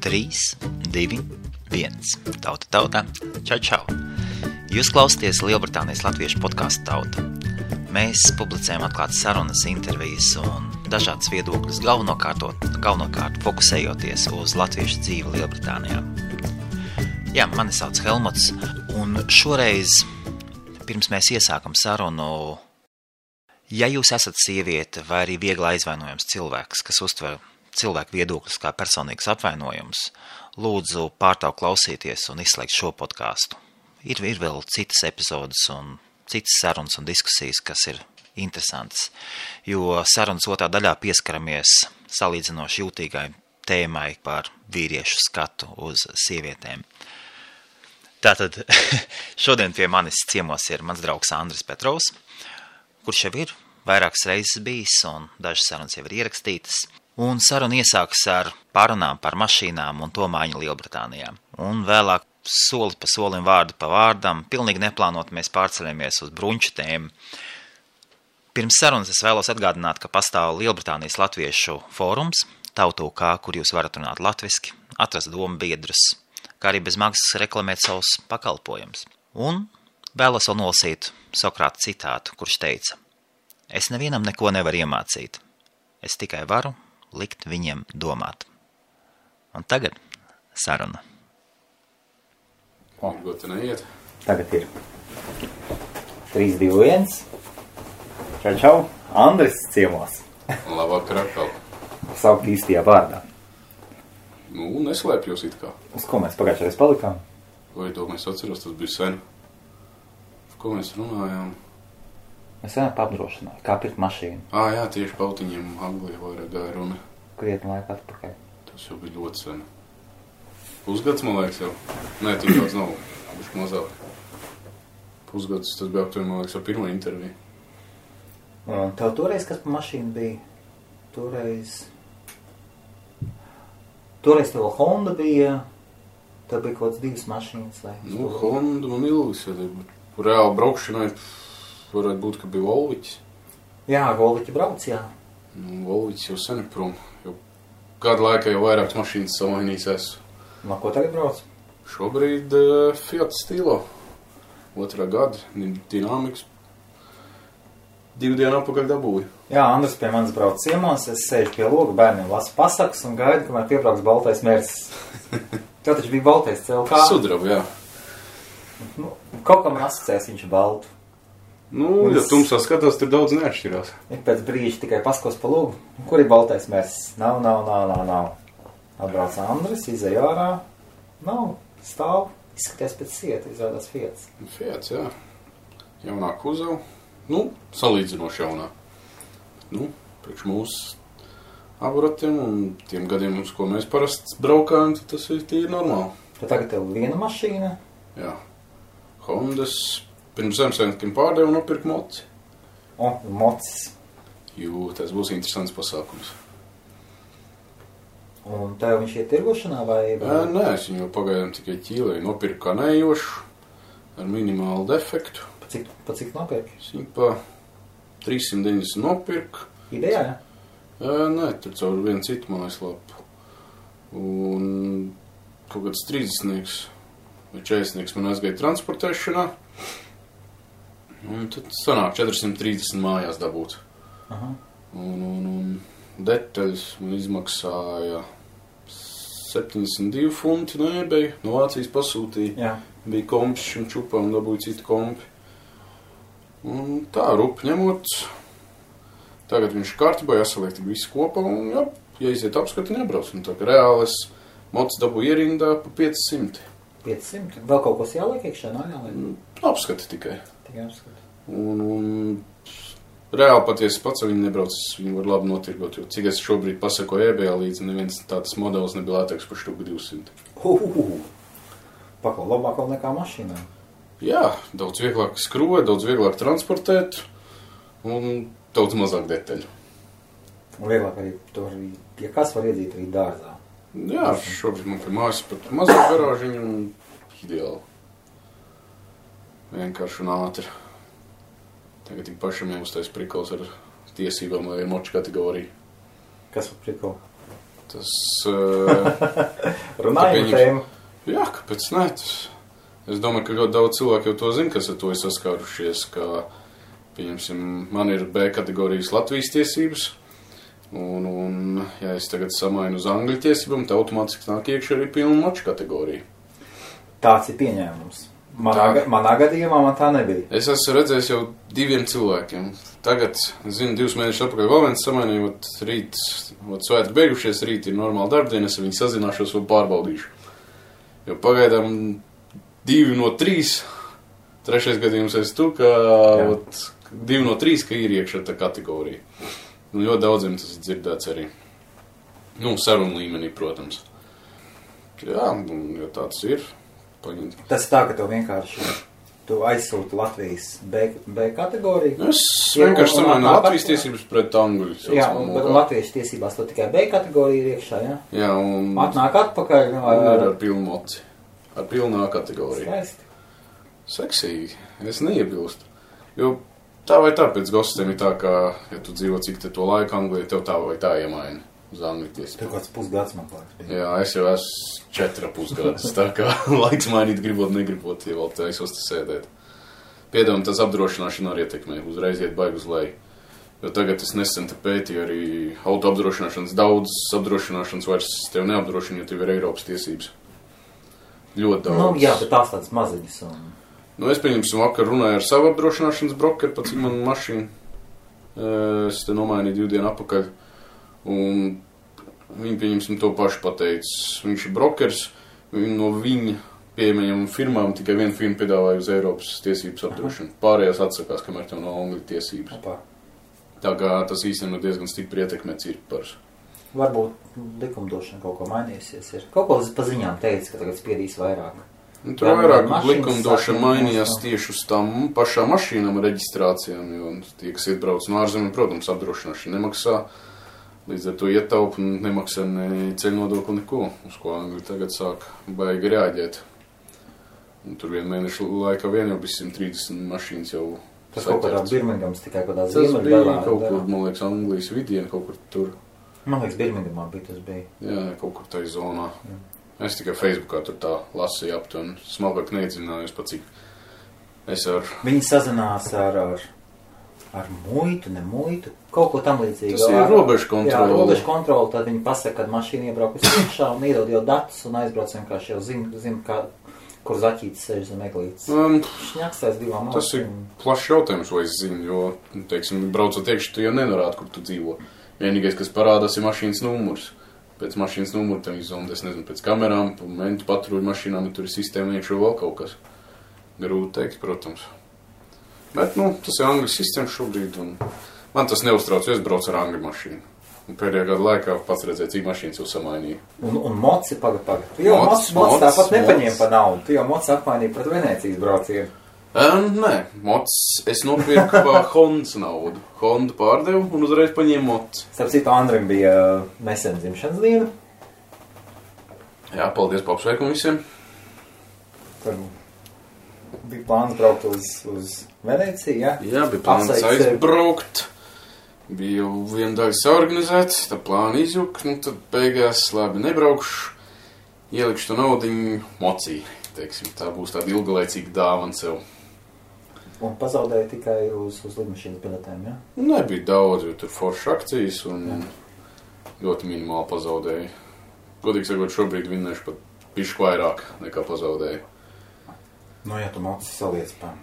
3, 2, 1. Tauta. Čau. Jūs klausāties Lielbritānijas latviešu podcastu Tauta. Mēs publicējam atklātas sarunas, intervijas un dažādas viedokļus, galvenokārt fokusējoties uz latviešu dzīvi Lielbritānijā. Jā, mani sauc Helmuts, un šoreiz, pirms mēs iesākam sarunu, ja jūs esat sieviete vai arī viegli aizvainojams cilvēks, kas uztver cilvēku viedokļus kā personīgs apvainojums, lūdzu pārtraukt klausīties un izslēgt šo podcastu. Ir vēl citas epizodes un citas sarunas un diskusijas, kas ir interesantas, jo sarunas otrā daļā pieskaramies salīdzinoši jūtīgai tēmai par vīriešu skatu uz sievietēm. Tātad šodien pie manis ciemos ir mans draugs Andris Petrovs, kurš jau ir vairākas reizes bijis un dažas sarunas jau ir ierakstītas. Un saruna iesākas ar pārunām par mašīnām un to maiņu Lielbritānijā. Un vēlāk soli pa solim, vārdu pa vārdam, pilnīgi neplānot mēs pārceļamies uz bruņču tēmu. Pirms sarunas es vēlos atgādināt, ka pastāv Lielbritānijas latviešu fórums, Tautu.k, kur jūs varat runāt latviski, atrast domu biedrus, kā arī bez maksas reklamēt savus pakalpojumus. Un vēlos vēl nolasīt Sokrāta citātu, kurš teica: Es nevienam neko nevaru iemācīt, es tikai varu likt viņiem domāt. Un tagad saruna. Varbūt neiet. Tagad ir 3, 2, 1. Čau. Andris ciemos. Labvakar atkal. Saukt īstajā vārdā. Neslēpjos it kā. Uz ko mēs pagājušajā palikām? Vai to mēs atceros, tas bija sen. Par ko mēs runājām? Mēs vienā apdrošināju, kā pirkt mašīnu. Jā, tieši pautiņiem Anglijā vairāk gāja runa. Krietni laika atpakaļ. Tas jau bija ļoti sen. Pusgads, man liekas, jau. Nē, tik daudz nav. Bišķi mazāk. Pusgads, tas bija aptuveni, man liekas, ar pirmo interviju. Un tev toreiz, kas pa mašīnu bija? Toreiz tev Honda bija, tev bija kaut kāds 2 mašīnas, vai? Honda man ilgas, ja reāli braukšanai varētu būt, ka bija Volviķis. Jā, Volviķi brauc, jā. Volviķis jau sen ir prom. Jau kādu laiku jau vairākas mašīnas samainījis esmu. No ko tagad brauc? Šobrīd Fiat Stilo. 2. gada, dinamikas. 2 dienu apakaļ dabūju. Jā, Andris pie manis brauc ciemos, es sēžu pie loga, bērniem lasu pasakas un gaidu, kamēr piebrauks baltais Mercedes. Tev taču bija baltais CLK? Sudraba, jā. Kaut kam asociēs viņš baltu. Ja tumsā skatās, tur daudz neatšķirās. Ir pēc brīža tikai paskos pa logu. Kur ir baltais Mercedes? Nav. Atbrauc Andris, izej ārā. Nav, stāv, izskaties pēc sieta, izrādās Fiats. Fiats, jā. Jaunā kuzava. Salīdzinoši jaunā. Priekš mūsu aburatiem un tiem gadiem, uz ko mēs parasti braukājam, tad tas ir tīri normāli. Tad tagad tev viena mašīna? Jā. Hondas. Pirms Ziemassvētkiem pārdevu un nopirku moci. Mocis. Tas būs interesants pasākums. Un tev viņš iet tirgošanā vai? Nē, es viņu pagaidām tikai ķīlēju. Nopirku kā nejošu, ar minimālu defektu. Pa cik nopirki? Es viņu pa 390 nopirku. Idejā, jā? Nē, tur caur vienu citu mājaslapu. Un kaut kāds 30 vai 40 man aizgāja transportēšanā. Un tad sanāk 430 mājās dabūt. Aha. Un detaļas man izmaksāja 72 funti no eBay. No Vācijas pasūtīja. Jā. Bija kompis šim čupam, dabūja citu kompi. Un tā, rupi ņemot. Tagad viņš kārtībā jāsaliek tik visu kopā un ja iziet apskati nebrauc. Un tā kā reāli es mocis dabūju ierindā pa 500. 500? Vēl kaut kas jāliek iekšā, nav jāliek? Apskati tikai. Tikai apskati. Un reāli patiesi pats viņi nebrauc, viņi var labi notirgot, jo cik es šobrīd pasakoju eBay līdzi, neviens tāds modelis nebija lētāks par štuku 200. Paklau labāk vēl nekā mašīnā. Jā, daudz vieglāk skrūvēt, daudz vieglāk transportēt un daudz mazāk detaļu. Un vieglāk arī to arī, ja kas var iedzīt arī dārzā. Jā, šobrīd man pie mājas pat mazāk garāžiņu un ideāli. Vienkārši un ātri. Tagad tik pašam jāuztais prikals ar tiesībām, lai ir moču kategorija. Kas par prikolu? Tas... Runājam tēmu. Jā, kāpēc ne? Es domāju, ka ļoti daudz cilvēku jau to zina, kas ar to ir saskārušies, ka, pieņemsim, man ir B kategorijas Latvijas tiesības, un ja es tagad samainu uz angļu tiesībām, tad automātiski nāk iekšā arī pilna moču kategorija. Tāds ir pieņēmums. Manā gadījumā man tā nebija. Es esmu redzējis jau 2 cilvēkiem. Tagad, zinu, 2 mēnešus atpakaļ vēl viens samainījot rīt, svētki beigušies, rīt ir normāla darbdiena, es ar viņu sazināšos un pārbaudīšu. Jo pagaidām 2 no 3, 3. gadījums es tu, ka 2 no 3, ka ir iekšā tā kategorija. Un ļoti daudziem tas ir dzirdēts arī. Nu, sarunu līmenī, protams. Jā, un ja tāds ir. Paņemt. Tas tā, ka tu vienkārši aizsūti Latvijas B kategoriju. Es vienkārši samainu Latvijas tiesības pret angļu. Jā, bet Latvijas tiesībās to tikai B kategorija ir iekšā, jā? Jā, un... Atnāk atpakaļ. Ar pilnu moci. Ar pilnā kategoriju. Skaisti. Seksīgi. Es neiebilstu. Jo tā vai tā pēc gostiem ir tā, ka, ja tu dzīvo cik te to laiku Anglijā, tev tā vai tā iemaina. Uz angļu tiesību. Tev kāds pusgads man liekas. Jā, es jau esmu 4,5 gadus, tā kā laiks mainīt gribot, negribot, ja vēl taisos te sēdēt. Piedāvājam, tas apdrošināšana arī ietekmē, uzreiz iet baigi uz leju. Jo tagad es nesen te pētīju arī auto apdrošināšanas, daudz apdrošināšanas vairs tev neapdrošina, jo tev ir Eiropas tiesības. Ļoti daudz. Nu, jā, bet tās tādas maziņas. Un... Nu, es pieņemsim vakar runāju ar savu apdrošināšanas brokeru, pat cik man mašīna. Es te nomainīju 2 dienu atpakaļ. Un viņi, pieņemsim, to pašu pateicis. Viņš ir brokers, no viņa pieejamajām firmām tikai viena firma piedāvāja uz Eiropas tiesības apdrošinu. Pārējās atsakās, kamēr tev nav angļu tiesības. Opa. Tā kā tas īstenībā diezgan stipri ietekmē cirkparus. Varbūt likumdošana kaut ko mainījusies. Ir. Kaut ko pa ziņām teica, ka tagad spiedīs vairāk. Nu, tur vairāk likumdošana mainījās tieši uz tām pašām mašīnām reģistrācijām, jo tie, kas iebrauc no ārzemēm, protams, apdrošināšana nemaksā. Līdz ar to ietaupa un nemaksā ne ceļu nodokli neko, uz ko Angļi tagad sāk baigi reaģēt. Un tur 1 mēnešu laikā vien jau bija 130 mašīnas jau tas kaut kādā Birmingams tikai kādā ziemeļdaļā. Tas bija kaut kur, man liekas, Anglijas vidiena, kaut kur tur. Man liekas, Birmingamā bija tas bija. Jā, kaut kur tai zonā. Jā. Es tikai Facebookā tur tā lasīju aptuveni, smalkāk neiedziļinājos pat cik. Es ar... Viņi sazinās ar muitu, ne muitu, kaut ko tam līdzīgu. Tas ir robežu kontroli. Jā, robežu kontroli, tad viņi pasaka, kad mašīna iebrauc uz iekšā un iedod jau datus un aizbrauc vienkārši jau zina, kur zaķītis sēž zem eglītes. Šņaksēs 2 malsīm. Tas ir plašs jautājums, vai es zinu, jo, teiksim, braucot iekšā, tu jau nenorādi, kur tu dzīvo. Vienīgais, kas parādās, ir mašīnas numurs. Pēc mašīnas numuru tam izzondi, es nezinu, pēc kamerām, mentu patruļu mašīnām, ja tur ir sistēma iekšā vēl kaut kas. Grūti teikt, protams. Bet, nu, tas ir angļu sistēma šobrīd, un man tas neuztrauc, jo es braucu ar angļu mašīnu. Un pēdējā gada laikā pats redzēju, cik mašīnas jau samainīja. Un moci pagad. Tu jau moci tāpat nepaņēma pa naudu. Tu jau moci apmainīja pret Venēcijas braucienu. Nē, moci es nopirku pa Hondas naudu. Honda pārdevu un uzreiz paņēmu moci. Starp citu, Andrim bija nesen dzimšanas diena. Jā, paldies pa apsveikumu visiem. Tur bija plāns braukt uz Venēciju, jā? Jā, bija plāns aizbraukt. Bija jau viena daļa saorganizēts, tā plāna izjuka, nu tad beigās labi nebraukšu, ielikšu to naudiņu mocī, teiksim, tā būs tāda ilgalaicīga dāvana sev. Un pazaudēja tikai uz lidmašīnas biletēm, jā? Nebija daudz, jo tur foršas akcijas un ļoti minimāli pazaudēja. Godīgi sakot, šobrīd vinnēšu pat pišku vairāk nekā pazaudēju. Nu, ja tu moci saliec pa...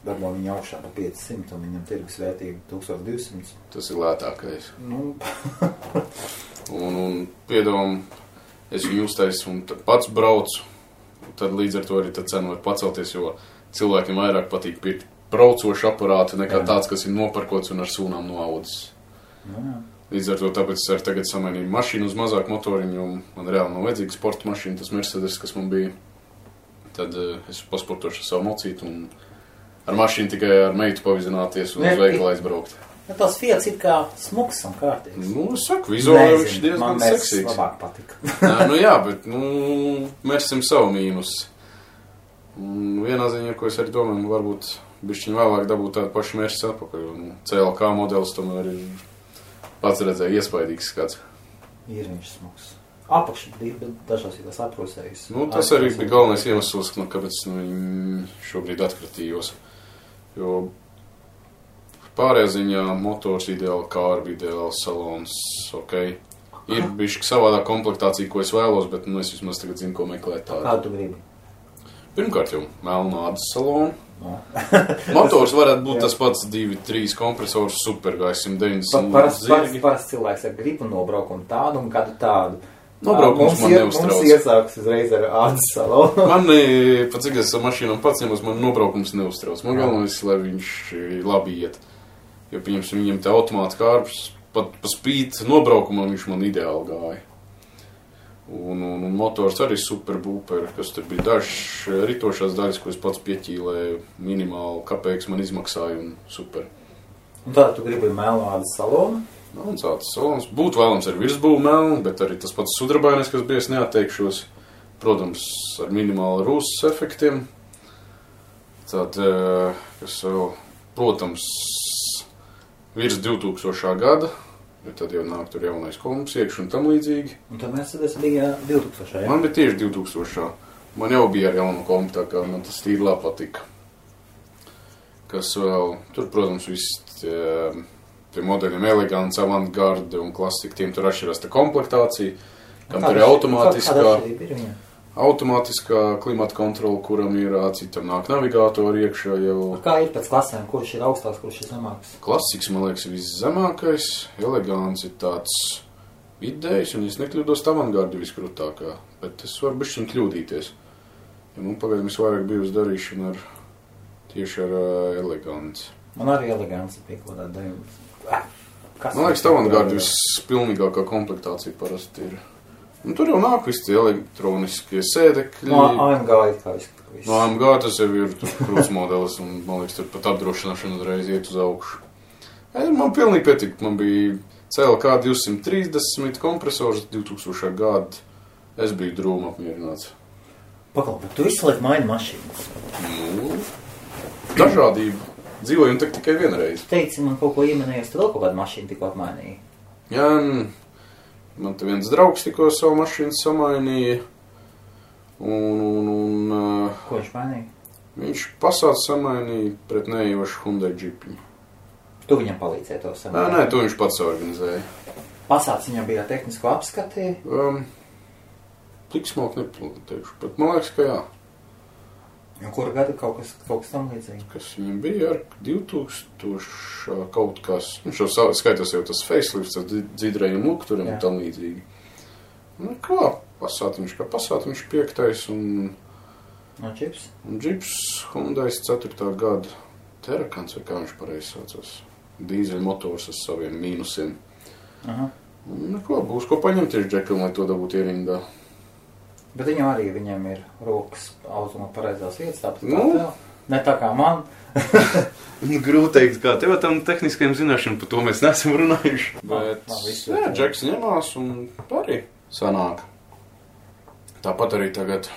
Darbo viņa augšā pa 500 un viņam tirgus vērtība 1200. Tas ir lētākais. Nu. un piedāvām, es viņu uztaisu un tad pats braucu. Tad līdz ar to arī tad cena var pacelties, jo cilvēkiem vairāk patīk pirkt braucošu aparātu nekā tāds, kas ir noparkots un ar sūnām noaudzis. Līdz ar to tāpēc es arī tagad samainīju mašīnu uz mazāku motoriņu, jo man reāli nav vajadzīga sporta mašīna, tas Mercedes, kas man bija. Tad es pasportošu savu mocītu un ar mašīnu tikai ar meitu pavizināties un uz veikalu aizbraukt. Ja tas Fiats ir kā smuks un kārtīgs. Nu, es saku, vizuāli viņš diezgan seksīgs. Man labāk patika. Nu jā, bet, mērsim savu mīnus. Un vienā ziņā, ko es arī domāju, varbūt bišķiņ vēlāk dabūt tādu pašu mērķis atpakaļ. CLK modelis tomēr ir pats redzēja iespaidīgs skats. Ir viņš smags. Apakši dažās ir tas aprūsējis. Nu, tas arī bija galvenais iemesls, kāpēc šobrīd atkritījos. Jo pārējā ziņā motors ideāli, kārbi ideāli, salons, ok. Ir bišķi savādā komplektācija, ko es vēlos, bet es vismaz tagad zinu, ko meklēt tādu. Kādu tu gribi? Pirmkārt jau melnu ādas salonu. No. Motors varētu būt tas pats 2-3 kompresors, supergais 190 zirgi. Parasti cilvēks ar gribu nobraukumu tādu un kādu tādu. Nobraukums man neuztrauc. Mums iesāks uzreiz ar ādas salonu. Man, pat cik es ar mašīnām pats ņemos, man nobraukums neuztrauc. Man galvenais, lai viņš labi iet. Jo, pieņemsim, viņam te automāta kārbs, pat pa spīt nobraukumam viņš man ideāli gāja. Un motors arī super būperi, kas tur bija dažs ritošās daļas, ko es pats pieķīlēju, minimāli kapeiks man izmaksāja un super. Un tāda tu gribi melnu ādas salonu? Melns ādas salons. Būtu vēlams ar virsbūvu melnu, bet arī tas pats sudrabainais, kas bija, es neatteikšos. Protams, ar minimāli rūsas efektiem. Tad, kas vēl, protams, virs 2000. Gada. Jo tad jau nāk tur jaunais komps iekš un tam līdzīgi. Un tad Mercedes bija 2000, ja? Man bija tieši 2000. Man jau bija ar jaunu kompu, tā kā man tas tīri labi patika. Kas vēl, tur, protams, viss tie modeļiem elegants, avantgarde un klasika, tiem tur atšķirās tā komplektācija, kam tur ir automātiskā klimata kontrola, kuram ir citam nāk navigātori iekšā jau. Kā ir pēc klasēm, kurš ir augstās, kurš ir zemāks? Klasiks, man liekas, ir viszemākais, elegants ir tāds vidējs, un es nekļūdos avantgardi viskrūtākā, bet es varu bišķiņ kļūdīties. Ja man pagaidām visvairāk bijusi darīšana tieši ar elegants. Man arī elegants bija kaut kādā dēļ. Man liekas, avantgardi vispilnīgākā komplektācija parasti ir. Un tur jau nāk visi elektroniskie sēdekļi. No AMG ir kā viss. No AMG tas jau ir krūts modelis, un man liekas, tur pat apdrošināšana uzreiz iet uz augšu. Man pilnīgi pietika, man bija CLK 230 kompresors 2000. Gada. Es biju drūma apmierināts. Pakal, bet tu visu laiku maini mašīnas. Nu, dažādība. Dzīvojam tikai vienreiz. Teici, man kaut ko iemanējies, tu vēl kaut kādu mašīnu tikko apmainīji. Jā, man te viens draugs tikko savu mašīnu samainīja. Ko viņš mainīja? Viņš Passat samainīja pret neievašu Hyundai Jeepiņu. Tu viņam palīdzēji to samainīt? Nē, to viņš pats organizēja. Passats viņam bija tehnisko apskati? Tik smalki nepateikšu, bet man liekas, ka jā. Un kura gada kaut kas tam līdzīgi? Kas viņam bija ar 2000 kaut kas. Viņš jau skaitās jau tas facelifts, tas dzīdrējiem lukturiem un tam līdzīgi. Nu kā, Passatiņš 5. un Jeeps? Un Jeeps Hyundai 4. gada Terakans, vai kā viņš pareizi saucās. Dīzeļu motors ar saviem mīnusiem. Aha. Un ko, būs ko paņemt tieši džekam, lai to dabūtu ierindā. Bet viņam ir rokas automā pareizās vietas, tāpat kā tev. Ne tā kā man. Grūti teikt, kā tev tam tehniskajam zināšanām, par to mēs neesam runājuši. Bet, jā, džeks ņemās un arī sanāk. Tāpat arī tagad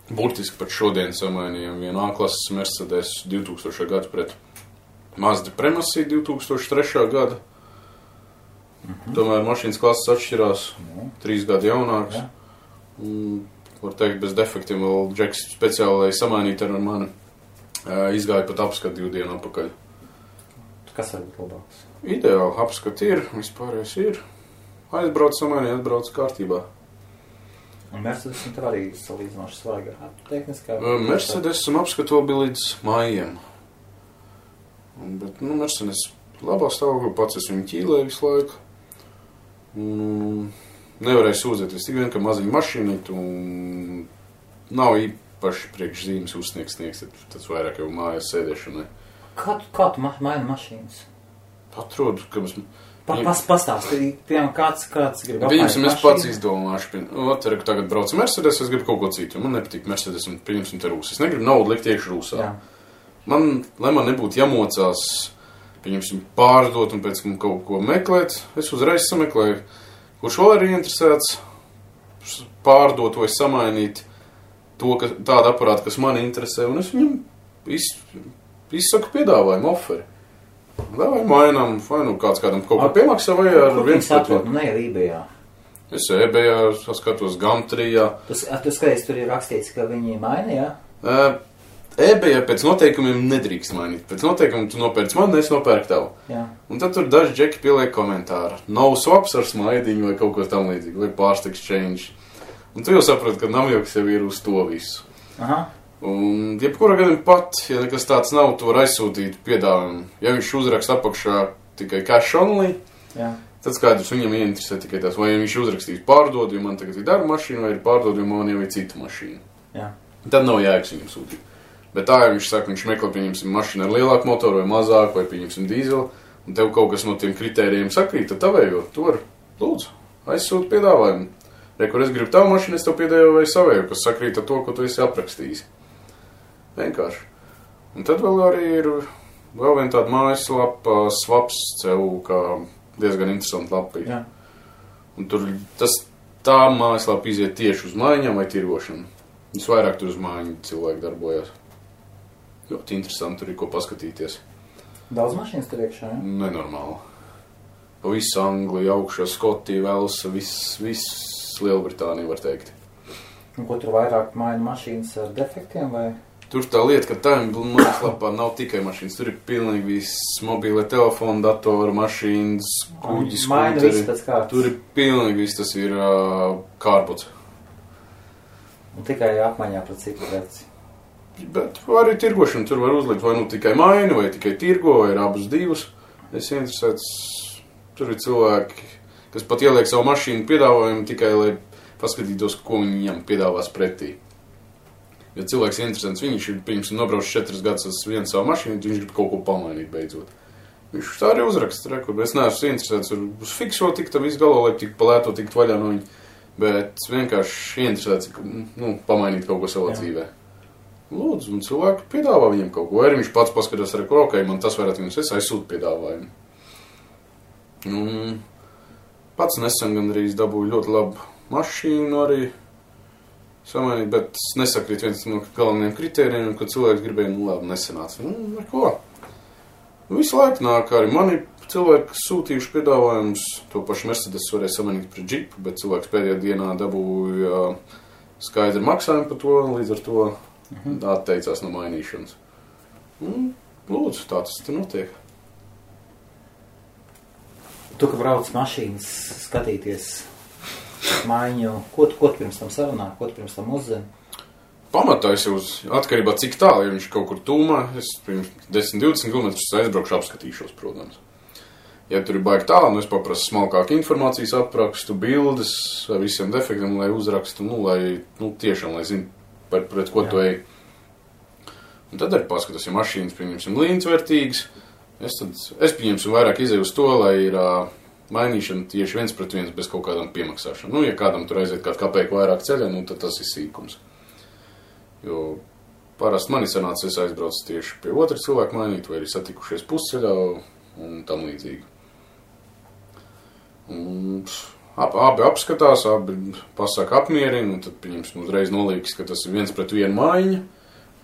burtiski pat šodien samainījām vienu A-klases Mercedes 2000. Gadu pret Mazda Premacy 2003. Gada. Tomēr mašīnas klases atšķirās, 3 gadi jaunāks. Var teikt, bez defektiem vēl džeks speciāli samainīt ar mani. Izgāja pat apskatu 2 dienu apakaļ. Kas var būt labāks? Ideāli, apskati ir, vispārējais ir. Aizbrauc samainīt, atbrauc kārtībā. Un Mercedes un tev arī salīdzinoši svaigā tehniskā? Mercedes un apskatu vēl bija līdz maijam. Bet, Mercedes labā stāvoklī, pats es viņu ķīlēju visu laiku. Nevarēju sūdzēties tik vien, ka maziņa mašīnīt un nav īpaši priekšzīmes uzsniegs, tas vairāk jau mājās sēdēšanai. Kā tu maini mašīnas? Atrodu, ka mēs... Pastāstīji, piemēram, kāds grib apmainīt mašīnu? Es pats izdomāšu. Tagad braucu Mercedes, es gribu kaut ko citu. Man nepatīk Mercedes un pieņemsim te rūsas. Es negribu naudu likt iekšu rūsā. Lai man nebūtu jāmocās, pieņemsim, pārdot un pēc tam kaut ko meklēt, es uzreiz sameklēju. Kurš vēl ir interesēts pārdot vai samainīt tādu aparātu, kas mani interesē, un es viņam izsaku piedāvājumu, oferi. Vai mainām, vai kāds kādam kaut ko piemaksā, vai ar viens pret. Ne ar eBayā. Es eBayā skatos Gumtrijā. Tu skaties, tur ir rakstīts, ka viņi maina, jā? eBayā pēc noteikumiem nedrīkst mainīt. Pēc noteikumiem tu nopērc man, es nopērku tavu. Jā. Un tad tur daži džeki pieliek komentāru. No swaps ar smaidiņu vai kaut ko tam līdzīgi, vai pārst exchange. Un tu jau saproti, ka namjoks jau ir uz to visu. Aha. Un jebkurā gadījumā pat, ja nekas tāds nav, tu var aizsūtīt piedāvājumu. Ja viņš uzrakst apakšā tikai cash only, jā. Tad skaidrs viņam ieinteresē tikai tas, vai viņš uzrakstīs pārdod, jo man tagad ir darba mašīna, vai ir pārdod, jo man jau ir cita mašīna. Jā. Tad nav jēgas viņam sūtīt. Bet tā, ja viņš saka, viņš meklē, pieņemsim mašīnu ar lielāku motoru vai mazāku, vai pieņemsim dīzeli, un tev kaut kas no tiem kritērijiem sakrīt, tad tavējo, tu var, lūdzu, aizsūt piedāvājumu. Kur es gribu tavu mašīnu, es tev piedāvāju savēju, kas sakrīt ar to, ko tu esi aprakstījis. Vienkārši. Un tad vēl arī ir vēl viena tāda mājaslapa Swaps.cu, kā diezgan interesanti lapī. Jā. Un tur tā mājaslapa iziet tieši uz maiņām vai tirgošanu. Visvairāk tur uz maiņu cilvēki darbojas. Ļoti interesanti, tur ir ko paskatīties. Daudz mašīnas tur iekšā, jā? Nenormāli. Pa visu Angliju, augšā, Skotiju, Velsa, viss Lielbritānija, var teikt. Un ko tur vairāk maina mašīnas ar defektiem, vai? Tur tā lieta, ka tā mājaslapā nav tikai mašīnas. Tur ir pilnīgi viss mobīlē telefona, datora, mašīnas, kuģi, skūteri. Tur ir pilnīgi viss, tas ir kārpots. Un tikai apmaiņā pret citu preci. Bet arī tirgošana tur var uzlikt, vai nu tikai maini, vai tikai tirgo, vai ir abus divus. Es interesēts, tur ir cilvēki, kas pat ieliek savu mašīnu piedāvājumu tikai, lai paskatītos, ko viņam piedāvās pretī. Ja cilvēks ir interesants, viņš ir, pirms nobrauc 4 gadus uz vienu savu mašīnu, viņš grib kaut ko pamainīt beidzot. Viņš tā arī uzraksta, rekur. Es neesmu interesēts uz fikso tikt, tam visu galo, lai tik palēto tikt vaļā no viņa, bet vienkārši interesēts, pamainīt kaut ko savā dzīvē. Lūdzu, un cilvēki piedāvā viņam kaut ko, arī viņš pats paskatās, rekur, ok, man tas varētu viņus, es aizsūtu piedāvājumu. Pats nesen gandrīz dabūju ļoti labu mašīnu arī samainīt, bet nesakrīt viens no galvenajiem kritērijiem, kad cilvēks gribēja, labi, nesenāca. Ar ko? Visu laiku nāk arī mani cilvēki sūtījuši piedāvājumus, to pašu Mercedes varēja samainīt pret džipu, bet cilvēks pēdējā dienā dabūja skaidru maksājumu par to, līdz ar to atteicās no mainīšanas. Lūdzu, tā tas te notiek. Tu, ka brauc mašīnas skatīties maiņu, ko tu pirms tam sarunā, ko tu pirms tam uzzini? Pamatā es jau atkarībā cik tālu, ja viņš kaut kur tūmā, es pirms 10-20 km aizbraukšu apskatīšos, protams. Ja tur ir baigi tālu, es paprasu smalkāku informācijas aprakstu, bildes ar visiem defektiem, lai uzrakstu, lai tiešām, lai zinu, pret ko tu ej. Un tad arī paskatās, ja mašīnas, pieņemsim, līdzvērtīgas, es pieņemsim vairāk izēju uz to, lai ir mainīšana tieši 1:1 bez kaut kādām piemaksāšanām. Ja kādam tur aiziet kādu kapeiku vairāk ceļā, tad tas ir sīkums. Jo parasti mani sanāca, es aizbraucu tieši pie otra cilvēka mainīt, vai arī satikušies pusceļā un tam līdzīgi. Abi apskatās, abi pasaka apmierina, un tad pieņemsim uzreiz nolīgs, ka tas ir 1:1 maiņa,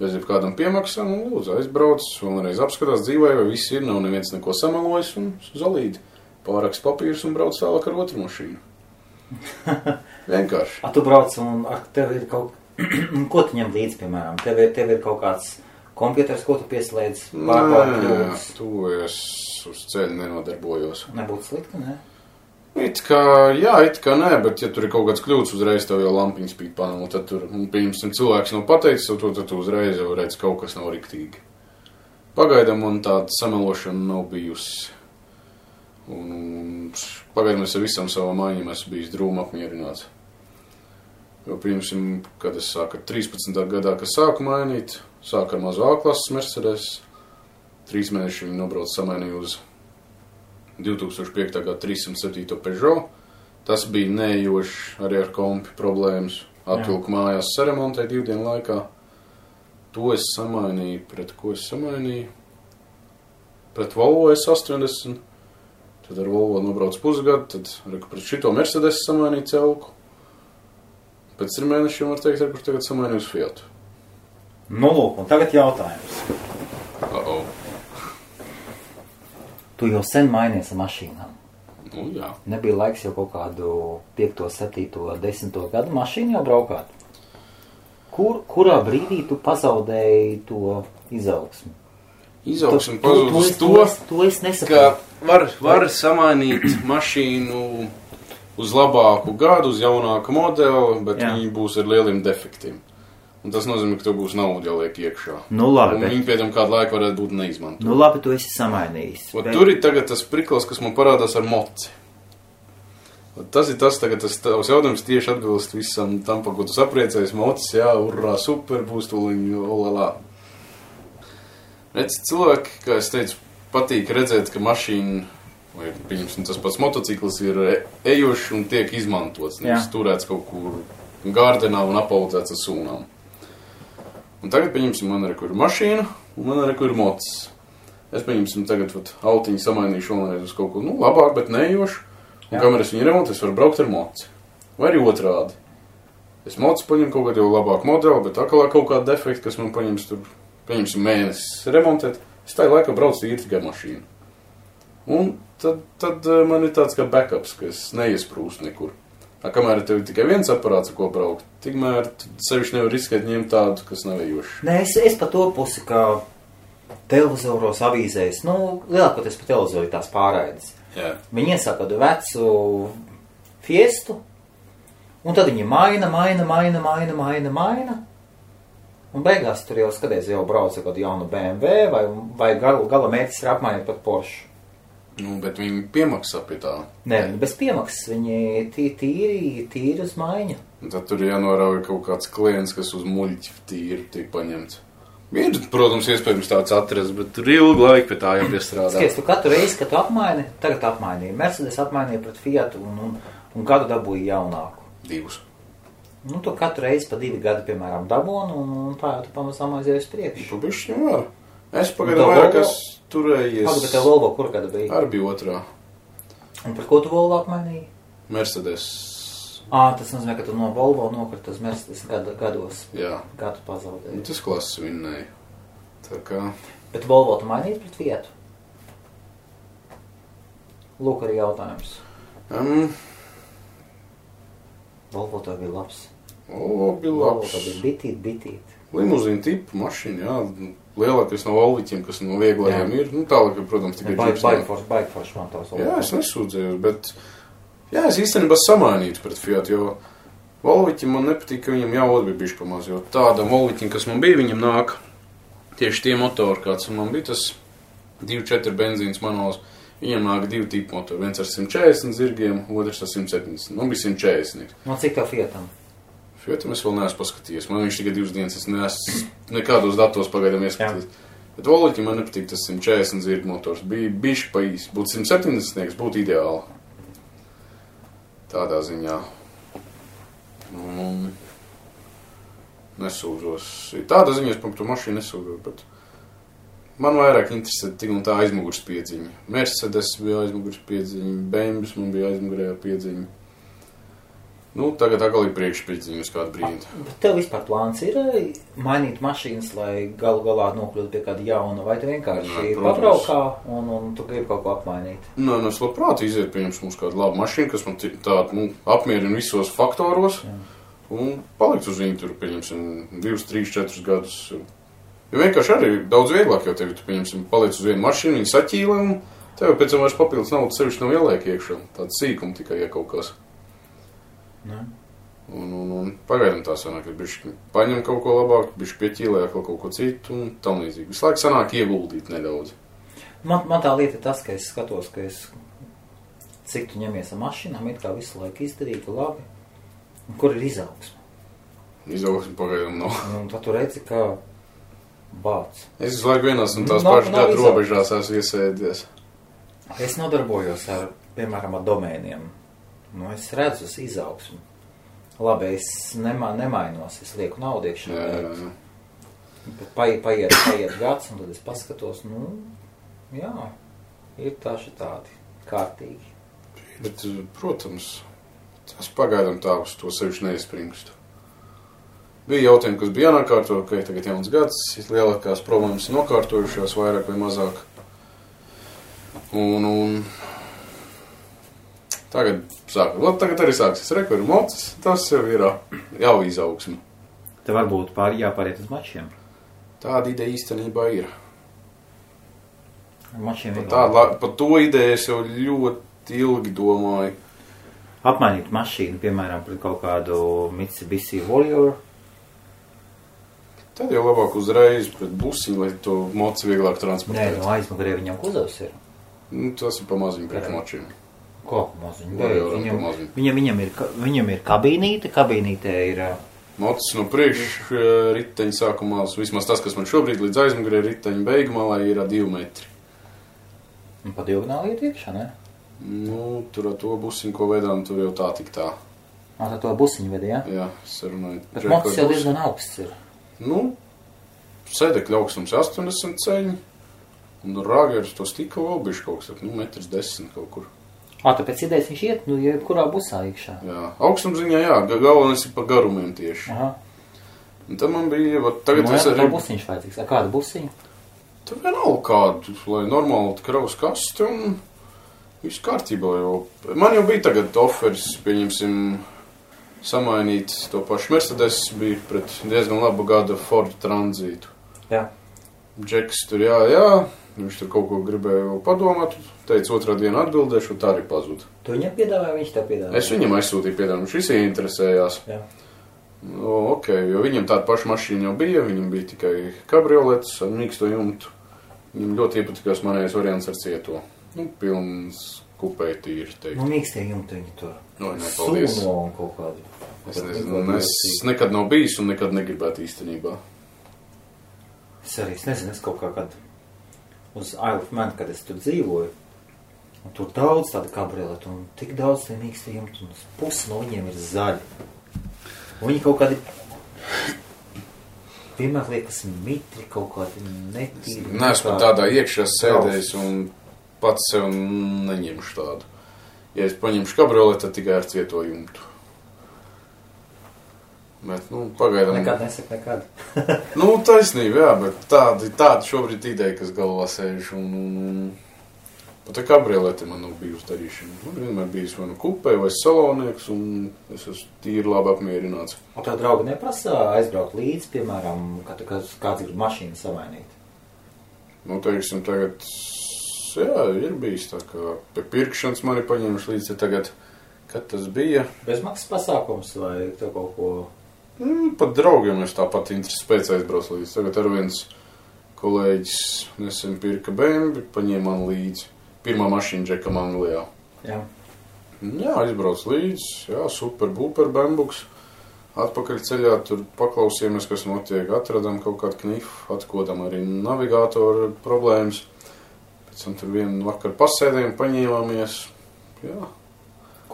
bez jebkādam piemaksām, un lūdzu aizbrauc, vēlreiz apskatās dzīvē, vai viss ir, nav neviens neko samelojis, un zolīdi. Pāraks papīrs un brauc tālāk ar otru mašīnu. Vienkārši. Tu brauc un tev ir kaut... Ko tu ņem līdzi, piemēram? Tev ir kaut kāds kompjuters, ko tu pieslēdz? Nē, tu es uz ceļu nenodarbojos. Nebūtu slikti, ne? It kā nē, bet ja tur ir kaut kāds kļūds, uzreiz tev jau lampiņa spīd panelu, tad tur, pirms cilvēks nav pateicis, tad tu uzreiz jau redz, kaut kas nav riktīgi. Pagaidām man tāda samelošana nav bijusi. Un pagaidām es ar visam savām maiņām esmu bijis drūmi apmierināts. Jo, pirmsim, kad es sāku 13. gadā, kad sāku mainīt, sāku ar mazu A-klases Mercedes, 3 mēneši viņi nobrauc samainīju uz 2005. gada 307. Peugeot. Tas bija neejošs arī ar kompi problēmas. Atvilku mājās saremontēju 2 dienu laikā. To es samainīju, pret ko es samainīju? Pret Volvo S80. Tad ar Volvo nobrauc pusgadu, tad pret šito Mercedes samainīju celku. Pēc 3 mēnešiem var teikt, kur tagad samainīju uz Fiatu. Nu, lūk, un tagad jautājums. Tu jau sen mainies ar mašīnām. Nu, jā. Nebija laiks jau kaut kādu 5., 7., 10. gadu mašīnu jau braukāt. Kurā brīdī tu pazaudēji to izaugsmi? Izaugsmi pazudus to es nesaprotu. Ka var samainīt mašīnu uz labāku gadu, uz jaunāku modeli, bet viņi būs ar lieliem defektiem. Un tas nozīmē, ka tev būs nauda jāliek iekšā. Nu labi. Un viņi pēdām kādu laiku varētu būt neizmantot. Nu labi, tu esi samainījis. Tur ir tagad tas priklis, kas man parādās ar moci. Tas ir tas, tagad tas tavs jautājums tieši atbilst visam tam, par ko tu sapriecējies. Mocis, jā, urrā, super, būs tūliņ, olelā. Redz, cilvēki, kā es teicu, patīk redzēt, ka mašīna, vai pieņemsim, tas pats motociklis ir ejošs un tiek izmantots. Nevis turēts kaut kur gārdenā un apaudzēts ar sūnām. Un tagad, pieņemsim, man arī kur ir mašīna, un man arī kur ir mocis. Es, pieņemsim, tagad autiņu samainīšu vēlreiz uz kaut ko, labāk, bet neejošu. Un kamēr es viņu remontu, es varu braukt ar moci. Vai arī otrādi. Es moci paņemu kaut kādu jau labāku modeli, bet akalā kaut kādu defektu, kas man paņems tur, pieņemsim, mēnesis remontēt, es tā laikā braucu īri tikai mašīnu. Un tad man ir tāds kā backups, ka es neiesprūstu nekur. Kamēr tev ir tikai viens aparāts, ar ko braukt, tikmēr sevišķi nevar riskēt ņemt tādu, kas nav ejošs. Nē, es pa to pusi, kā televizoros, avīzēs, lielākoties pa televizoru tās pārraides. Jā. Viņi iesāk kādu vecu Fiestu, un tad viņi maina, un beigās tur jau skaties, jau brauc kādu jaunu BMW, vai gala mērķis ir apmainīt pat Porsche. Nu, bet viņi piemaksā pie tā. Nē, bez piemaksas, viņi tīri uz maiņu. Un tad tur jānorauj kaut kāds klients, kas uz muļķi tīri tiek paņemts. Ir, protams, iespējams tāds atrast, bet tur ilgu laiku pie tā jāpiestrādā. Skaties, tu katru reizi, kad tu apmaini, tagad apmainīji. Mercedes apmainīja pret Fiatu un gadu dabūja jaunāku. 2. Nu, tu katru reizi pa 2 gadi, piemēram, dabūni un tā jau tu pamazām aizies priekšu. Tu bišķi var. Es pagaidu vairāk, kas turējies. Pagaidu, bet tev Volvo kur gada bija? Ar bija 2. Un par ko tu Volvo apmainīji? Mercedes. Tas nozīmē, ka tu no Volvo nokrita uz Mercedes gados. Jā. Gadu pazaudēji. Tas klases vinnēja. Tā kā... Bet Volvo tu mainīji pret Fiatu? Lūk arī jautājums. Volvo tev bija labs. Volvo bija labs. Volvo tev bija bitīt. Limuzīna tipa mašīna, jā. Lielākais no Volviķiem, kas no vieglajiem ir. Nu, tālāk, protams, tikai Baigforši man tavs Volvo. Jā, es nesūdzējos, bet... Jā, es īstenībā samainītu pret Fiat, jo Volviķim man nepatīk, ka viņam jāvod bija bišķi pamaz, jo tādam Volviķim, kas man bija, viņam nāk tieši tie motori, kāds man bija, tas 2.4 benzīns manuāls, viņam nāk 2 tipu motori, viens ar 140 zirgiem, otrs ar 170, man bija 140. No cik tev Fiatam? Fiatam es vēl neesmu paskatījies, man viņš tikai 2 dienas, es neesmu nekādos datos pagaidām ieskatījies. Bet Volviķim man nepatīk tas 140 zirgu motors, bija bišķi pa īsi, būtu 170, būtu ideāli. Tādā ziņā. Nesūdzos. Tādā ziņā es par to mašīnu nesūdzos, bet man vairāk interesē tik un tā aizmugurs piedziņa. Mercedes bija aizmugurs piedziņa, BMW man bija aizmugurējā piedziņa. Nu, tagad atkal ir priekšpiedziņa uz kādu brīdi. Bet tev vispār plāns ir mainīt mašīnas, lai galu galā nokļūtu pie kāda jauna, vai tu vienkārši pabraukā un tu gribi kaut ko apmainīt? Nē, es labprāt iziet, pieņems mums kādu labu mašīnu, kas man tādu, apmierina visos faktoros, un palikt uz viņu tur, pieņemsim, 2, 3, 4 gadus. Jo vienkārši arī daudz vieglāk jau tevi, tu, pieņemsim, paliec uz vienu mašīnu, viņi saķīlē, un tev pēc tam vairs papildus naudas sevišķi nav ieliek iekšā. Tāda sīkuma tikai, ja kaut kas. Un pagaidām tā sanāk, ka bišķi paņem kaut ko labāk, bišķi pieķīlē kaut ko citu un tam līdzīgi. Visu laiku sanāk ieguldīt nedaudz. Man tā lieta ir tas, ka es skatos, ka cik tu ņemies ar mašīnām, it kā visu laiku izdarītu labi. Un kur ir izaugsme? Izaugsme pagaidām nav. Un tad tu redzi, ka bāc. Es visu laiku vienās un tās pašas gadu robežās esmu iesēdies. Es nodarbojos ar, piemēram, ar domēniem. Nu, es redzu izaugsmu. Labi, es nemainos, es lieku naudu iekšā. Bet paiet gads, un tad es paskatos, jā, ir tādi kārtīgi. Bet, protams, tas pagaidām tā uz to sevišķi neizspringstu. Bija jautājumi, kas bija jānokārto, ka ir tagad jauns gads, lielākās problēmas nokārtojušās vairāk vai mazāk. Un Tagad arī sāksies rekordu mocis, tas jau ir jau izaugsme. Te varbūt jāpāriet uz mačiem. Tāda ideja īstenībā ir. Mačiem ir. Par to ideju es jau ļoti ilgi domāju. Apmainīt mašīnu, piemēram, pret kaut kādu Mitsubishi Warrior. Tad jau labāk uzreiz pret busiņu, lai to moci vieglāk transportēt. Nē, aizmugurē viņam kuzovs ir. Tas ir pa maziņu pret mačiem. Ko pa maziņu? Viņam ir kabīnīte, kabīnītē ir... Mocis no priekšu riteņa sākumā, vismaz tas, kas man šobrīd līdz aizmugurē riteņa beigumā, ir 2 metri. Un pa diagonāli iet iekšā, ne? Tur ar to busiņu, ko vedām, tur jau tā tik tā. Tā to busiņu vedi, jā? Jā, sarunāju. Bet mocis jau diezgan augsts ir. Sēdekļa augstums 80 ceļi, un rāgers to stika vēl bišķi kaut kas, 1,10 m kaut kur. Tāpēc idejas viņš iet, kurā busā iekšā. Jā, augstumziņā, jā, galvenais ir pa garumiem tieši. Aha. Un tad man bija, tagad es arī... Tā busiņš vajadzīgs, kāda busiņa? Tur vienalga kādu, lai normāli kravas kasti un viss kārtībā jau. Man jau bija tagad offers, pieņemsim, samainīt to pašu Mercedes, bija pret diezgan labu gada Ford Tranzītu. Jā. Džeks tur jā, viņš tur kaut ko gribēja padomāt, teica otrā dienu atbildēšu, un tā arī pazuda. Tu viņam piedāvāji, viņš tev piedāvāja? Es viņam aizsūtīju piedāvājumu, viņš visi interesējās. Jā. Ok, jo viņam tāda paša mašīna jau bija, viņam bija tikai kabrioletes ar mīksto jumtu. Viņam ļoti iepatikās manējais variants ar cieto. Pilns kupēji tīri, teikt. Mīkstie jumti viņi tur. Nepaldies. Sumo un kaut kādu. Es nezinu, es nekad nav bijis un nekad negribētu īstenībā. Es arī nezinu, es kaut kā kad uz Isle of Man, kad es tur dzīvoju, un tur daudz tāda kabrioletu, un tik daudz tie mīkstie jumti, un pusi no viņiem ir zaļi. Un viņi kaut kādi, vienmēr liekas mitri, kaut kādi netīri. Neesmu tādā iekšā sēdējis un pats sev neņemšu tādu. Ja es paņemšu kabrioletu, tad tikai ar cieto jumtu. Bet, pagaidām... Nekad nesaka nekad. Taisnība, jā, bet tāda šobrīd ideja, kas galvā sēž, un pat ar kabrioleti man nav bijusi darīšana. Man vienmēr bijis vai kupē, vai salonieks, un es esmu tīri labi apmierināts. Un tā draugi neprasa aizbraukt līdzi, piemēram, kad kāds grib mašīnu samainīt? Teiksim, tagad, jā, ir bijis tā, ka pie pirkšanas mani paņēmuši līdzi tagad, kad tas bija. Bezmaksas pasākums vai tev kaut ko... Pat draugiem es tāpat interesi pēc aizbrauc līdzi. Tagad ar viens kolēģis nesen pirka BMW, paņēma man līdzi. Pirmā mašīna Džekam Anglijā. Jā. Jā, aizbrauc līdzi. Jā, super bumper, atpakaļ ceļā, tur paklausījāmies, kas notiek. Atradām kaut kādu knifu, atkodam arī navigātoru problēmas. Pēc tam tur vienu vakaru pasēdējām, paņēmāmies. Jā.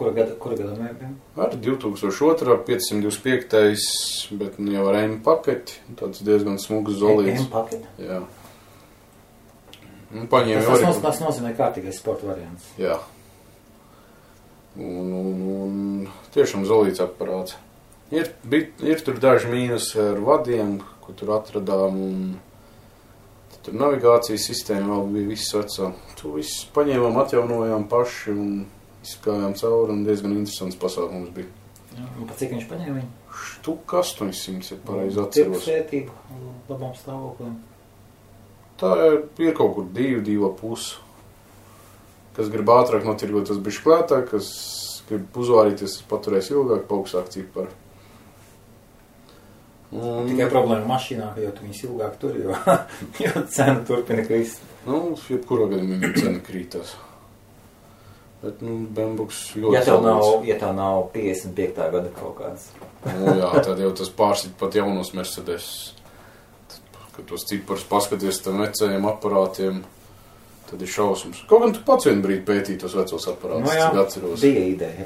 Kura gada mēbiem? Ar 2002, 525, bet jau ar M paketi, tāds diezgan smugs zolīts. M paketi? Jā. Tas nozīmē kārtīgais sporta variants. Jā. Un tiešām zolīts aparāts. Ir tur daži mīnus ar vadiem, ko tur atradām, un tur navigācijas sistēma vēl bija viss vecā. Tu viss paņēmām, atjaunojām paši un izskājām cauri, un diezgan interesants pasākums bija. Jā, un pa cik viņš paņēma viņu? Štuka 800, ja pareizi atceros. Tirgus vērtību, labām stāvokliem. Tā ir kaut kur 2,5. Kas grib ātrāk notirgot, tas bišķi klētāk, kas grib uzvārīties, tas paturēs ilgāk, paaugstāk ciparu. Tikai problēma mašīnā, jo tu viņas ilgāk tur, jo cena turpina krist. Jebkurā gadījumā cena krītās. Bet, Bembuks ļoti ja tev nav 55. gada kaut kāds. Jā, tad jau tas pārsit pat jaunos Mercedes. Kad tos ciparus paskaties tam vecajiem aparātiem, tad ir šausmas. Kaut gan tu pats vienu brīdi pētīji tos vecos aparātus, cik atceros. Bija ideja.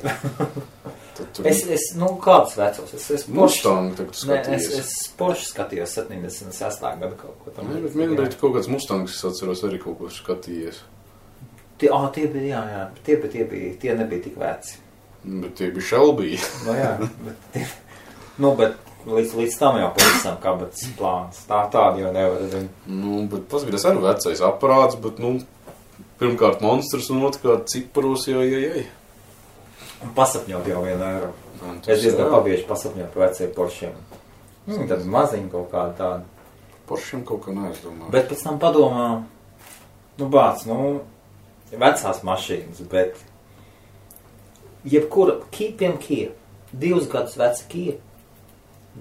Kāds vecos? Mustang tagad skatījies. Es Porsche skatījos 76. gada kaut ko tam. Bet vienu brīdi kaut kāds Mustangs, es atceros, arī kaut ko skatījies. Tie bija, jā. Tie nebija tik veci. Bet tie bija Shelby. Bet līdz tam jau pavisam kabatas plāns. Tādi jau nevar zināt. Bet paskatās arī vecais aparāts, bet, pirmkārt monstrs un otrkārt ciparos, jā. Un pasapņot jau 1 eiro. Es diezgan pabieži pasapņot par veciem Poršiem. Tad maziņi kaut kādi tādi. Poršiem kaut kā neaizdomā. Bet pēc tam padomā, vecās mašīnas, bet jebkura Kia, 2 gadus veca Kia,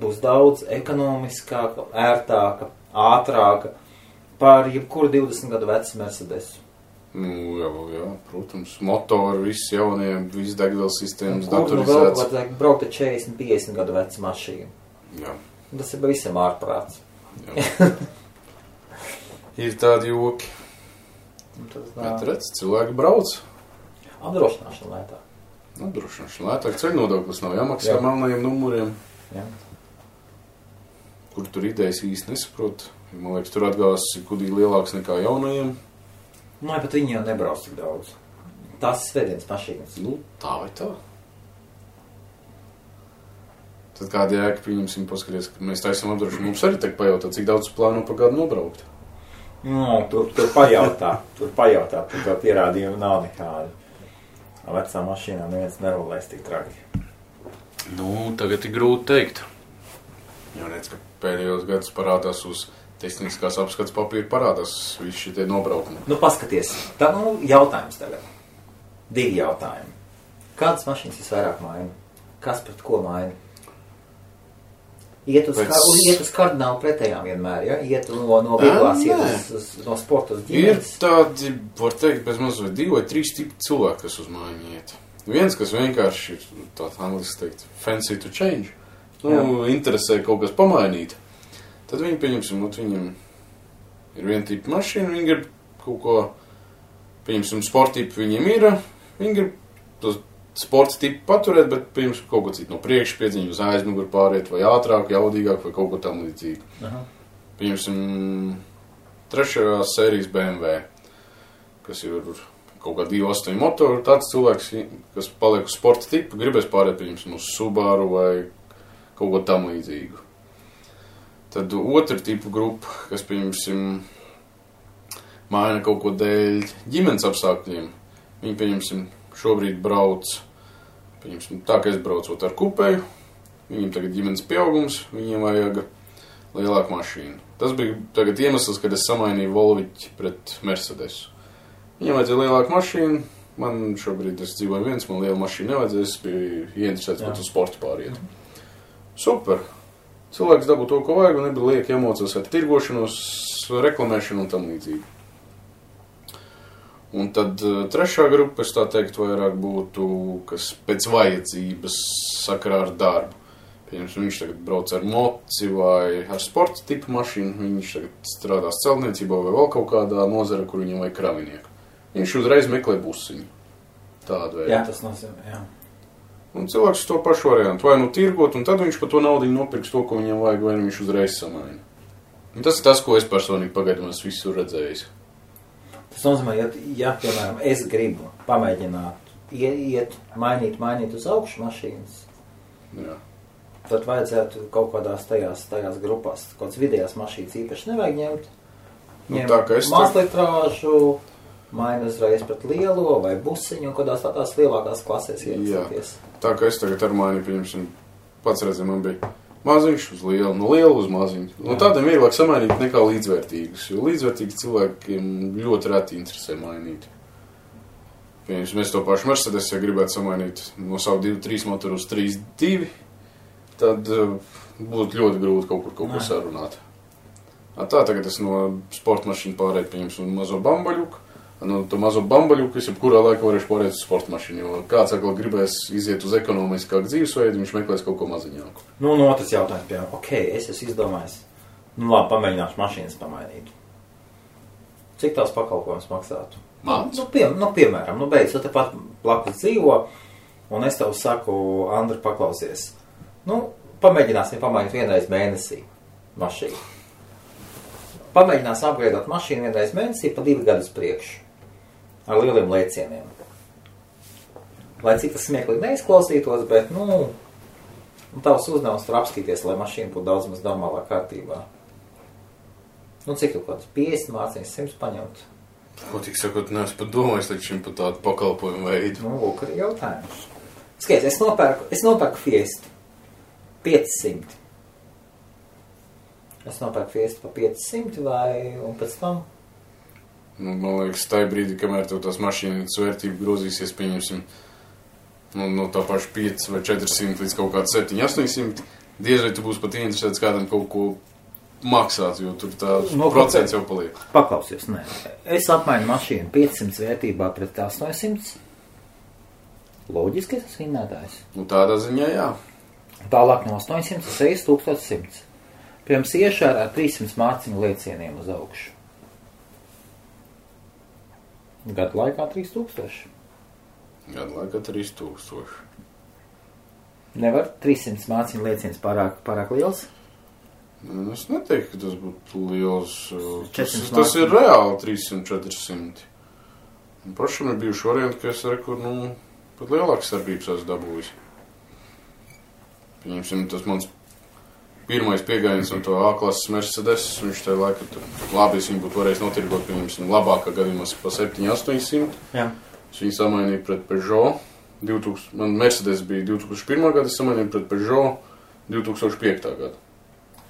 būs daudz ekonomiskāka, ērtāka, ātrāka par jebkuru 20 gadu vecu Mercedesu. Jā, protams, motori, viss jaunie, viss degvielas sistēmas, datorizēts. Kur vēl vajag braukt ar 40-50 gadu vecu mašīnu? Jā. Tas ir visam ārprāts. Jā. Ir tādi joki. Bet redz, cilvēki brauc. Apdrošināšana lētāk. Ceļnodoklis nav jāmaksā melnajiem numuriem. Jā. Kur tur idejas īsti nesaprot. Man liekas, tur atgās kudīgi lielāks nekā jaunajiem. Bet viņi jau nebrauc tik daudz. Tās ir svētdienas mašīnas. Tā vai tā. Tad kāda jēga, pieņemsim, paskaties, ka mēs taisam apdrošinājumu. Mums arī tagad pajautā, cik daudz plāno pa gadu nobraukt. Tur pajautā. Tur pierādījumi nav nekādi. Vecā mašīnā neviens nerulēs tik traki. Tagad ir grūti teikt. Jo redz, ka pēdējos gadus parādās uz tehniskās apskats papīra parādās visi šitie nobraukumi. Paskaties. Tā jautājums tagad. 2 jautājumi. Kādas mašīnas visvairāk maina? Kas pret ko maina? Iet uz kardinālu pretējām vienmēr, ja? Iet no vieglās, no sporta uz ģimenes. Ir tādi, var teikt, bez mazliet 2 vai 3 tipi cilvēki, kas uz maiņu iet. Viens, kas vienkārši ir tāds angliski teikt, fancy to change. Interesē kaut kas pamainīt. Tad viņi, pieņemsim, viņam ir viena tipa mašīna, viņi grib kaut ko, pieņemsim, sporta tipu viņiem ir, viņi grib tos sporta tipu paturēt, bet, pieņemsim, kaut ko citu no priekšu piedziņu uz aizmuguru pāriet, vai ātrāk, jaudīgāk, vai kaut ko tam līdzīgu. Pieņemsim, 3. sērijas BMW, kas ir kaut kā 2.8 motoru, tāds cilvēks, kas paliek uz sporta tipu, gribēs pāriet, pieņemsim, uz Subaru vai kaut ko tam līdzīgu. Tad 2. tipu grupa, kas, pieņemsim, maina kaut ko dēļ ģimenes apstākļiem. Viņi, pieņemsim, šobrīd brauc, pieņemsim, tā, ka es braucot ar kupēju, viņiem tagad ģimenes pieaugums, viņiem vajag lielāku mašīnu. Tas bija tagad iemesls, kad es samainīju Volviķi pret Mercedesu. Viņiem vajadzēja lielāku mašīnu, man šobrīd es dzīvoju viens, man liela mašīna nevajadzēja, es biju ieinteresēts, pat uz sportu pāriet. Super! Cilvēks dabū to, ko vajag, un nebija lieki emocijas ar tirgošanos, reklamēšanu un tam līdzīgi. Un tad 3. grupa, es tā teikt, vairāk būtu, kas pēc vajadzības sakarā ar darbu. Pieņemsim, viņš tagad brauc ar moci vai ar sporta tipu mašīnu, viņš tagad strādās celtniecībā vai vēl kaut kādā nozara, kur viņam vajag kravinieku. Viņš uzreiz meklē busiņu. Tādu veidu. Jā, tas nozīmē, jā. Un cilvēks to pašu variantu, vai tirgot, un tad viņš par to naudu nopirks to, ko viņam vajag, vai viņš uzreiz samaina. Un tas ir tas, ko es personīgi pagaidām esmu visur redzējis. Tas nozīmē, ja piemēram, es gribu pamēģināt iet, mainīt uz augšu mašīnas, jā. Tad vajadzētu kaut kādās tajās grupās, kaut kādas vidējās mašīnas īpaši nevajag ņemt. Mazlitrāžu, maina uzreiz pret lielo vai busiņu, un kādās tādās lielākās klasēs iecēties. Tā kā es tagad ar mani, pieņemsim, pats redzēju, man bija maziņš uz lielu, no lielu uz maziņu. No tādiem vieglāk samainīt nekā līdzvērtīgus, jo līdzvērtīgi cilvēkiem ļoti reti interesē mainīt. Pieņemsim, es to pašu Mercedes, ja gribētu samainīt no savu 2.3 motoru uz 3.2, tad būtu ļoti grūti kaut ko sarunāt. Tā tagad es no sporta mašīnu pārēju, pieņemsim, mazo bambaļuku. To mazo bambaļuku es jebkurā laikā varēšu pārēt uz sporta mašīnu, jo kāds atkal gribēs iziet uz ekonomiskāku dzīvesveidu, viņš meklēs kaut ko maziņāku. Otrs jautājums, piemēram, es esmu izdomājis, labi, pamēģināšu mašīnas pamainīt. Cik tās pakalpojums maksātu? Mans? Piemēram, beidz, tu tepat blakus dzīvo, un es tev saku, Andri, paklausies. Pamēģināsim pamainīt vienreiz mēnesī mašīnu. Pamēģināsim apgādāt mašīnu vienreiz mēnesī pa 2 gadus priekšu. Ar lieliem lēcieniem. Lai cik tas smieklīgi neizklausītos, bet, tavs uzdevums tur apskatīties, lai mašīna būtu daudz maz normālā kārtībā. Cik kaut kāds 50 mārciņas 100 paņemt? Ko tik sakot, neesmu pat domājis līdz šim par tādu pakalpojumu veidu. Lūk, arī jautājums. Skaties, es nopērku Fiestu 500. Es nopērku Fiestu pa 500 un pēc tam? Nu, man liekas, tajā brīdī, kamēr tev tās mašīnas vērtība grozīsies, pieņemsim, no tā paša 5 vai 400 līdz kaut kāds 700-800, diez vai tu būsi pat interesēts kādam kaut ko maksāt, jo tur tā procents jau paliek. Paklausies, nē. Es apmainu mašīnu 500 vērtībā pret 800. Loģiski tas vinnētājs. Nu, tādā ziņā, jā. Tālāk no 800 es 1100. Pirms iešā ar 300 mārciņu liecieniem uz augšu. Gadu laikā 3000. Gadu laikā 3000. Nevar 300 mārciņu lieciens pārāk liels? Es neteiktu, ka tas būtu liels. Tas māciņu. ir reāli 300-400. Pašam ir bijuši varianti, ka es reku, pat lielākas starpības esmu dabūjis. Pieņemsim, tas mans pirmais piegājiens no to A-klases Mercedes, viņš tajā laikā tur labi, es viņu būtu varējis notirgot, pieņemsim, labākā gadījumā pa 700-800. Jā. Es viņu samainīju pret Peugeot. Man Mercedes bija 2001. Gada, es samainīju pret Peugeot 2005. Gada.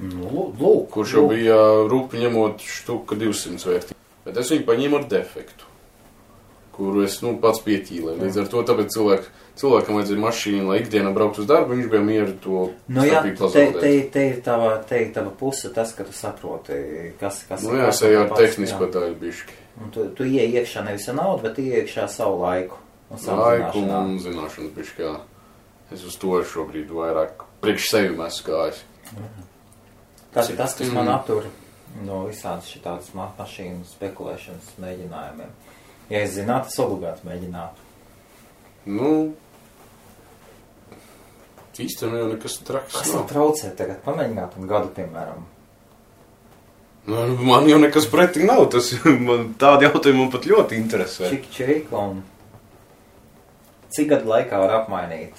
Lūk. Kurš jau bija rupi ņemot štuka 200 vērtību. Bet es viņu paņēmu ar defektu, kuru es pats pieķīlēju. Līdz ar to tāpēc cilvēkam vajadzēja mašīnu, lai ikdienā braukt uz darbu, viņš bija mieru to starpību pazaudēt. Te ir tava puse tas, ka tu saproti, kas jā, es eju ar tehnisko daļu bišķi. Un tu ieej iekšā nevis ar naudu, bet ieej iekšā savu laiku. Un zināšanu bišķi, jā. Es uz to šobrīd vairāk priekš sevi esmu gājis. Tas ir tas, kas man attur no visādas šitādas mašīnu spekulēšanas mēģinājumiem. Ja es zinātu, es obligāti mēģinātu. Īstenībā jau nekas traks Kas man traucē tagad? Pamēģināt un gadu, piemēram. Man jau nekas pretī nav. Tādi jautājumi man pat ļoti interesē. Čik, un cik gadu laikā var apmainīt?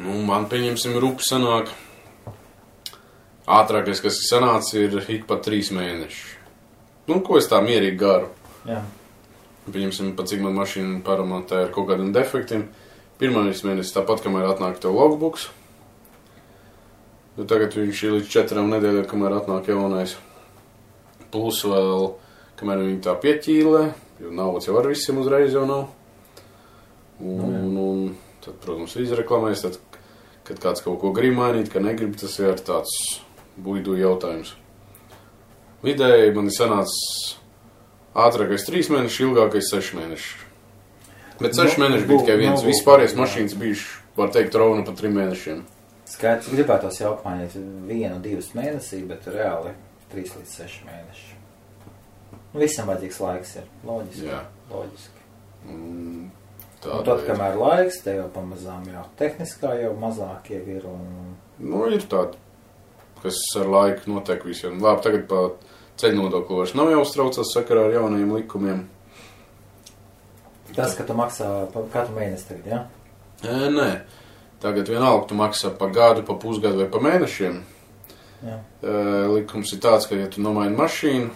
Man, pieņemsim, rupi sanāk. Ātrākais, kas ir sanācis, ir ik pa 3 mēneši. Ko es tā mierīgi garu. Jā. Pieņemsim, pat cik man mašīna paramatē ar kaut kādiem defektiem. Pirmais mēnesis tāpat, kamēr atnāk tev logbooks. Tagad viņš ir līdz 4 nedēļām, kamēr atnāk jaunais. Plus vēl, kamēr viņi tā pieķīlē, jo naudas jau ar visiem uzreiz jau nav. Un tad, protams, izreklamēs, tad, kad kāds kaut ko grib mainīt, ka negrib, tas ir tāds buidu jautājums. Vidēji man ir sanācis ātrākais 3 mēneši, ilgākais 6 mēneši. Bet 6 mēneši bija tikai viens. Vispārējais mašīnas bijuši, var teikt, rovna pa 3 mēnešiem. Skaidrs, gribētos jau apmainīt 1-2 mēnesī, bet reāli 3 līdz 6 mēneši. Visam vajadzīgs laiks ir. Loģiski. Jā. Loģiski. Un tad, kamēr laiks, te jau pamazām jau tehniskā jau mazāk jau ir. Ir tādi, kas ar laiku notiek visiem. Labi, tagad pa ceļu nodokli vairs nav jāuztraucās sakarā ar jaunajiem likumiem. Tas, ka tu maksā katru mēnesi tagad, jā? Nē. Tagad vienalga tu maksā pa gadu, pa pusgadu vai pa mēnešiem. Jā. Likums ir tāds, ka ja tu nomaini mašīnu,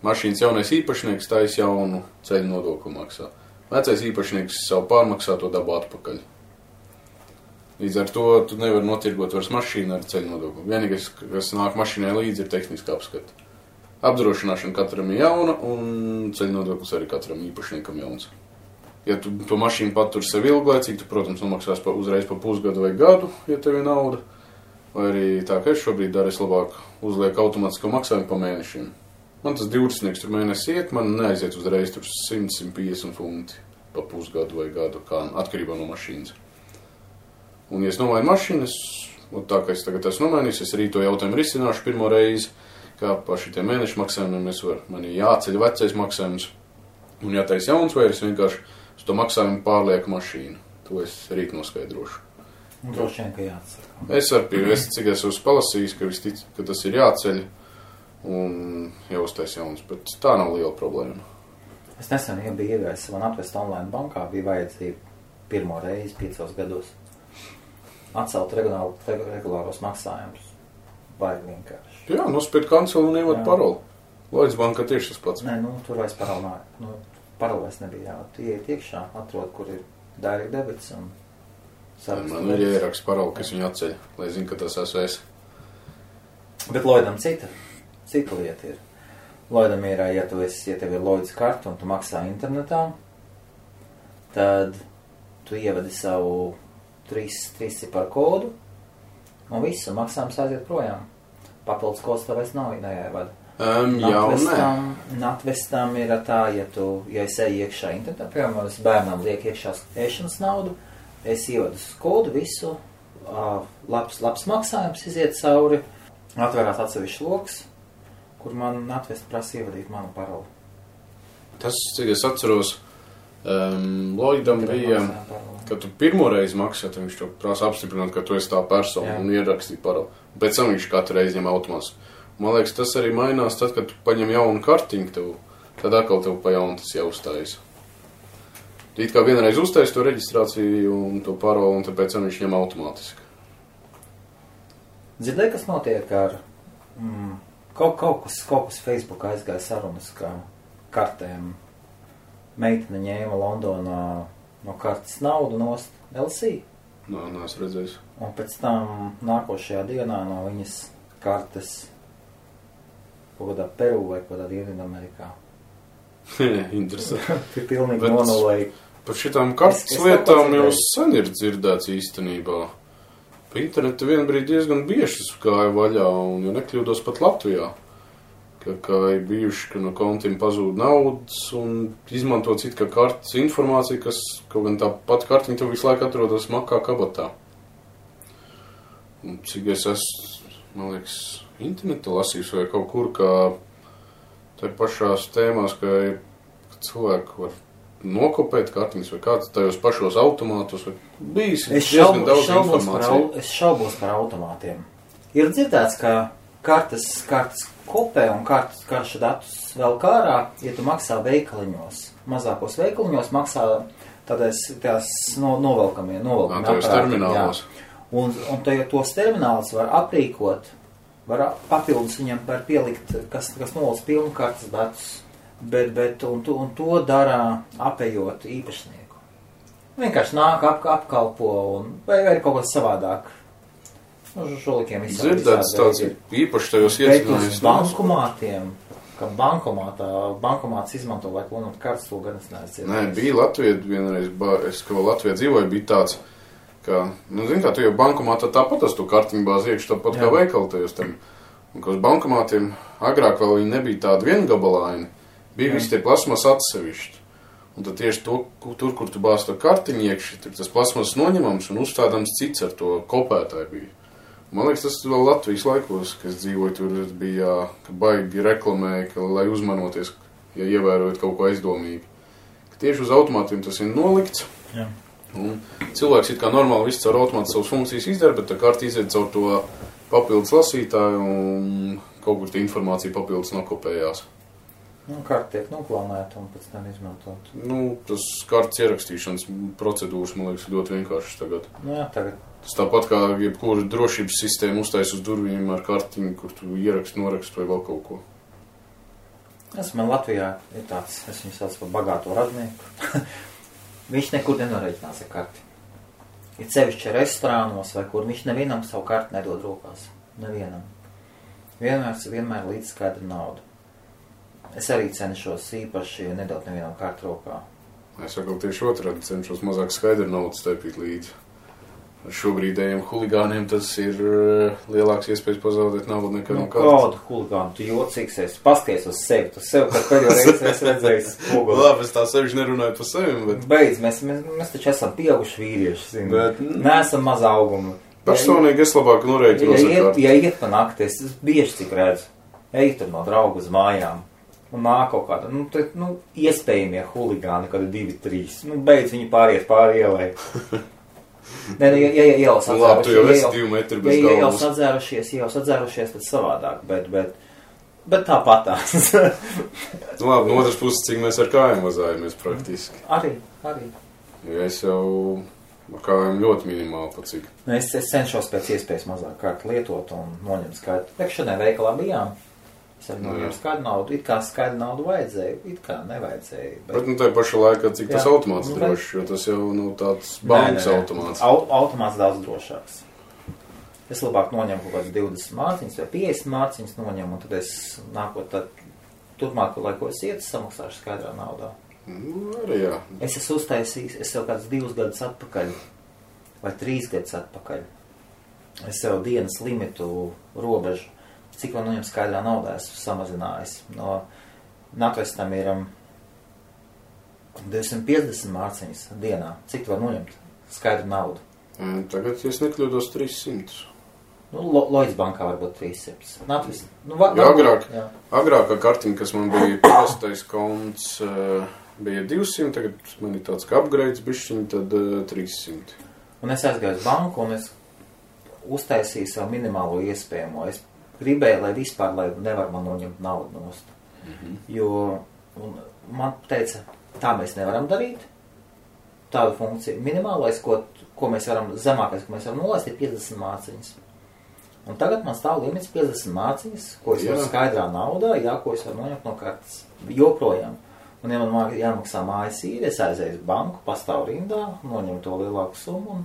mašīnas jaunais īpašnieks tais jaunu ceļu nodokli maksā. Vecais īpašnieks savu pārmaksāto dabu atpakaļ. Līdz ar to tu nevari notirgot vairs mašīnu ar ceļu nodokli. Vienīgais, kas nāk mašīnai līdzi, ir tehniska apskata. Apdrošināšana katram ir jauna, un ceļu nodoklis arī katram īpašniekam jauns. Ja tu to mašīnu patur sev ilglaicīgi, tu, protams, nomaksās uzreiz pa pusgadu vai gadu, ja tev ir nauda. Vai arī tā, ka es šobrīd daru, es labāk uzlieku automātisko maksājumu pa mēnešiem. Man tas 20 tur mēnesi iet, man neaiziet uzreiz tur 100-150 funti pa pusgadu vai gadu, kā atkarībā no mašīnas. Un, ja es nomainu mašīnas, un tā, ka es tagad esmu nomainījis, es arī to jautājumu risināšu pirmo reizi, kā pa šitiem mēnešu maksājumiem man ir jāceļ vecais maksājums un jātais jauns, vai es vienkārši uz to maksājumu pārlieku mašīnu. To es rīt noskaidrošu. Un droši vien, ka jāatsaka. Es cik esmu palasījis, ka tas ir jāceļ un jāuztais jauns, bet tā nav liela problēma. Es nesen biju iegājis man atvest online bankā, bija vajadzība pirmo reizi 5 gados atcelt regulāros maksājumus. Vai vienkārši. Jā, nospied kancelu un ievad paroli. Lloyds banka tieši tas pats. Nē, tur vairs paroli nav. Paroli vairs nebija jā. Tu ieiet iekšā, atrod, kur ir direct debits un sarakstu. Man ir ieraksts paroli, kas viņu atceļ, lai zinu, ka tas esmu es. Bet Lloydam cita lieta ir. Lloydam ir, ja tev ir Lloyds karta un tu maksā internetā, tad tu ievedi savu 3 ciparu kodu un viss, un maksājums aiziet projām. Papildus kods tev vairs nav jāievada. Natvestam ir tā, ja es eju iekšā internetā, piemēram, es bērnam liek iekšā ēšanas naudu, es ievadu kodu visu, labs maksājums iziet cauri, atverās atsevišķi loks, kur man Natvest prasa ievadīt manu paroli. Tas, cik es atceros, Lloydam bija, kad tu pirmoreiz maksā, tad viņš to prasa apstiprināt, ka tu esi tā persona un ierakstīt paroli. Pēc tam viņš katru reizi ņem automāts. Man liekas, tas arī mainās tad, kad tu paņem jaunu kartiņu tev, tad atkal tev pa jaunu tas jāuzstājas. It kā vienreiz uzstājas to reģistrāciju un to paroli, un tāpēc viņš ņem automātiski. Dzirdēji, kas notiek ar kaut kas Facebookā aizgāja sarunas, ka kartēm meitene ņēma Londonā no kartes naudu nost LC. Neesmu redzējis. Un pēc tam nākošajā dienā no viņas kartes kaut kādā Peru vai kaut kādā Dienvidamerikā. Interesanti. Pilnīgi nonulēja. Par šitām kartes lietām jau sen ir dzirdēts īstenībā. Pa internetu vienbrīd diezgan bieži gāja vaļā, un ja nekļūdos pat Latvijā, ka ir bijuši, ka no kontiem pazūd naudas un izmanto citu kā kartes informāciju, kas kaut gan tā pat kartiņa tev visu laiku atrodas makā kabatā. Un cik es esmu, man liekas, internetu lasījis vai kaut kur, ka tā pašās tēmās, ka cilvēki var nokopēt kartiņas vai kāds tajos pašos automātos vai bijis diezgan daudz informāciju. Es šaubos par automātiem. Ir dzirdēts, ka kartes kopē un karšu datus vēl kārā, ja tu maksā veikaliņos. Mazākos veikaliņos maksā tādās novelkamie Tajos terminālos. Un tos terminālus var aprīkot, var papildus viņam var pielikt, kas nolūdz pilnu kartes datus. Un to dara apējot īpašnieku. Vienkārši nāk, apkalpo vai kaut kas savādāk. Žolikiem dzirdēts tāds īpaši tajos iecinājums. Bet uz bankomātiem, ka bankomāts izmanto, lai klonot kartes, to gan es neesmu. Nē, bija Latvijā vienreiz, ka Latvijā dzīvoja, bija tāds, ka, zin kā, tu jau bankomātā tāpat to kartiņu bāzi iekš, tāpat kā veikaltajos tam. Un ka uz bankomātiem agrāk vēl viņi nebija tādi viengabalaini. Bija visi tie plasmas atsevišķi. Un tad tieši tur, kur tu bāzi to kartiņu iekši, tur tas plasmas noņemams un uzstādams cits ar to kopētāju bija. Man liekas, tas vēl Latvijas laikos, kad es dzīvoju, tur bija, ka baigi reklamēja, ka, lai uzmanoties, ja ievērojot kaut ko aizdomīgi. Ka tieši uz automātiem tas ir nolikts. Jā. Un cilvēks it kā normāli viss caur automātu savas funkcijas izdara, bet tā karta iziet caur to papildus lasītāju un kaut kur tā informācija papildus nokopējās. Karta tiek noklonēta un pēc tam izmantot. Tas kartas ierakstīšanas procedūras, man liekas, ļoti vienkāršas tagad. Jā, tagad. Tas tāpat kā jebkura drošības sistēma uztais uz durvīm ar kartiņu, kur tu ieraksti, noraksti vai vēl kaut ko. Man Latvijā ir tāds, es viņu sauc par bagāto radnieku. Viņš nekur nenoreiķinās ar karti. Ir sevišķi restorānos vai kur viņš nevienam savu karti nedod rokās. Nevienam. Vienmēr līdz skaidra nauda. Es arī cenšos īpaši nedot nevienam kartu rokā. Es saku tieši otrādi, cenšos mazāk skaidru naudu staipīt līdzi. Ar šobrīdējiem huligāniem tas ir lielāks iespējas pazaudēt naudu nekā no kartes. Kādu huligānu? Tu jocīgs esi. Paskaties uz sevi. Tu sev kā pēdējo reizi esi redzējis spoguli. Labi, es tā sevišķi nerunāju par sevi, bet... Beidz, mēs taču esam pieauguši vīrieši, zini. Bet... Neesam maza auguma. Personīgi es labāk norēķinos ar karti. Ja iet pa nakti, es bieži cik redzu. Ej tur no draugu uz mājām. Un nāk kaut kāda, iespējamie huligāni, kādi 2-3. Beidz viņi pāriet pāri ielai. Nē, ja ielas atzērušies. Labi, tu jau esi 2 metri bez galvas. Ja ielas atzērušies, tad savādāk, bet tāpatās. Labi, no otras puses, cik mēs ar kājām vazājamies praktiski. Arī. Ja es jau ar kājām ļoti minimāli pat cik. Es cenšos pēc iespējas mazāk kārtu lietot un noņemt skaitu. Šodien veikalā bijām. Es arī noņēmu skaidru naudu. It kā skaidru naudu vajadzēja, it kā nevajadzēja. Bet nu, tajā pašā laikā, cik tas automāts drošs, jo tas jau tāds bankas automāts. Automāts daudz drošāks. Es labāk noņemu kaut kāds 20 mārciņas vai 50 mārciņas noņemu, un tad es nākot tad turpmāk, lai ko es ietu, samaksāšu skaidrā naudā. Arī jā. Es esmu uztaisījis, es jau kāds 2 gadus atpakaļ, vai 3 gadus atpakaļ. Es jau dienas limitu robežu, cik man noņem skaidrā naudā, esmu samazinājis. No Natvestam ir 250 mārciņas dienā. Cik tu var noņemt skaidru naudu? Tagad, ja es nekļūdos, 300. Nu, Lloyds bankā varbūt 300. Natvest, agrākā kartiņa, kas man bija parastais konts, bija 200, tagad man ir tāds kā upgrades bišķiņi, tad 300. Un es aizgāju uz banku, un es uztaisīju savu minimālo iespējamo. Es gribēju, lai vispār, lai nevar man noņemt naudu nost. Jo man teica, tā mēs nevaram darīt. Tāda funkcija. Minimālais, ko mēs varam, zemākais, ko mēs varam nolaist, ir 50 mārciņas. Un tagad man stāv limits 50 mārciņas, ko es varu skaidrā naudā, ko es varu noņemt no kartes. Joprojām. Un ja man jāmaksā mājas īri, es aizēju uz banku, pastāvu rindā, noņemu to lielāku summu.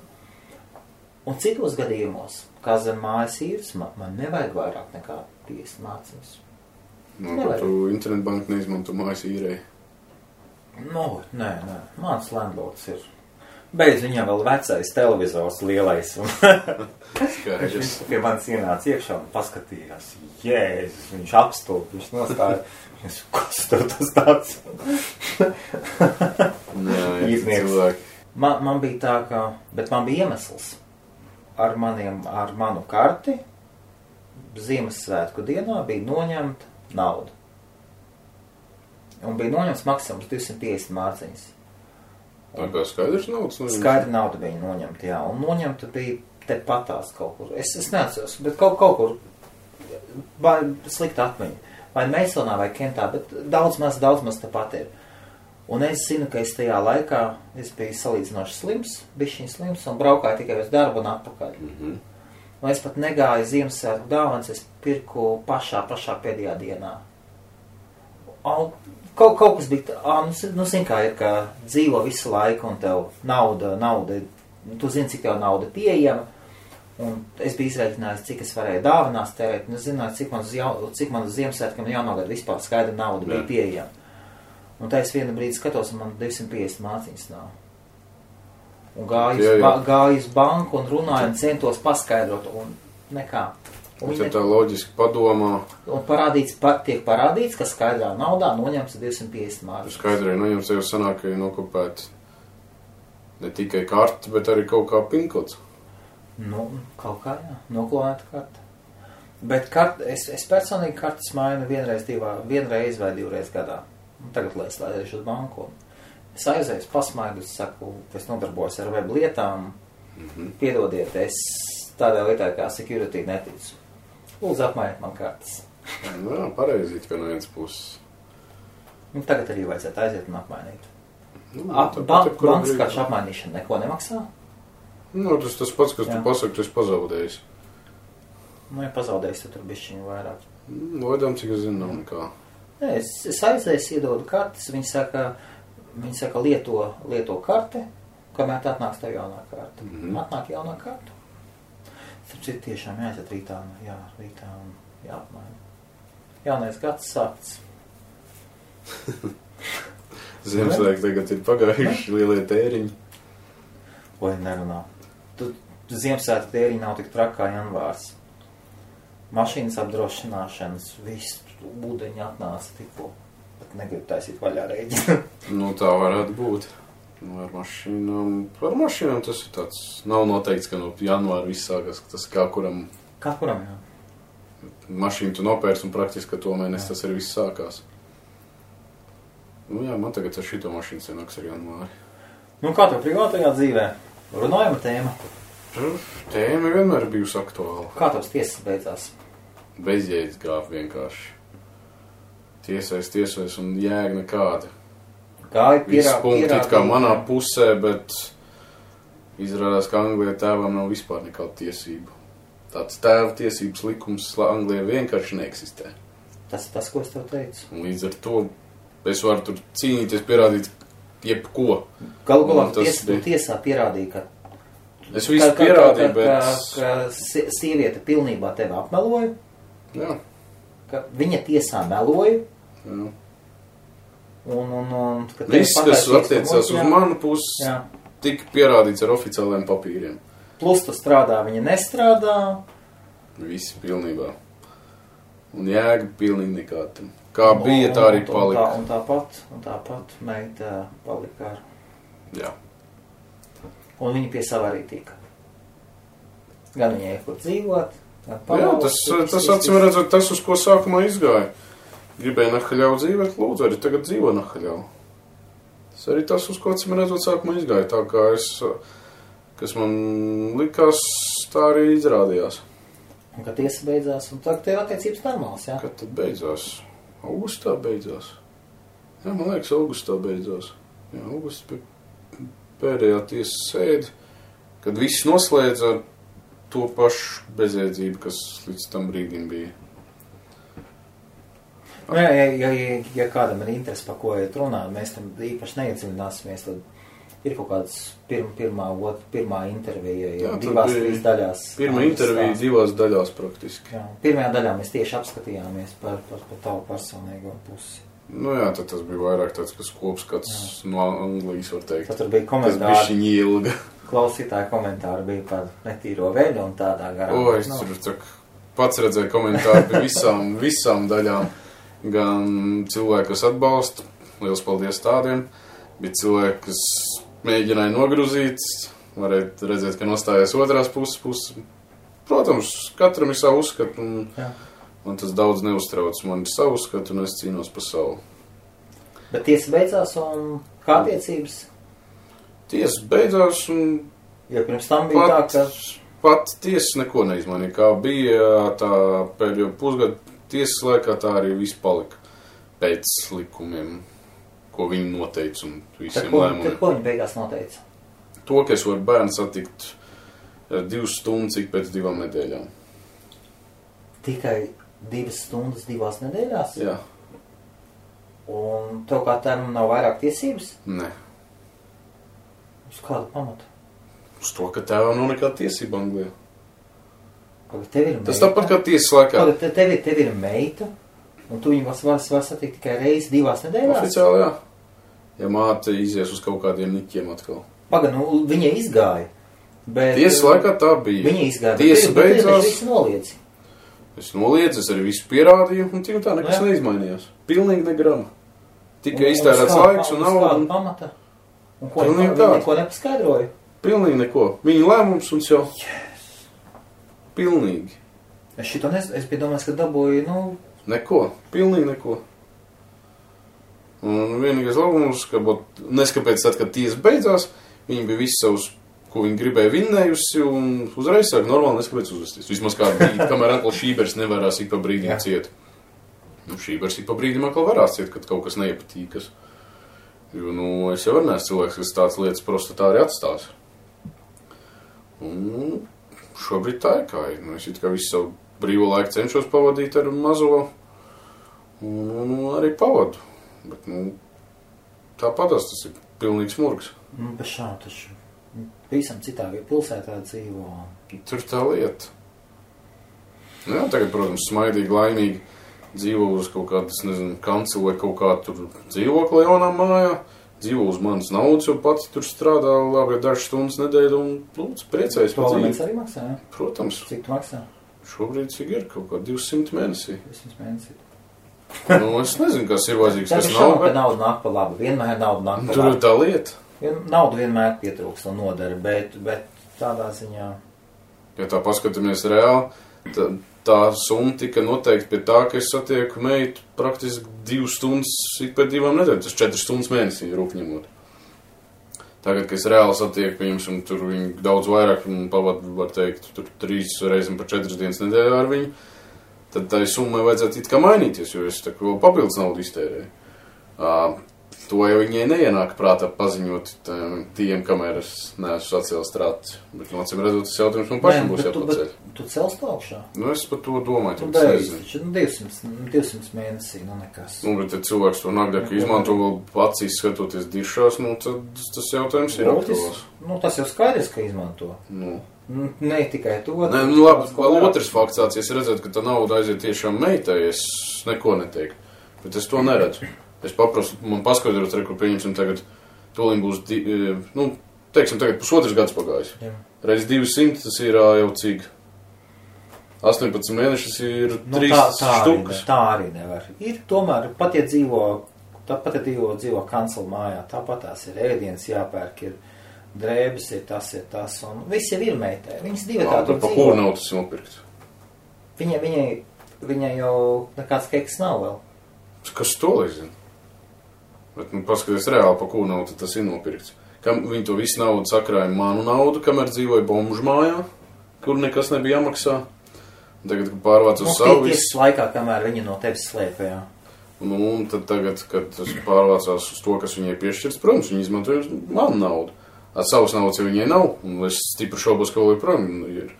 Un citos gadījumos, kā zem mājas īres, man nevajag vairāk nekā 50 mārciņas. Ka tu internetbanku neizmanto mājas īrei? Nē. Mans landlords ir. Beidz viņam vēl vecais televizors lielais. Viņš pie manis ienāca iekšā un paskatījās. Jēzus, viņš apstulp, viņš nostāja. Kas tev tas tāds? Iznieks. Man bija tā, ka, bet man bija iemesls. Ar manu karti Ziemassvētku dienā bija noņemta nauda. Un bija noņemts maksimums 250 mārciņas. Tā kā skaidrs naudas noņemta? Skaidra nauda bija noņemta, jā. Un noņemta bija te patās kaut kur. Es neatceros, bet kaut kur slikta atmiņa. Vai Meisonā vai Kentā, bet daudz maz te pat ir. Un es zinu, ka es tajā laikā es biju salīdzinoši slims, bišķiņ slims, un braukāju tikai uz darbu un atpakaļ. Un es pat negāju Ziemassvētku dāvanas, es pirku pašā pēdējā dienā. Kaut kas bija, zini kā ir, ka dzīvo visu laiku un tev nauda, tu zini, cik tev nauda pieejama, un es biju izrēķinājis, cik es varēju dāvanās tērēt, un es zināju, cik man uz Ziemassvētkiem jaunogad vispār skaidra nauda bija pieejama. Un tā es vienu brīdi skatos, un man 250 mārciņas nav. Un gāju uz banku un runāju un centos paskaidrot, un nekā. Un tā loģiski padomā. Un tiek parādīts, ka skaidrā naudā noņemts 250 mārciņas. Skaidrē noņemts jau sanāk, ka ir nokopēt ne tikai karti, bet arī kaut kā pinkots. Nu, kaut kā, jā. Noklonēta karta. Bet es personīgi kartas mainu vienreiz vai 2 reizes gadā. Un tagad, lai es laišu uz banku. Es aizēju, pasmaidu, es saku, es nodarbojos ar web lietām. Piedodiet, es tādā lietā kā security neticu. Lūdzu, apmainiet man kartas. Jā, pareizīt, ka no vienas puses. Un tagad arī vajadzētu aiziet un apmainīt. Bankas karšu apmainīšana neko nemaksā? Nu, tas pats, kas tu pasaki, tu esi pazaudējis. Nu, ja pazaudējis, tad tur bišķiņu vairāk. Lodām, cik es zinu, nav nekā. Nē, es aizēju, iedodu kartes, viņi saka lieto karte, kamēr tā atnāks tev jaunā karta. Atnāk jaunā karta. Tāpēc tiešām jāiet rītā un jāapmaina. Jaunais gads sākts. Ziemassvētki tagad ir pagājuši lielie tēriņi. Vai nerunā. Ziemassvētku tēriņi nav tik trakā janvārs. Mašīnas apdrošināšanas, viss ūdeņi atnāca tikko, bet negribu taisīt vaļā rēģi. Nu, tā varētu būt. Ar mašīnām tas ir tāds, nav noteikts, ka no janvāra viss sākas, tas kā kuram. Kā kuram, jā. Mašīnu tu nopērs un praktiski, ka to mēnesi tas arī viss sākās. Nu jā, man tagad ar šito mašīnu senāks ar janvāri. Nu kā tev privātajā dzīvē? Runājama tēma? Tēma vienmēr bijusi aktuāla. Kā tavs tiesas beidzās? Bezjēdz gāp vienkārši. Tiesais un jēga nekāda. Visi punkti it kā manā pusē, bet izrādās, ka Anglijā tēvam nav vispār nekāda tiesība. Tāds tēva tiesības likums Anglijā vienkārši neeksistē. Tas, ko es tev teicu. Līdz ar to es varu tur cīnīties, pierādīt jebko. Galu galā tiesā pierādīja, ka es visu pierādīju, bet... Ka sieviete pilnībā tevi apmeloja. Jā. Ka viņa tiesā meloja. Jā. Un viss, kas attiecās uz manu pusi, tika pierādīts ar oficiāliem papīriem. Plus tu strādā, viņa nestrādā. Visi pilnībā. Un jēga pilnīgi nekāda. Kā bija, tā arī palika. Un tāpat meita palika ar. Jā. Un viņa pie sava arī tika. Gan viņai kur dzīvot, gan palaust. Jā, tas acīm redzot, tas, uz ko sākumā izgāja. Gribēja nahaļau dzīvot, lūdzu, arī tagad dzīvo nahaļau. Tas arī tas, uz ko acīm redzot, sākumā izgāja. Tā kā kas man likās, tā arī izrādījās. Un kad tiesa beidzās, un tagad tev attiecības normāls, jā? Kad tad beidzās? Augustā beidzās. Jā, man liekas, augustā beidzās. Jā, augustā bija pēdējā tiesas sēde, kad viss noslēdza ar to pašu bezjēdzību, kas līdz tam brīdim bija. Ja kādam ir interesi, par ko iet runāt, mēs tam īpaši neiedziļināsimies, tad ir kaut kāds pirmā intervija, jau divās daļās. Pirmā intervija divās daļās praktiski. Jā, pirmajā daļā mēs tieši apskatījāmies par tavu personīgo pusi. Nu jā, tad tas bija vairāk tāds, kas kopskats no Anglijas, var teikt. Tad tur bija komentāri. Tas bišķiņ ilga. Klausītāji komentāri bija par netīro veļu un tādā garā. O, es tur pats redzēju komentāri par visām daļām. Gan cilvēki, kas atbalsta, liels paldies tādiem, bija cilvēki, kas mēģināja nogruzīt, varētu redzēt, ka nostājās otrās puses. Protams, katram ir savu uzskatu, un tas daudz neuztrauc. Man ir savu uzskatu, un es cīnos par savu. Bet tiesa beidzās, un kā attiecības? Tiesa beidzās, un... Jo pirms tam bija tā, ka... Pat tiesa neko neizmainīja. Kā bija tā pēdējo pusgadu tiesas laikā, tā arī viss palika pēc likumiem, ko viņi noteica un visiem lēmumiem. Tad ko viņi beigās noteica? To, ka es varu bērnu satikt 2 stundas ik pēc 2 nedēļām. Tikai 2 stundas 2 nedēļās? Jā. Un tev kā tēvam nav vairāk tiesības? Nē. Uz kādu pamatu? Uz to, ka tēvam nav nekāda tiesība Anglijā. Tas tāpat kā tiesas laikā. Tev ir meita, un tu viņu var satikt tikai reizi 2 nedēļās? Oficiāli, jā. Ja māte izies uz kaut kādiem niķiem atkal. Paga, nu, viņa izgāja. Bet, tiesas laikā tā bija. Viņa izgāja. Tiesa beidzās. Visu noliedzi. Es noliedzu, es arī visu pierādīju, un tik tā nekas neizmainījās. Pilnīgi negrama. Tikai iztērēts laiks un nauda. Un pamata? Un ko viņi neko nepaskaidroja? Pilnīgi neko. Viņa lēmums un jau... Pilnīgi. Es šito es biju domājis, ka dabūju, Neko. Pilnīgi neko. Un vienīgais labums, ka neskapēc tad, kad tiesa beidzās, viņi bija visu savus, ko viņi gribēja vinnējusi, un uzreiz sāk normāli neskapēc uzvesties. Vismaz kādu brīdi, kamēr atkal Šībers nevarās ik pa brīdim ciet. Šībers ik pa brīdim atkal varās ciet, kad kaut kas neiepatīkas. Jo, es jau neesmu cilvēks, kas tāds lietas prostā arī atstās. Un... Šobrīd tā ir kā ir. Es it kā visu savu brīvo laiku cenšos pavadīt ar mazo un arī pavadu. Bet, tāpatās tas ir pilnīgs murgs. Bez šā taču visam citā pilsētā dzīvo. Tur tā lieta. Jā, tagad, protams, smaidīgi, laimīgi dzīvo uz kaut kādas, kanceli vai kaut kā tur dzīvokli jaunā mājā. Dzīvo uz manas naudas, jo pats tur strādā labi dažas stundas nedēļu un, lūdzu, priecājas par dzīvi. Arī maksā, jā? Protams. Cik tu maksā? Šobrīd cik ir kaut kā 200 mēnesī. 200 mēnesī. Es nezinu, kas ir vajadzīgs, kas nav. Tā nauda nāk pa labi. Vienmēr nauda nāk pa labi. Tur ir tā lieta. Nauda vienmēr pietrūkst un nodara, bet tādā ziņā... Ja tā paskatāmies reāli, tā summa tika noteikti pie tā, ka es satieku meitu praktiski 2 stundas ik pēc 2 nedēļām. Tas 4 stundas mēnesī rūpņemot. Tagad, kad es reāli satieku viņus, un tur viņi daudz vairāk pavadu, var teikt, tur 3 reizes par 4 dienas nedēļā ar viņu, tad tai summai vajadzētu it kā mainīties, jo es tā vēl papildus naudu iztērēju. to jau viņai neienāk prātā paziņot tiem, kamēr es neesmu sacēlis trācis. Bet, acīm redzot, tas jautājums man pašam būs jāpaceļ. Tu celst augšā? Nu, es par to domāju. Tu beidz, 200 mēnesī, nekas. Nu, bet, ja cilvēks to nagdāk izmanto vēl acīs skatoties dišās, tad tas jautājums ir aktuāls. Nu, tas jau skaidrs, ka izmanto. Nu. Ne tikai to. Nē, nu labi, vēl otrs fakts tāds, ja es redzētu, ka tā nauda aiziet tiešām meitai, es neko neteiktu. Bet es to neredzu. Es paprastu, man paskaidrot, kur pieņemsim tagad, tūlīt būs, teiksim, tagad pusotrs gads pagājis. Jā. Reiz 200, tas ir jau cik? 18 mēnešus ir 3 štukas. Tā arī nevar. Ir tomēr, pat ja dzīvo kancela mājā, tāpat tās ir ēdienas jāpērk, ir drēbes, ir tas, un viss jau ir meitai. Viņas divi tā tur dzīvo. Pa kuru nav tas nopirkt? Viņai jau nekāds keks nav vēl. Kas to lai zina? Bet, paskaties reāli, pa kuru naudu tas ir nopirkts. Viņi to visu naudu sakrāja manu naudu, kamēr dzīvoja bomžu mājā, kur nekas nebija jāmaksā. Tagad, kad pārvāc uz savu visu... Tiesas laikā, kamēr viņi no tevis slēpa, jā. Un tad tagad, kad tas pārvācās uz to, kas viņai piešķirts, protams, viņi izmantoja manu naudu. Savas naudas jau viņai nav, un es stipri šaubos, ka vēl joprojām ir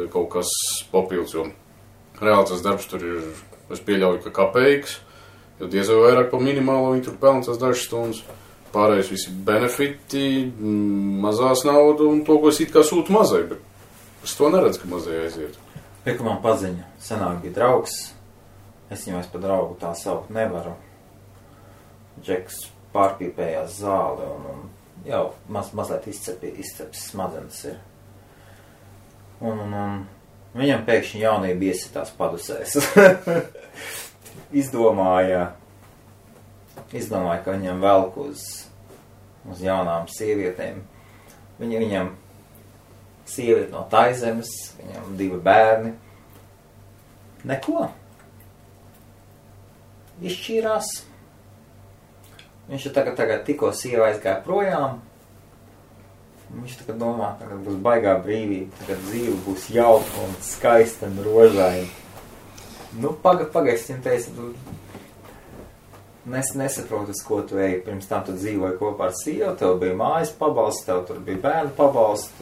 kaut kas papildus, jo reāli tas darbs tur ir, es pieļauju, ka kapeiks, jo diez vai vairāk pa minimālo viņi tur pelna tās dažas stundas. Pārējais visi benefiti, mazās naudu un to, ko es it kā sūtu mazai, bet es to neredzu, ka mazai aiziet. Pieku man paziņa, senāk bija draugs, es viņu par draugu tā saukt nevaru. Džeks pārpīpējās zāli un jau mazliet izceps smadzenes ir. Un viņam pēkšņi jaunība iesitās padusēs. Izdomāja, ka viņam velk uz jaunām sievietēm. Viņam sieviete no Taizemes, viņam 2 bērni. Neko. Izšķīrās. Viņš tagad tikko sieva aizgāja projām. Viņš tagad domā, ka būs baigā brīvība, tagad dzīve būs jauka un skaista un rožaina. Pagaidzi, viņam teica, nesaprotu, uz ko tu eji. Pirms tam tu dzīvoji kopā ar sievu, tev bija mājas pabalsts, tev tur bija bērnu pabalsts,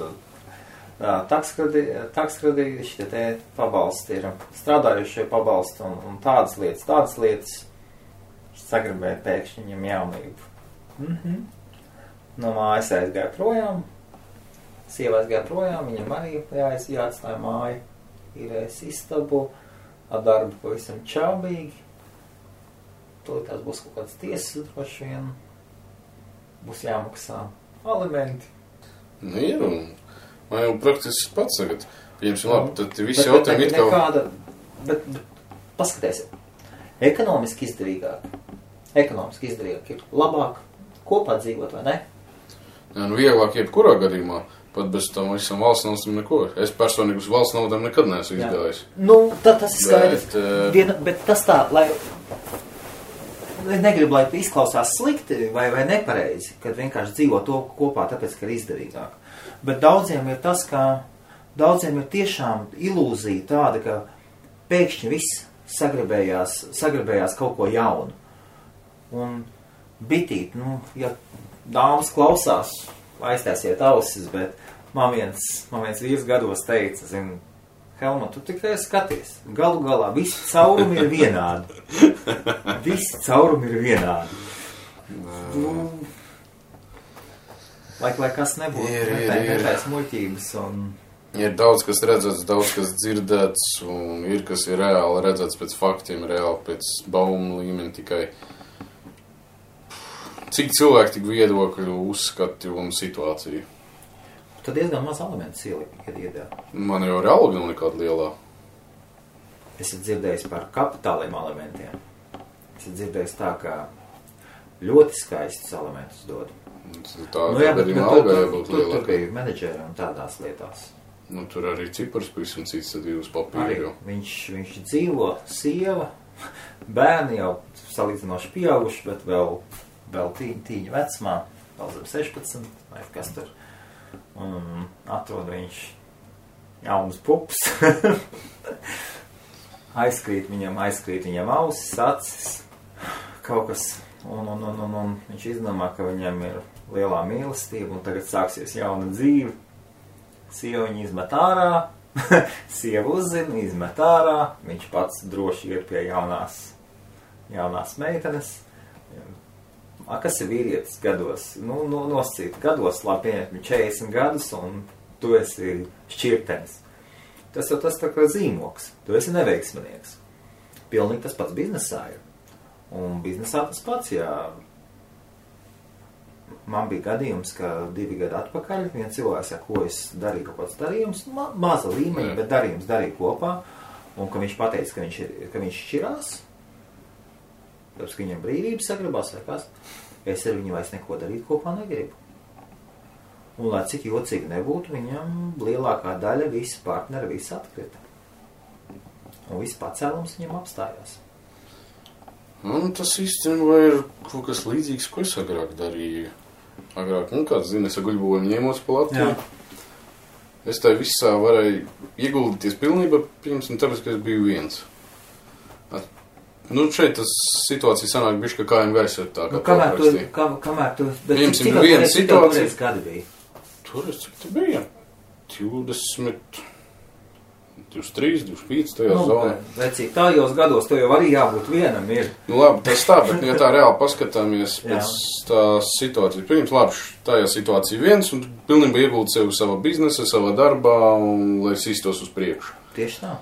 takskredīši, te pabalsti ir strādājušie pabalsti un tādas lietas. Sagribēja pēkšņi viņam jaunību. No mājas aizgāja projām, sieva aizgāja projām, viņam arī jāatstāja māja, īrēs istabu, ar darbu pavisam čaubīgi. Tās būs kaut kāds tiesas, droši vien, būs jāmaksā alimenti. Ir, un man jau praktiski pats tagad, pieņemsim labi, tad visi jautājumi it kā... Bet paskaties, ekonomiski izdevīgāk ir labāk kopā dzīvot, vai ne? Jā, vieglāk jebkurā gadījumā, pat bez tam visam valsts naudam neko. Es personīgi uz valsts naudam nekad neesmu izgājis. Tas ir skaidrs. Bet tas tā, lai negribu, lai izklausās slikti vai nepareizi, kad vienkārši dzīvo to kopā, tāpēc, ka ir izdevīgāk. Bet daudziem ir tas, ka daudziem ir tiešām ilūzija tāda, ka pēkšņi viss sagribējās kaut ko jaunu. Un bitīt, ja dāmas klausās, aiztaisiet ausis, bet man viens vīrs gados teica, Helma, tu tikai skaties, galu galā visi caurumi ir vienādi. Lai kas nebūtu, netais muļķības un... Ir daudz, kas redzēts, daudz, kas dzirdēts, un ir, kas ir reāli redzēts pēc faktiem, reāli pēc baumu līmeni tikai. Cik cilvēki tik viedokļu uzskati un situāciju? Tad diezgan maz elements iedēļ. Man jau ir alga nav nekāda lielā. Esat dzirdējis par kapitāliem elementiem. Esat dzirdējis tā, ka ļoti skaistus elementus dod. Tur bija menedžeri un tādās lietās. Tur arī cipars pavisam cits, tad ir uz papīru. Viņš dzīvo, sieva, bērni jau salīdzinoši pieauguši, bet vēl tīņa vecumā, vēl zem 16, vai kas tur. Un atrod viņš jaunas pupas. Aizkrīt viņam ausis, acis. Kaut kas Un viņš izdomā, ka viņam ir lielā mīlestība un tagad sāksies jauna dzīve. Sieva viņu izmet ārā, sieva uzzina, izmet ārā, viņš pats droši ir pie jaunās meitenes. Kas ir vīrietis gados? Noscīt gados, labi pieņemt 40 gadus un tu esi šķirtenis. Tas jau tas tā kā zīmoks, tu esi neveiksminieks. Pilnīgi tas pats biznesā ir. Un biznesā tas pats, jā. Man bija gadījums, ka 2 gadi atpakaļ viens cilvēks, ko es darīju kaut kāds darījums, maza līmeņa, bet darījums darīju kopā, un ka viņš pateica, ka viņš šķirās, tāpēc, ka viņam brīvības sagribās vai kas, es ar viņu vairs neko darīt kopā negribu. Un, lai cik jocīgi nebūtu, viņam lielākā daļa visi partneri, visi atkrita. Un viss pacēlums viņam apstājās. Tas īstenībā ir kaut kas līdzīgs, ko es agrāk darīju. Kāds zina, es guļbojumu ņēmos pa Latviju. Es tā visā varēju ieguldīties pilnībā, tāpēc, ka es biju viens. Šeit tas situācija sanāk bišķi, ka kājām gaisa ir tā, kā kamēr tu... Cik viena situācija... gadi bija? Tur es cik te bija? 20... 23, 25, tajā zonā. Vecīgi, tājos gados to jau arī jābūt vienam ir. Labi, tas tā, bet ja tā reāli paskatāmies pēc tās situācijas. Pirms labi, tajā situācija viens un pilnībā iegūt sevi savā biznesa, savā darbā un lai sīstos uz priekšu. Tieši tā.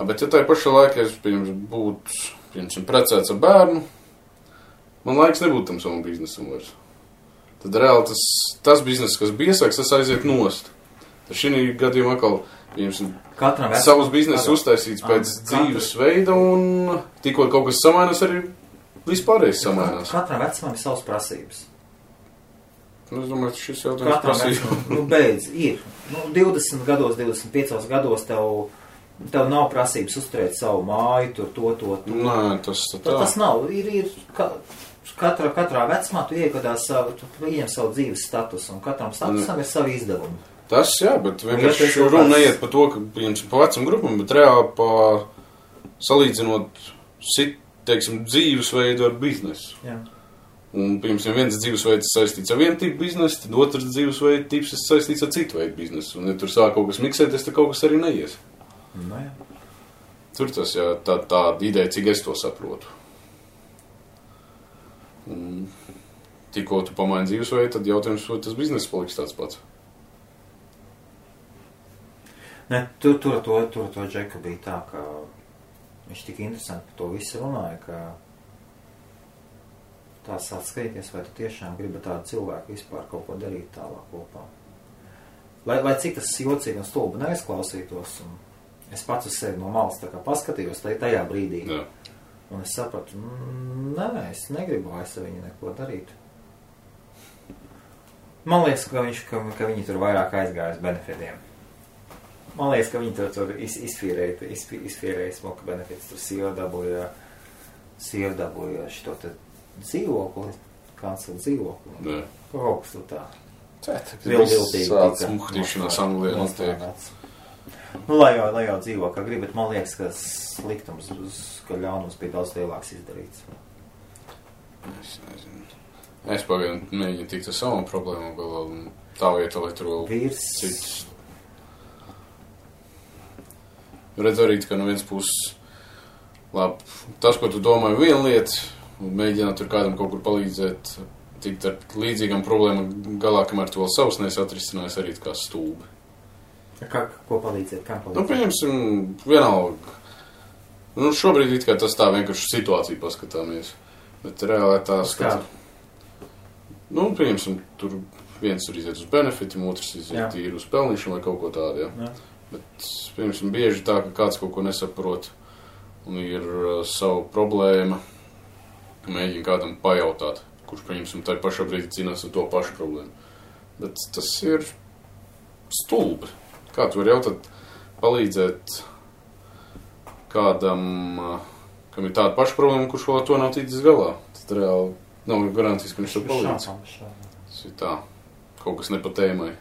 Bet ja tā pašā laikā es būtu precēts ar bērnu, man laiks nebūtu tam savam biznesam vairs. Tad reāli tas bizness, kas bija iesāks, tas aiziet nost. Tad šī gadījumā atkal savus biznesu uztaisīts pēc dzīves veida un tikko kaut kas samainās, arī vispārējais samainās. Katram vecumam ir savas prasības. Es domāju, ka šis jautājums prasība. Beidz, ir. 20 gados, 25 gados tev nav prasības uzturēt savu māju, to. Nē, tas tā. Tas nav. Ir katrā vecumā tu iegadās tu ieņem savu dzīves statusu un katram statusam ir savi izdevumi. Tas, jā, bet vienkārši runa neiet par to, ka, pa vecam grupam, bet reāli salīdzinot, dzīvesveidu ar biznesu. Jā. Un, viens dzīvesveids saistīts ar vienu tipu biznesu, tad otrs dzīvesveids tips saistīts ar citu veidu biznesu. Un, ja tur sāk kaut kas miksēties, tad kaut kas arī neies. No, jā. Tur tas, jā, tā ideja, cik es to saprotu. Un, tikko tu pamaini dzīvesveidu, tad jautājums, vai tas bizness paliks tāds pats. Ne, tur to Džeka bija tā, ka viņš tik interesanti par to visu runāja, ka tā sāc skatīties, vai tu tiešām gribi tādu cilvēku vispār kaut ko darīt tālāk kopā. Lai cik tas jocīgi un stulbi neizklausītos, un es pats uz sevi no malas tā kā paskatījos tajā brīdī. Jā. Un es sapratu, nē, es negribu vairs ar viņu neko darīt. Man liekas, ka viņi tur vairāk aizgāja uz benefitiem. Man liekas, ka viņi tur izfīrēja smoka benefits. Tur sieva dabūja šito te dzīvokli, kancelu dzīvokli. Jā. Kaut kas tu tā. Viltiltīgi. Sāc muhtīšanās Anglijā notiek. Lai jau dzīvo, kā grib, bet man liekas, ka sliktums, ka ļaunums bija daudz lielāks izdarīts. Es nezinu. Es pagaidām mēģinu tikt ar savam problēmām galā un tā vieta, lai tur vēl citus. Redz arī, ka no viens puses, labi, tas, ko tu domāji viena lieta, un mēģināt tur kādam kaut kur palīdzēt, tikt ar līdzīgām problēmām galā, kamēr tu vēl savus neesi atrisinājis arī kā stūbi. Ko palīdzēt? Kā palīdzēt? Pieņemsim, vienalga. Šobrīd it kā tas tā vienkārši situācija paskatāmies, bet reāli tā skata. Pieņemsim, tur viens tur iziet uz benefitiem, otrs iziet tīri uz pelnīšanu vai kaut ko tādu, jā. Bet, piemēram, bieži tā, ka kāds kaut ko nesaprot un ir savu problēma, mēģina kādam pajautāt, kurš, piemēram, tā pašā brīdī cīnās ar to pašu problēmu. Bet tas ir stulbi. Kā tu vari jautāt, palīdzēt kādam, kam ir tāda paša problēma, kurš vēl ar to nav ticis galā. Tad reāli nav garantijas, ka viņš to palīdz. Tas ir tā, kaut kas ne pa tēmai.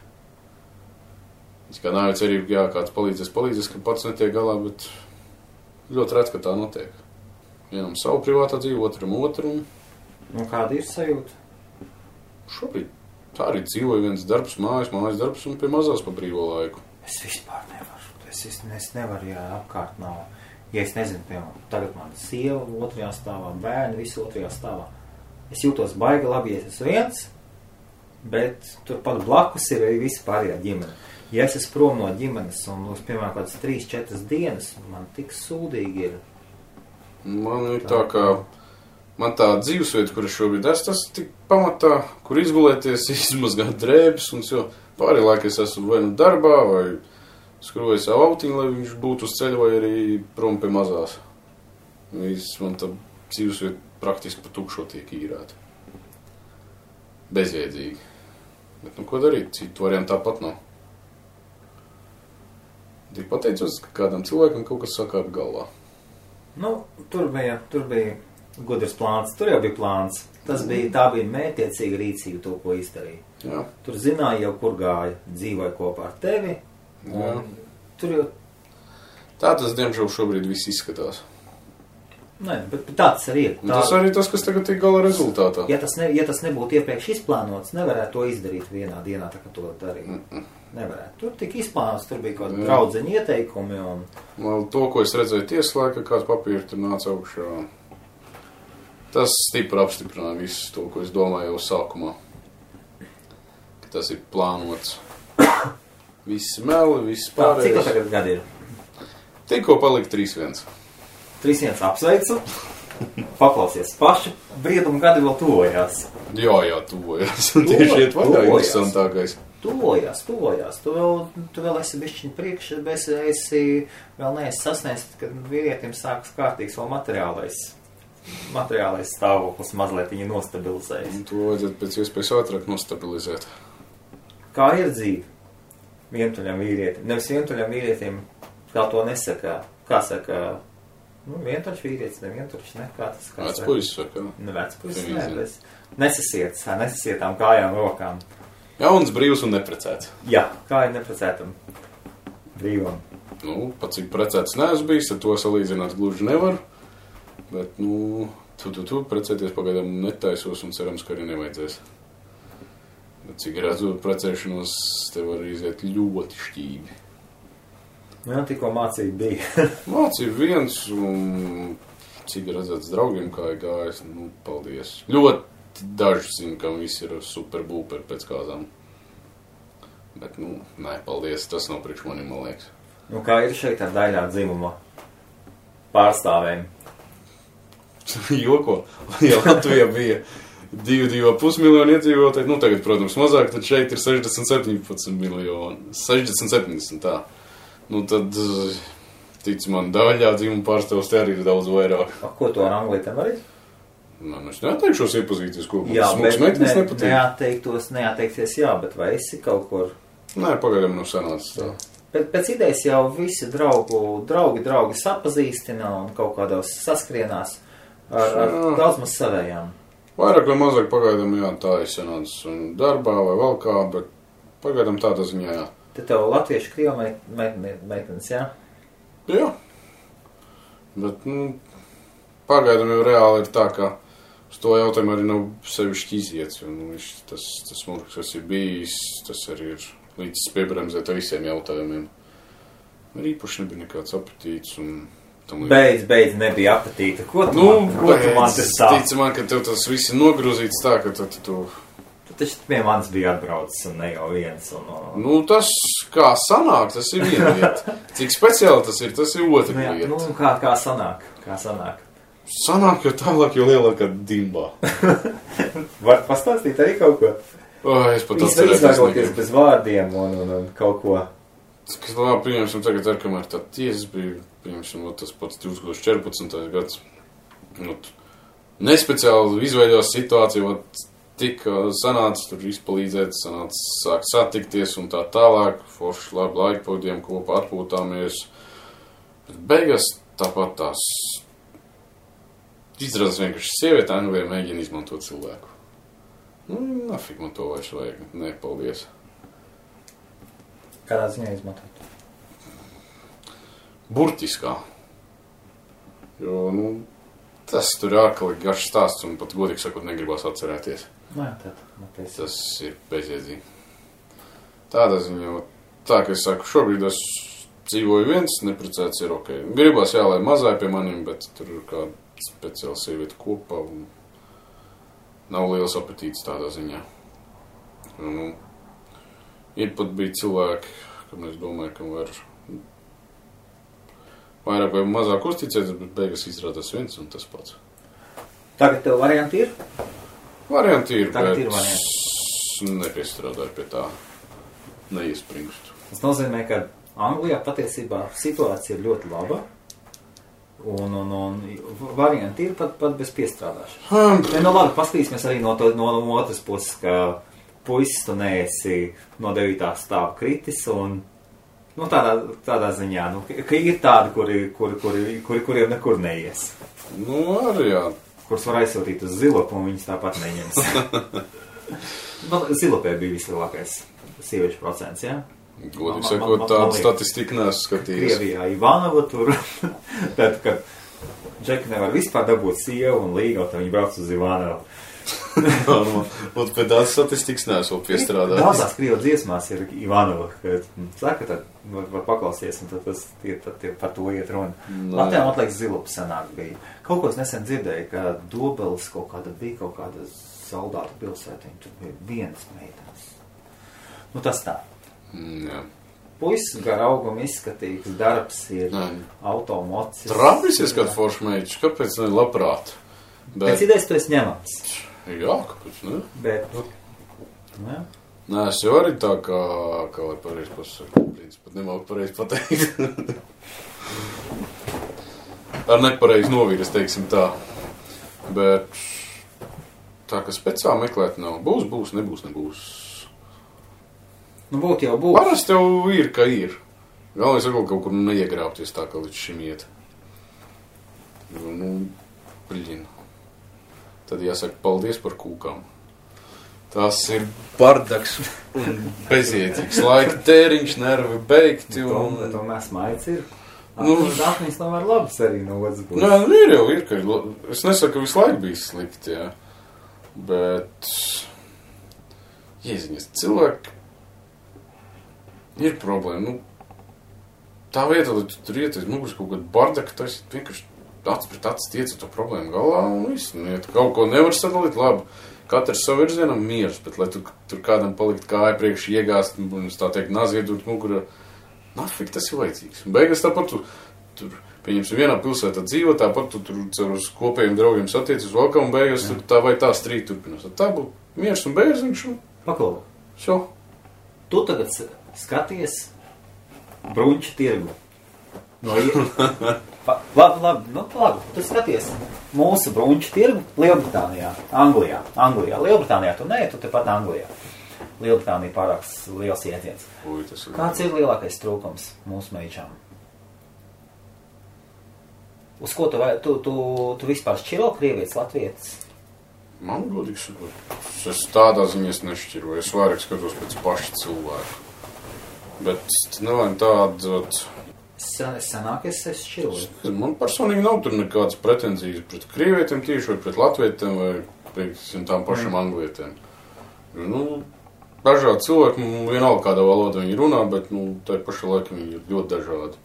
Es kā nav cerība, jā, kāds palīdzēs, ka pats netiek galā, bet ļoti redz, ka tā notiek. Vienam savu privātā dzīvi, otram. Un kāda ir sajūta? Šobrīd tā arī dzīvoju viens darbs, mājas darbs un pie mazās pa brīvo laiku. Es vispār nevaru. Es nevaru, ja apkārt nav. Ja es nezinu, piemēram, tagad man sieva otrajā stāvā, bērni visi otrajā stāvā. Es jūtos baigi labi, ja es esmu viens, bet turpat blakus ir arī visi pārējā ģimene. Ja es esmu prom no ģimenes un, piemēram, kādas 3-4 dienas, man tik sūdīgi ir. Man ir tā, ka man tā dzīvesvieta, kur es šobrīd esmu, tas tik pamatā, kur izgulēties, izmazgāt drēbes un jo pārējā laikā es esmu vai nu darbā, vai skroju savu autiņu, lai viņš būtu uz ceļa, vai arī prom pie mazās. Man tā dzīvesvieta praktiski pa tukšo tiek īrēta. Bezjēdzīgi. Bet nu ko darīt? Citu variantu tāpat nav. Tik pateicos, ka kādam cilvēkam kaut kas sakāp galvā. Nu, tur bija gudrs plāns. Tur jau bija plāns. Tā bija mērķiecīga rīcība, to, ko izdarīja. Jā. Tur zināja jau, kur gāja. Dzīvoja kopā ar tevi. Tur jau... Tā tas, diemžēl, šobrīd viss izskatās. Nē, bet tā tas arī ir. Tas arī tas, kas tagad ir gala rezultātā. Ja tas nebūtu iepriekš izplānots, nevarētu to izdarīt vienā dienā, tā kā to darīja. Nevarētu. Tur tika izplānots, tur bija kaut kādi draudzeņi ieteikumi un... To, ko es redzēju tieslā, ka kāds papīri tur nāca augšā, tas stipri apstiprināja visu to, ko es domāju jau sākumā. Ka tas ir plānots. Visi meli, visi pārējais. Cik tagad gadi ir? Tikko palika 3-1. 3-1 apsveicu. Paklausies, paši briedumu gadi vēl tuvojās. Jā, tuvojās. Un tieši iet vaļā interesantākais. Tuvojās. Tu vēl esi bišķiņ priekš, bet esi vēl neesi sasniegts, kad vīrietim sākas kārtīgs vēl materiālais stāvoklis mazliet viņa nostabilizējas. Un to vajadzētu pēc iespējas ātrāk nostabilizēt. Kā ir dzīve? Vientuļam vīrietim. Nevis vientuļam vīrietim, kā to nesaka. Kā saka, vientuļš vīrietis, nevientuļš, ne? Kā tas? Vecpuisis saka. Vecpuisis, bet nesasietām kājām, rokām. Jauns, brīvs un neprecēts. Jā, kā ir neprecētam brīvam. Pat cik precēts neesmu bijis, ar to salīdzināt gluži nevaru. Bet, tu precēties pagaidām netaisos un cerams, ka arī nevajadzēs. Bet cik redzu precēšanos, tev var iziet ļoti šķīgi. Jā, tikko mācība bija. Mācība viens, un cik redzēts draugiem, kā ir gājis, paldies. Ļoti daži zina, ka visi ir super būperi pēc kāzām. Bet, nē, paldies, tas nav priekš manim, man liekas. Kā ir šeit ar daļā dzimuma pārstāvēm? Joko, ja Latvijā bija 2,5 miljoni iedzīvotāji, tagad, protams, mazāk, tad šeit ir 60-17 miljoni. 60-70, tā. Tad, tic man, daļā dzimuma pārstāvs te arī ir daudz vairāk. Ko to ar anglītēm arī? Es neatteikšos iepazīties, ko jā, smuks meitenes nepatīk. Neatteikties, jā, bet vai esi kaut kur? Nē, pagaidām nav sanācis tā. Pēc idejas jau visi draugi sapazīstina un kaut kādos saskrienās ar daudz maz savējām. Vairāk vai mazāk pagaidām, jā, tā ir sanācis darbā vai vēl kā, bet pagaidām tādā ziņā, jā. Te tev latviešu krievu meitenes, jā? Jā. Bet, pagaidām jau reāli ir tā, ka uz to jautājumu arī nav sevišķi iziets. Tas smurks, kas ir bijis, tas arī ir līdz piebremzēt ar visiem jautājumiem. Arī īpaši nebija nekāds apetīts un... Beidz, nebija apetīta. Ko tu man tas tā? Tici man, ka tev tas viss ir nogrūzīts tā, ka tu... Tu taču pie manis bija atbraucis un ne jau viens. Tas, kā sanāk, tas ir viena lieta. Cik speciāli tas ir otra lieta. Kā sanāk? Sanāk, jo tālāk, jo lielākā dimbā. Var pastāstīt arī kaut ko? Es pat atcerēties. Izvēroties bez vārdiem un kaut ko. Kas labi, pieņemsim tagad, kamēr tā tiesas bija, pieņemsim, tas pats 2014. gads. Nespeciāli izveidojās situācija, tika sanāca tur izpalīdzēt, sāk satikties un tā tālāk, forši labi laikpavadījām kopā, atpūtāmies. Bet beigās tāpat tās izrādās vienkārši sieviete Anglijā mēģina izmantot cilvēku. Nafik man to vairs vajag, nepaldies. Kādā ziņā izmantot? Burtiskā. Jo, Tas tur ir ārkārtīgi garš stāsts, un pat godīgi sakot, negribas atcerēties. Nē, tad. Tas ir bezjēdzīgi. Tādā ziņā, tā, ka es saku, šobrīd es dzīvoju viens, neprecēts ir ok. Gribas, jā, lai mazāja pie maniem, bet tur ir kāda speciāla sievieta kopā, un nav liels apetīts tādā ziņā. Nu, ir pat bija cilvēki, kam es domāju, ka var vairāk vai mazāk uzticēties, bet beigas izrādās viens un tas pats. Tagad tev varianti ir? Varianti ir, Tagad bet ir varianti. nepiestrādāju pie tā, neiespringstu. Tas nozīmē, ka Anglijā patiesībā situācija ir ļoti laba, un varianti ir pat bez piestrādāšanas. Nu labi, paskatīsimies arī no otras puses, ka puisis tu neesi no 9. stāva kritis, un nu, tādā ziņā, nu, ka ir tādi, kuriem nekur neies. Nu, arī jā. Kurus var aizsūtīt uz zilopu, un viņas tāpat neņems. Zilopē bija vislielākais sieviešu procents, jā? Godīgi sakot, tādu statistiku neesmu skatījies. Krievijā Ivanova tur, tad, kad Džeki nevar vispār dabūt sievu un līgaut, tad viņi brauc uz Ivanovu. Un pēc tādas statistikas neesmu piestrādājis. Daudzās Krievu dziesmās ir Ivanova, kad saka, tad var paklausties, un tad par to iet runa. Latvijā, man liekas, Zilopa senāk bija. Kaut ko es nesen dzirdēju, ka Dobelis bija kaut kāda soldāta pilsētiņa, tur bija vienas meitenes. Nu, tas tā. Jā. Puisis gar augumu izskatīgs, darbs ir automocis. Trapis izskat foršmeičs, kāpēc ne labprāt? Pēc idejas tu esi ņemams. Jā, kāpēc ne? Bet, jā. Nē, es jau arī tā kā lai pareizi pasaka, pat nemāku pareizi pateikt. Ar nepareizi noviras, teiksim tā. Bet tā, ka speciāli meklēt nav. Būs, nebūs. Nu, būt jau būs. Parasti jau ir, ka ir. Galvenais ir kaut kur neiegrāpties tā, kā līdz šim iet. Nu, bliņ. Tad jāsaka paldies par kūkām. Tas ir bardaks un bezjēdzīgs. Laika tēriņš, nervi beigti. To mēs maic ir. Nu, Dāknis nav var labs arī no otras puses. Nē, ir, ka es nesaku, ka visu laiku bija slikti, jā. Bet, jēziņas, cilvēki ir problēma. Nu, tā vieta, lai tu tur iet, muguris kaut kādu bardaku, tas ir vienkārši acis pret acis tiec ar to problēmu galā un viss. Nu, ja tu kaut ko nevar sadalīt, labi, katrs savu virzienam miers, bet lai tu tur kādam palikt kāja priekš iegāst, un tā teikt, naziedot mugurā, nafik tas ir vajadzīgs. Un beigas tāpat tu tur, pieņemsim, vienā pilsētā dzīvo, tāpat tu tur caur uz kopējiem draugiem satiecis valkā, un beigas tur tā vai tā strīt turpinās. Tā būtu miers un bērziņš un... Paklaus. Šo. Tu tagad skaties bruņķu tirgu. Labi, tu skaties mūsu bruņķu tirgu Lielbritānijā, Anglijā. Lielbritānijā tu nē, tu tepat Anglijā. Lielbritānija pārāk liels ietiens. Kāds ir lielākais trūkums mūsu meičām? Uz ko tu vispār šķiro krievietis, latvietis? Man godīgi sakot, es tādā ziņā nešķiroju. Es vairāk skatos pēc paša cilvēku. Bet nevajag tādu... Senāk es šķiroju. Man personīgi nav tur nekādas pretenzijas pret krievietiem tieši vai pret latvietiem vai pret tām pašām anglietiem. Nu, dažādi cilvēki, vienalga kādā valodā viņi runā, bet tā paša laika viņi ir ļoti dažādi.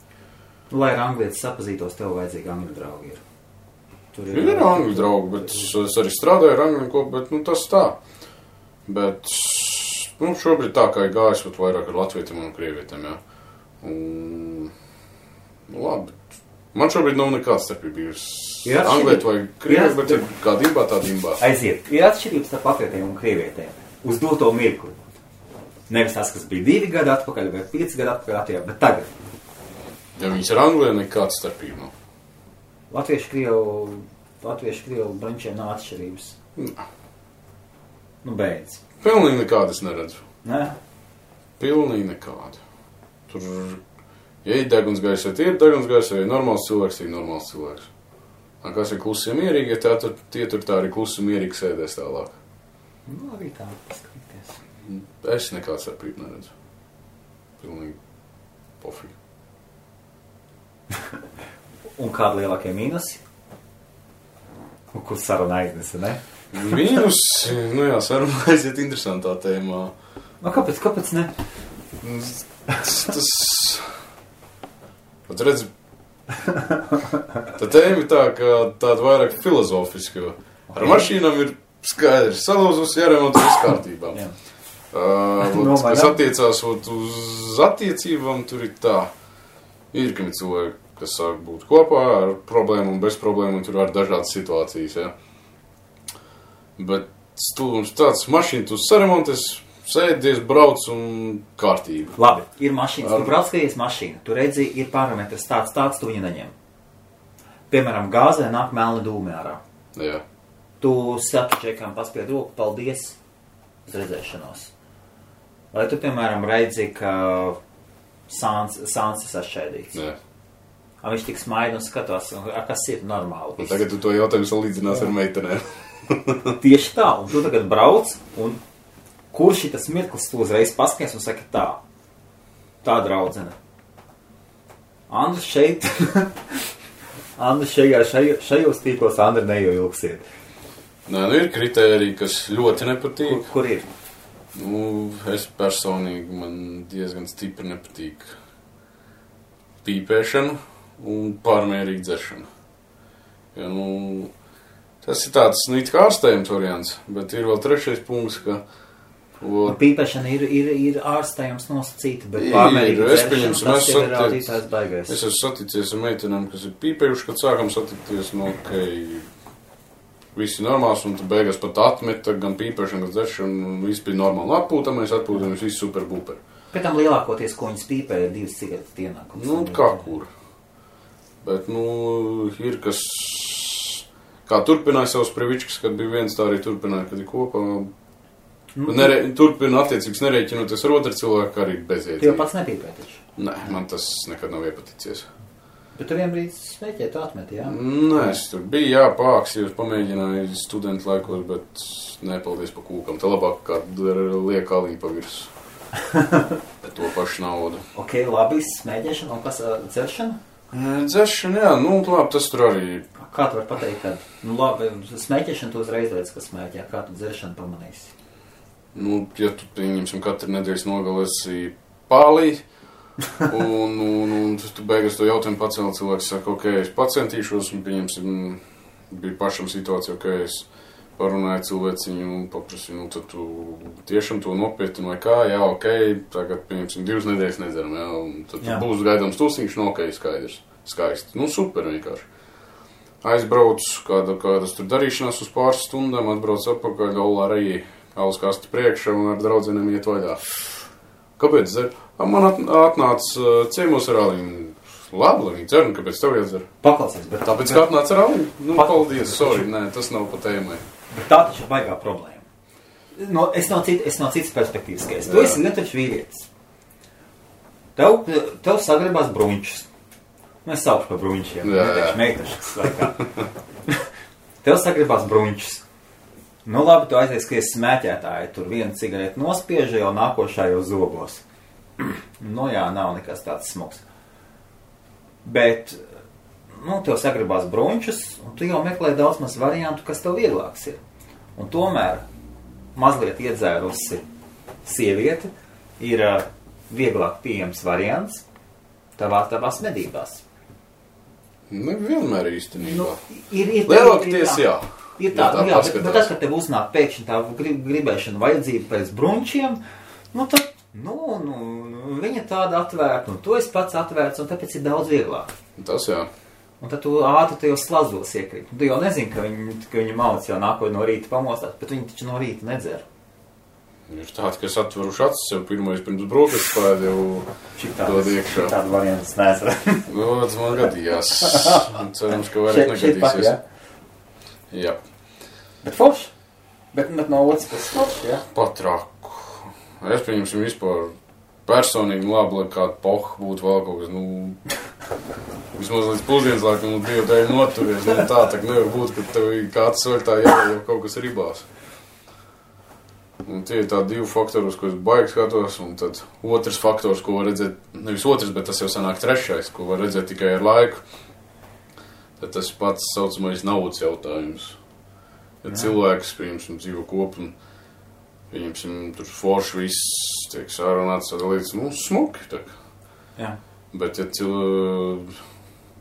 Lai ar anglietis sapazītos, tev vajadzīgi angļu draugi ir. Ir angļu draugi, bet es arī strādāju ar angļu kopu, bet tas tā. Bet šobrīd tā kā ir gājis vairāk ar latvietiem un krievietiem, jā. Labi. Man šobrīd nav nekāds starpība. Anglieti vai krievi, bet ir kā dimbā, tā dimbā. Aiziet. Ir atšķirības starp latvietiem un krievietiem. Uz doto mirkli. Nevis tas, kas bija 2 gadi atpakaļ vai 5 gadi atpakaļ, bet tagad. Ja viņas ar Anglijā nekāds starpība nav. Latviešu krievu brančiem nav atšķirības. Nā. Beidz. Pilnīgi nekādas neredzu. Nē? Pilnīgi nekādu. Tur, ja ir degunsgaisa, tie ir degunsgaisa, ja ir normāls cilvēks, tie ir normāls cilvēks. Kas ir klusi mierīgi, ja tie tur tā arī klusi mierīgi sēdēs tālāk. Arī tā paskatīties. Es nekāds starpību neredzu. Pilnīgi pofīgi. Un kādi lielākie mīnusi? Kur saruna aiznesa, ne? Mīnus, saruna aiziet interesantā tēmā. Kāpēc ne? Tas... Pat redz, tā tēma ir tā, ka tāda vairāk filozofiska. Ar mašīnām ir skaidrs, salūzus, jāremonto viss kārtībā. Kas attiecās uz attiecībām, tur ir tā. Ir, ka cilvēki, kas sāk būt kopā ar problēmu un bez problēmu, un tur var dažādas situācijas, ja. Bet stulums tāds mašīna, tu saremonties, sēdies, brauc un kārtība. Labi, ir mašīnas, tu brauc, skaties mašīna, tu redzi, ir parametrs tāds, tu viņu neņem. Piemēram, gāzē nāk melni dūmi ārā. Jā. Tu saki čekām, paspied roku, paldies, uz redzēšanos. Vai tu, piemēram, redzi, ka sāns ir sašķēdīts? Jā. Viņš tik smaida un skatās, kas ir normāli. Tagad tu to jautājumu salīdzinās ar meitenēm. Tieši tā, un tu tagad brauc, un kurš ir tas mirklis, tu uzreiz paskaties un saki tā draudzene. Andri šeit, šajos tīklos Andri neievilksiet. Nē, ir kritēriji, kas ļoti nepatīk. Kur ir? Es personīgi, man diezgan stipri nepatīk pīpēšana un pārmērīga dzeršana. Ja, tas ir tāds, it kā ārstējums variants, bet ir vēl trešais punkts, ka... Pīpēšana ir ārstējums nosacīta, bet pārmērīga dzeršana, tas ir rādītājs baigais. Es esmu saticies ar meitenēm, kas ir pīpējuši, kad sākam satikties, visi normāls, un tu beigās pat atmeta gan pīpēšana, gan dzeršana, un viss bija normāli. Atpūtamies, viss super buper. Pēc tam lielākoties, ko viņas pīpē, ir 2 cigaretes dienā. Kā kur. Bet, ir kas... Kā turpināja savus previčkas, kad bija viens, tā arī turpināja, kad ir kopā. Turpina attiecības nerēķinoties ar otru cilvēku, arī bezjēdzīgi. Tu jau pats nepīpē taču? Nē, man tas nekad nav iepaticies. Bet tu vienbrīd smēķēji, tu atmeti, jā? Nē, es tur biju, pāksījos, pamēģināju studentu laikos, bet nepaldies pa kūkam. Tā labāk kā liek aliņu pa virs. Bet to pašu naudu. Ok, labi, smēķēšana un kas dzeršana? Dzeršana, jā, labi, tas tur arī... Kā tu var pateikt, ka, labi, smēķēšana tu uzreiz redz, ka smēķē, kā tu dzeršanu pamanīsi? Ja tu, pieņemsim, katru nedēļas nogalēsi pālī, un tu beigas to jautājumu pacēli, cilvēks saka, ok, es pacentīšos, un pieņemsim, bija pašam situācija, ok, es parunāju cilvēciņu un paprasīju, tad tu tiešām to nopietni vai kā, jā, ok, tagad, pieņemsim, 2 nedēļas nedzeram, jā, un tad būs gaidāms tusiņš, ok, skaidrs, skaisti, super vienkārši. Aizbrauc, kādas tur darīšanās uz pāris stundām, atbrauc atpakaļ, galā alus kasti priekšā un ar draudzenēm iet vaļā. Kāpēc dzer? Man atnāca ciemos ar aliņu. Labi, lai viņi dzer, un kāpēc tev iedzer? Paklausies, bet... Tāpēc, kā atnāca ar aliņu? Paldies, sorry, nē, tas nav pa tēmai. Bet tā taču ir baigā problēma. Es no citas perspektīvas skaidrs. Tu esi lietuvs vīrietis. Tev sagribās bruņčus. Es saucu par bruņčiem, neteikšu meitašas laikā. Tev sagribās bruņčus. Labi, tu aizies, ka esi smēķētāji, tur 1 cigareti nospiež, jau nākošā jau zobos. Jā, nav nekas tāds smuks. Bet, tev sagribās bruņčus, un tu jau meklē daudz maz variantu, kas tev vieglāks ir. Un tomēr mazliet iedzērusi sieviete ir vieglāk pieejams variants tavās medībās. Vienmēr īstenībā. Lielākoties, jā. Ir tā, bet tad, kad tev uznāk pēkšņi tā gribēšana vajadzība pēc bruņčiem, tad, viņa tāda atvērta, un tu esi pats atvērts, un tāpēc ir daudz vieglāk. Tas jā. Un tad tu ātri tajos slazdos iekrīt. Tu jau nezini, ka viņi mauc jau nākoja no rīta pamostāt, bet viņi taču no rīta nedzer. Ir tādi, kas atveruši acis jau pirmais pirms brokastu spēd jau dod iekšā. Tādu variantu nesarāt. Tas man gadījās. Cerams, ka vairāk negadīsies. Jā. Bet forši? Bet no otras puses forši, jā? Patraku. Es pieņemsim vispār personīgi labi, lai kāda poha būtu vēl kaut kas, vismaz līdz pusdienas laikam, divu dēļ noturies. Tā nevar būt, ka tev kāds svētā jau kaut kas ribās. Un tie ir tādi 2 faktori, uz ko es baigi skatos, un tad otrs faktors, ko var redzēt, nevis otrs, bet tas jau sanāk 3, ko var redzēt tikai ar laiku, tad tas pats saucamais naudas jautājums. Ja cilvēks, pieņemsim, dzīvo kopu un, pieņemsim, tur forši viss tiek sārunāts, tad līdz, smuki, tā. Jā. Bet, ja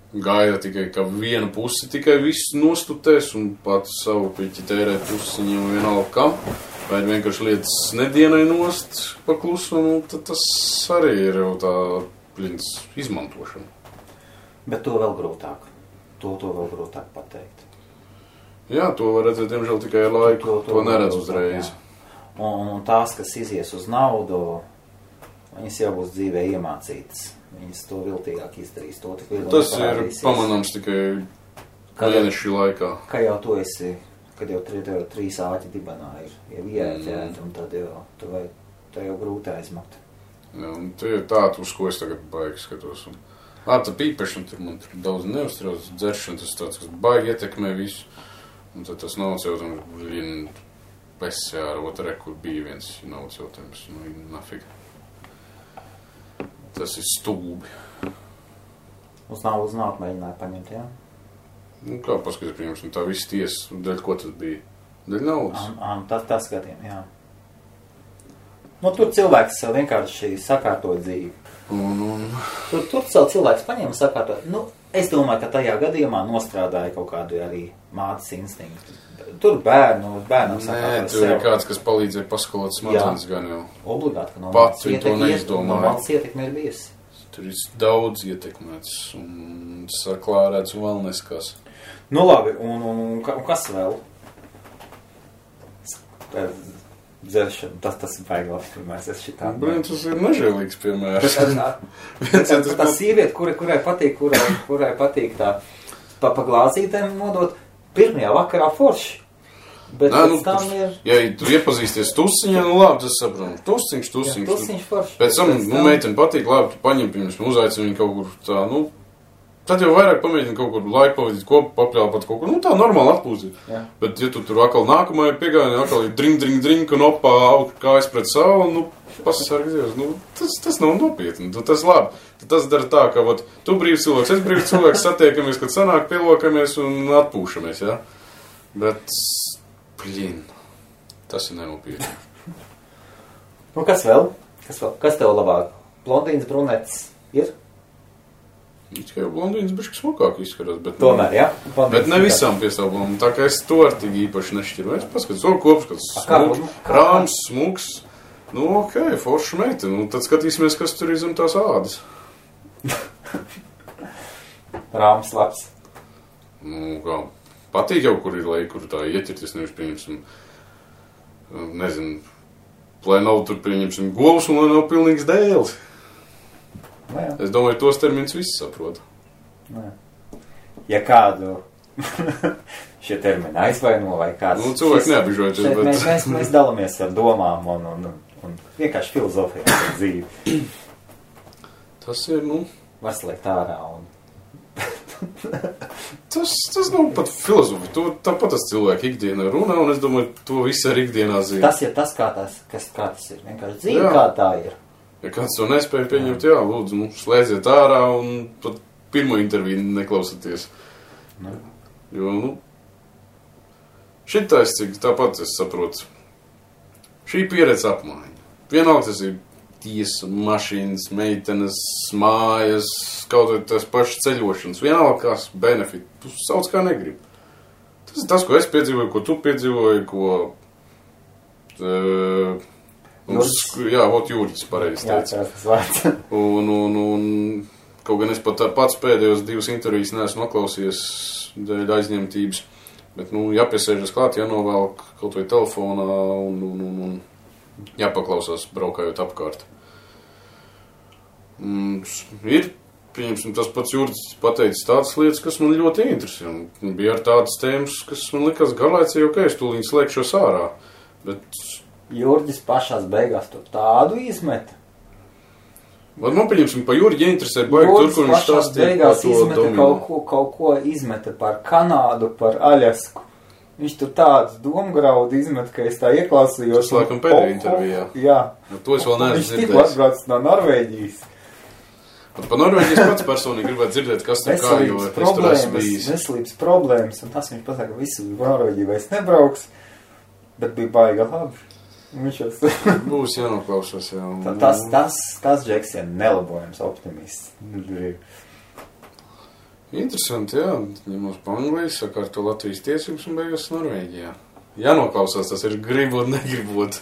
gaida tikai, ka viena pusi tikai viss nostutēs un pats savu piķi tērē pusi viņam vienalga kam, vai vienkārši lietas nedienai nost paklusu, tad tas arī ir jau tā izmantošana. Bet to vēl grūtāk. To vēl grūtāk pateikt. Jā, to var redzēt, diemžēl, tikai ar laiku. To neredz uzreiz. Un tās, kas izies uz naudu, viņas jau būs dzīvē iemācītas. Viņas to viltīgāk izdarīs. To tik tas ir pamanāms tikai mēnešu laikā. Ka jau tu esi, kad jau 3 āķi dibenā ir ieķēti, un tad jau tā jau grūti aizmakt. Jā, un tie ir tādi, uz ko es tagad baigi skatos. Tā pīpešana, man tur daudz neuztrauc, dzeršana, tas tāds, kas baigi ietekmē visu. Un tad tas nav jautājums, pesē ar otrē, kur bija viens nav jautājums. Nafig. Tas ir stūbi. Uz naudu mēģināja paņemt, jā? Kā paskatīt, piemēram, tā viss tiesa, dēļ ko tas bija? Dēļ naudas? Tas skatījum, jā. Tur cilvēks vienkārši sakārtoja dzīvi. Tur cilvēks paņēma sakārtot. Es domāju, ka tajā gadījumā nostrādāja kaut kādu arī mātes instinktu. Tur bērnam sakārtoja. Nē, tur ir kāds, kas palīdzēja paskolot smadzenes gan jau. Obligāti, ka no pats viņi to neizdomāja. No mātes ietekme ir bijusi. Tur ir daudz ietekmēts un saklārēts un vēl neskās. Labi, un kas vēl? Dzeršana, tas ir baigās piemērs, es šitā. Tas ir nežēlīgs piemērs. Tā sieviete, kurai patīk tā pa glāzītēm nodot, pirmajā vakarā forši. Bet pēc tam ir... Ja tu iepazīsties tusiņā, labi, tas saprot. Tusiņš. Tusiņš forši. Pēc tam, meiteni patīk, labi, tu paņem, piemēram, uzaicini viņu kaut kur tā, tad jau vairāk pamēģini kaut kur laiku pavadīt kopu, papļāpat kaut kur, tā normāli atpūzīt. Jā. Bet, ja tu tur atkal nākamajā piegājienā, atkal ir dring, un opā kājas pret savu, pasasargi Dievs, tas nav nopietni, tas labi. Tas dara tā, ka, tu brīvs cilvēks, es brīvs cilvēks, satiekamies, kad sanāk, pielokamies un atpūšamies, jā. Bet, tas ir nenopietni. Kas vēl? Kas tev labāk? Blondīns, brunetis ir? Tikai jau blondīnas bišķi smukāk izskatās, bet... Tomēr, jā? Bet ne visām piestāvām, tā kā es to ar tik īpaši nešķiru. Es paskatās, kopskats smuks, rāms, smuks. Ok, forša meita. Tad skatīsimies, kas tur ir zem tās ādas. Rāms labs. Kā, patīk jau, kur ir lai, kur tā ieķerties, nevis pieņemsim, nezinu, lai nav tur pieņemsim govs un lai nav pilnīgs dēls. Es domāju, tos terminus visi saprot. Ja kādu šie termini aizvaino vai kāds... cilvēki neapbižojoties, bet... Mēs dalamies ar domām un vienkārši filozofijā par dzīvi. Tas ir, var slēgt ārā un... tas nav pat filozofija. Tāpat tas cilvēki ikdienā runā un es domāju, to visu ar ikdienā zina. Tas ir tas, kā tas ir. Vienkārši dzīve, kā tā ir. Ja kāds to nespēja pieņemt, jā, lūdzu, slēdziet ārā un pat pirmo interviju neklausieties. Jo, šitais, cik tāpat es saprotu, šī pieredze apmaiņa. Vienalga tas ir tiesa, mašīnas, meitenes, mājas, kaut vai tās pašas ceļošanas. Vienalga kās benefit, tu sauc kā negribi. Tas ir tas, ko es piedzīvoju, ko tu piedzīvoji, ko... Jūrģis pareizi teica. Un kaut gan es pat pats pēdējos 2 intervijas neesmu noklausījies dēļ aizņemtības, bet, jāpiesēžas klāt, jānovelk kaut vai telefonā un jāpaklausās braukājot apkārt. Ir, pieņemsim, tas pats Jūrģis pateicis tādas lietas, kas man ļoti interesē. Bija ar tādas tēmas, kas man likās garlaicīgi, ok, es tūlīt slēgšos ārā, bet... Jūrģis pašās beigās tur tādu izmeta. Man pieņemsim, pa Jūrģi interesē baigi tur, kur viņš stāstīja par to dominu. Kaut ko izmeta par Kanādu, par Aļasku. Viņš tur tādus domgraudu izmeta, ka es tā ieklausījos. Tas laikam pēdējā intervijā. Jā. To es vēl neesmu dzirdējis. Viņš tikko atbraucis no Norvēģijas. Pa Norvēģijas pats personīgi gribētu dzirdēt, kas tur kā, jo es tur esmu bijis. Veselības problēmas, un tas viņš pasaka, ka visu Norvēģiju vairs nebrauks, bet bija baiga labi. Būs jānoklausās, jā. Tas Džeks ir nelabojams optimists. Interesanti, jā. Ņemos pa Angliju, sakārto Latvijas tiesības un beigās Norvēģijā. Jānoklausās, tas ir gribot, negribot.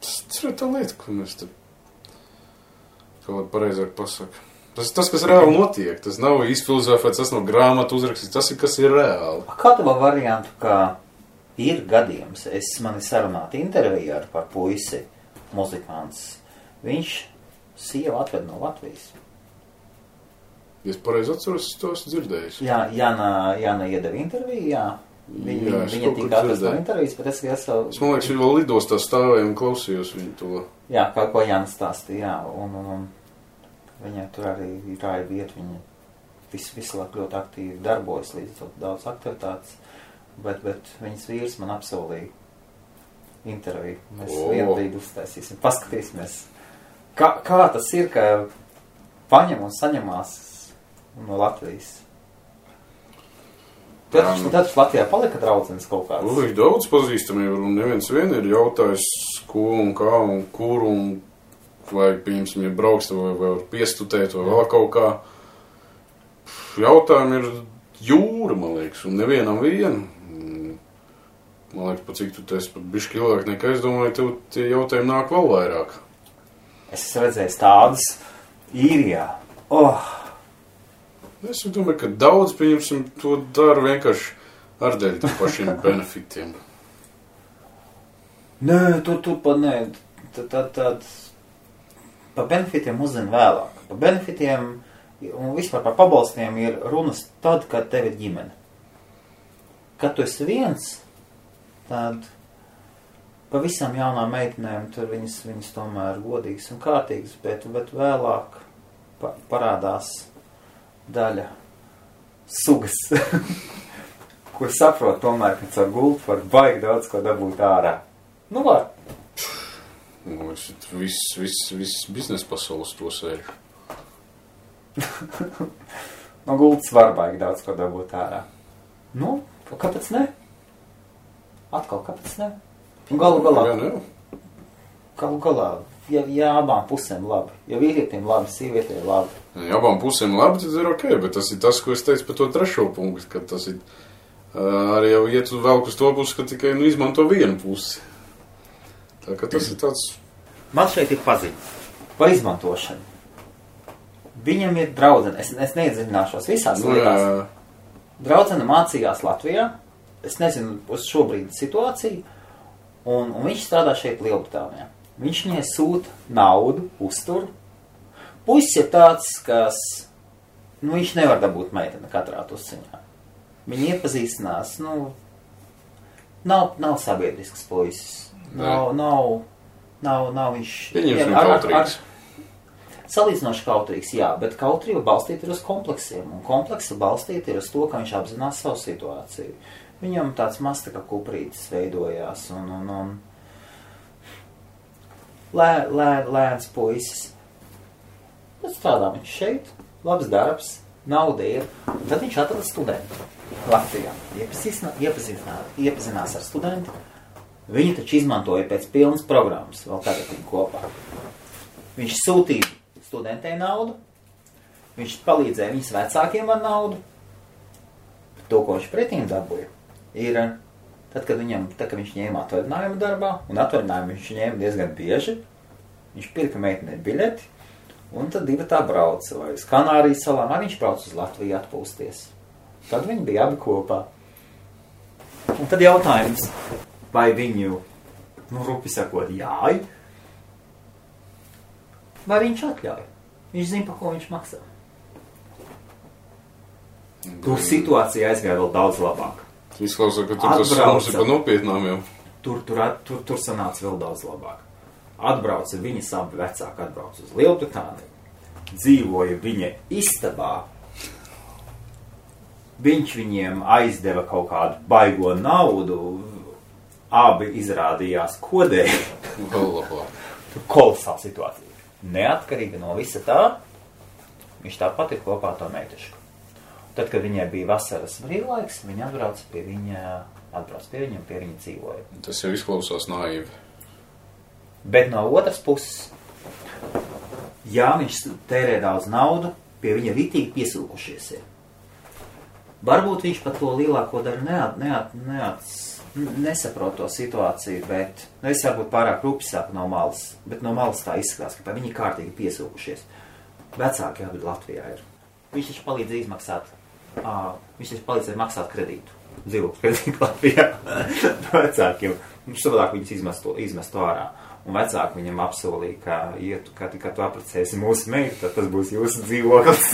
Tas ir tā lieta, ko mēs te kaut pareizāk pasaka. Tas, kas reāli notiek, tas nav izfilozofēts, tas nav grāmatu uzrakstīts, tas ir, kas ir reāli. Kādu variantu, kā ir gadījums, man ir sarunāta intervija par puisi, muzikants, viņš sievu atved no Latvijas. Es pareizi atceros, to esmu dzirdējis. Jā, Jāna iedeva interviju, jā. Viņa tika atrast no intervijas, bet es man liekas, viņa vēl lidostā stāvēja un klausījos viņu to. Jā, kā ko Jānis stāstīja, jā, un viņai tur arī ir vieta, viņa visu laiku ļoti aktīvi darbojas, līdz daudz aktivitātes, bet viņas vīrs man apsolīja interviju. Mēs vienu brīdi uztaisīsim, paskatīsimies, kā tas ir, ka paņem un saņemās no Latvijas. Tad Latvijā palika draudzenes kaut kāds. Ir daudz pazīstamību, un neviens vien ir jautājis, ko un kā un kur, un vai, piemēram, ja brauks, vai var piestutēt, vai vēl kaut kā. Jautājumi ir jūra, man liekas, un nevienam vienu. Man liekas, pa cik tu esi pat bišķi ilgāk nekā es domāju, tev tie jautājumi nāk vēl vairāk. Es esmu redzējis tādas Īrijā. Es domāju, ka daudz, pieņemsim, to dara vienkārši ar dēļ tam pašiem benefitiem. Nē, tu pa nē. Tad pa benefitiem uzzina vēlāk. Pa benefitiem un vispār par pabalstiem ir runas tad, kad tev ir ģimene. Kad tu esi viens, tad pa visām jaunām meitenēm tur viņas tomēr godīgas un kārtīgas, bet vēlāk parādās daļa sugas, kur saprot tomēr, ka caur gultu var baigi daudz ko dabūt ārā. Nu, var. Viss biznesa pasaules to sēž. No gultas var baigi daudz ko dabūt ārā. Nu, kāpēc ne? Atkal, kāpēc ne? Un galu galā, ja abām pusēm labi, ja vīrietim labi, sievietiem labi. Ja abām pusēm labi, tad ir ok, bet tas ir tas, ko es teicu par to trešo punktu, ka tas ir arī jau iet vēl uz to pusi, ka tikai izmanto vienu pusi. Tā ka tas ir tāds... Man šeit ir paziņa par izmantošanu. Viņam ir draudzene, es neiedziļināšos visās lietās. Draudzene mācījās Latvijā, es nezinu uz šobrīd situāciju, un viņš strādā šeit Lielbritānijā. Viņš viņai sūta naudu, uztur. Puisis ir tāds, kas, viņš nevar dabūt meiteni katrā tusiņā. Viņi iepazīstinās, nav sabiedrisks puisis. Nav viņš... Pieņemsim kautrīgs. Salīdzinoši kautrīgs, jā, bet kautrība balstīta ir uz kompleksiem, un kompleksa balstīta ir uz to, ka viņš apzinās savu situāciju. Viņam tāds maz tā kā kuprītis veidojās, un lēns puisis. Tad strādā viņš šeit, labs darbs, nauda ir. Tad viņš atrada studentu Latvijā. Iepazinās ar studentu. Viņi taču izmantoja pēc pilnas programmas, vēl tagad viņi kopā. Viņš sūtīja studentei naudu, viņš palīdzēja viņas vecākiem ar naudu. To, ko viņš pretīm dabūja, ir... Tad, kad viņš ņēma atvaļinājumu darbā, un atvaļinājumu viņš ņēma diezgan bieži, viņš pirka meitenei biļeti, un tad divi tā brauca, vai uz Kanārijas salām, vai viņš brauca uz Latviju atpūsties. Tad viņi bija abi kopā. Un tad jautājums, vai viņu, rupi sakot, jāj, vai viņš atļauj? Viņš zina, par ko viņš maksā. Tur situācija aizgāja vēl daudz labāk. Izklausās, ka tur tas sarunas ir pa nopietnām jau. Tur sanāca vēl daudz labāk. Atbrauca viņas abi vecāki, atbrauca uz Lielbritāniju. Dzīvoja viņa istabā. Viņš viņiem aizdeva kaut kādu baigo naudu. Abi izrādījās kodēji. Vēl labāk. Tur kolosāla situācija. neatkarīgi no visa tā, viņš tāpat ir kopā ar to meitešku. Tad, kad viņai bija vasaras brīvlaiks, viņa atbrauc pie viņam, pie viņa dzīvoja. Tas jau izklausās naivi. Bet no otras puses, jā, viņš tērē daudz naudu, pie viņa ritīgi piesūkušies ir. Varbūt viņš pat to lielāko daļu nesaprot to situāciju, bet, es varbūt pārāk rupjāk no malas, bet no malas tā izskatās, ka viņi kārtīgi piesūkušies. Vecāki abi Latvijā ir. Viņš taču palīdz izmaksāt, viņš taču palīdzēja maksāt kredītu, dzīvokļu kredītu Latvijā vecākiem. Savādāk viņus izmestu ārā. Un vecāki viņam apsolīja, ka kad tu apprecēsi mūsu meitu, tad tas būs jūsu dzīvoklis.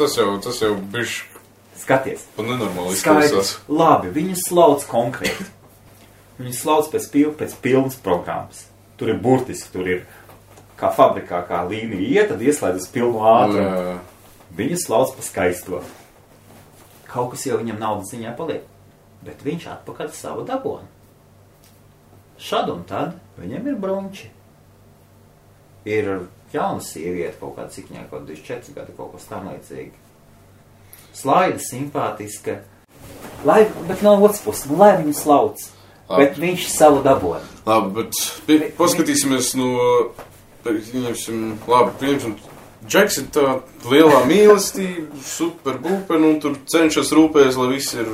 Tas jau bišķi. Skaties. Pa nenormāli izklausās. Labi, viņu slauc konkrēti. Viņu slauc pēc pilnas programmas. Tur ir burtiski, tur ir kā fabrikā, kā līnija iet, tad ieslēdz uz pilnu ātrumu. Viņu slauc pa skaisto. Kaut kas jau viņam naudas ziņā paliek. Bet viņš atpakaļ savu dabonu. Šad un tad viņam ir brunči. Ir jauna sieviete, kaut kāda cik viņai, kaut 24 gadi, kaut kas tam līdzīgi. Slaida, simpātiska. Bet no otras puses, lai viņu slauc. Bet viņš savu daboni. Labi, bet paskatīsimies no... Pieņemsim, Džeks ir tā lielā mīlestība, super būpen, un tur cenšas rūpēs, lai viss ir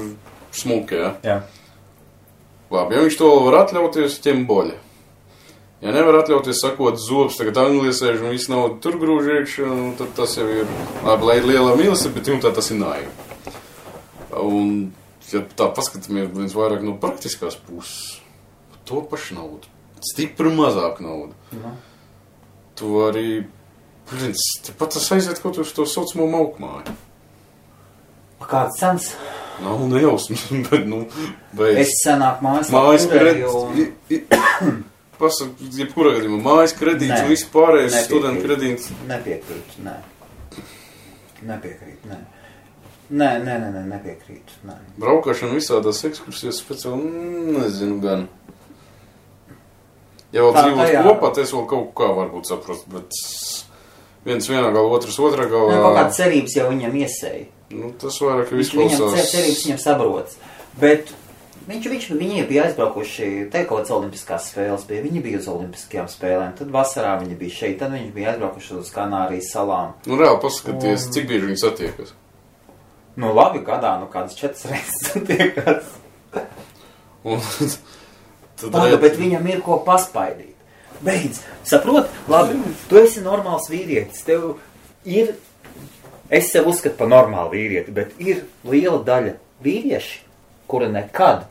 smuki, ja? Jā. Labi, ja viņš to var atļauties, ķem boļa. Ja nevar atļauties sakot zobs, tagad angliesēž un viss naudu tur grūž iekšā, tad tas jau ir, labi, lai ir lielā mīlestība, bet tā tas ir naivi. Un, ja tā paskatāmies vairāk no praktiskās puses, to pašu naudu, stipri mazāk naudu. Tu arī, pat tas aiziet kaut uz to saucamo maukmāju. Kāds sens? Nav nejausmas, bet, beidz. Es senāk mājas jebkurā gadījumā mājas kredīts un viss pārējais studentu kredīts. Nepiekrīt, nē. Nepiekrīt, nē. Braukāšana visādās ekskursijas speciāli, nezinu gan. Ja vēl dzīvos kopā, tas vēl kaut kā varbūt saprast, bet viens vienā galā, otrs otrā galā. Kaut kāda cerības jau viņam iesēja. Tas vairāk izklausās. Viņam cerības viņam sabrots. Bet viņi bija aizbraukuši, te kaut kāds olimpiskās spēles bija, viņi bija uz olimpiskajām spēlēm, tad vasarā viņi bija šeit, tad viņi bija aizbraukuši uz Kanārijas salām. Reāli paskaties, cik bieži viņi satiekas? Labi, gadā, kādas 4 reizes satiekas. Bet viņam ir ko paspaidīt. Beidz, saprot? Labi, tu esi normāls vīrietis, tev ir... Es sev uzskatu par normālu vīrieti, bet ir liela daļa vīrieši, kura nekad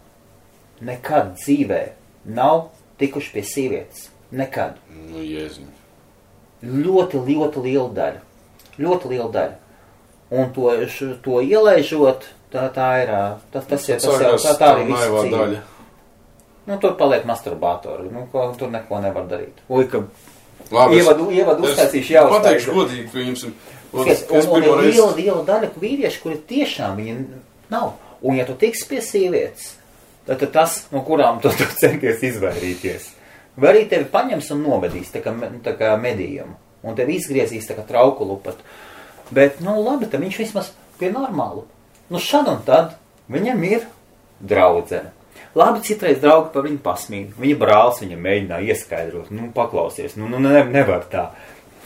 dzīvē nav tikuši pie sievietes. Nekad. Jēziņ. Ļoti liela daļa. Ļoti liela daļa. Un to ielaižot, tā ir, tas jau tā arī visu dzīve. Tur paliek masturbātori, tur neko nevar darīt. Ievadu uztaisīšu jau. Pateikšu godīgi, pieņemsim. Un ir liela daļa vīrieši, kuri tiešām viņi nav. Un ja tu tiksi pie sievietes, tad tas, no kurām tu centies izvairīties. Vai arī tevi paņems un novedīs tā kā medījumu. Un tevi izgriezīs tā kā trauku lupatu. Bet, labi, tad viņš vismaz pie normālu. Šad un tad viņam ir draudzene. Labi, citreiz draugi par viņu pasmīd. Viņa brālis viņam mēģināja ieskaidrot. Paklausies, nevar tā.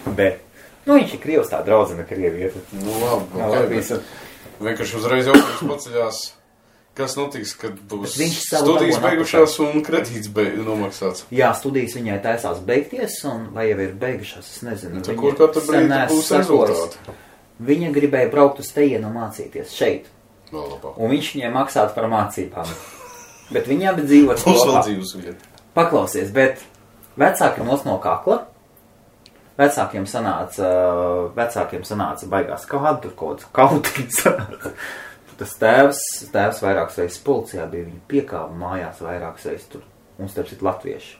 Bet, viņš ir Krievs tā draudzene Krievieta. Labi. Vienkārši uzreiz jautājums paceļās, kas notiks, kad būs studijas beigušās un kredīts nomaksāts. Jā, studijas viņai taisās beigties, un vai jau ir beigušās, es nezinu. Kur katru brīdi būs rezultāti? Viņa gribēja braukt uz tejienu mācīties šeit. Un viņš viņai maksātu par mācībām. Bet viņa abi dzīvot kopā. Paklausies, bet vecāki nos no kakla. Vecākiem sanāca baigās kādu, tur kaut kāds kautiņs sanāca. Tas tēvs vairākas reizes policijā bija, viņa piekāva mājās vairākas reizes tur. Un starp citu latvieši.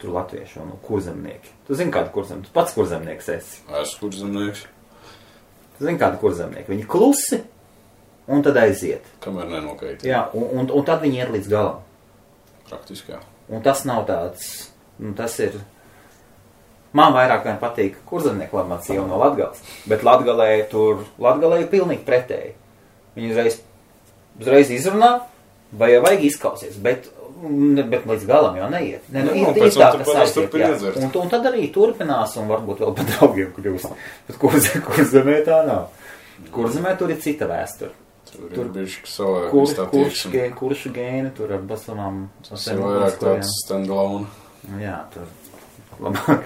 Tur latvieši un kurzemnieki. Tu zini kādu kurzemnieku? Tu pats kurzemnieks esi. Esmu kurzemnieks. Tu zini kādu kurzemnieku? Viņi klusi un tad aiziet. Kamēr nenokaitina. Jā, un tad viņi iet līdz galam. Praktiski, jā. Un tas nav tāds, tas ir... Man vairāk vien patīk kurzemnieku lamāts sieva no Latgales, bet Latgalē ir pilnīgi pretēji. Viņi uzreiz izrunā, vai jau vajag izklausies, bet līdz galam jau neiet. Ir tā, kas aiziet, jā. Un tad arī turpinās, un varbūt vēl pat draugiem kļūst. Bet kurzemē tā nav. Kurzemē tur ir cita vēsture. Tur bišķi savā kuršu gēni, tur ar basamām. Tas ir vairāk tāds stand-alone. Jā, tur labāk.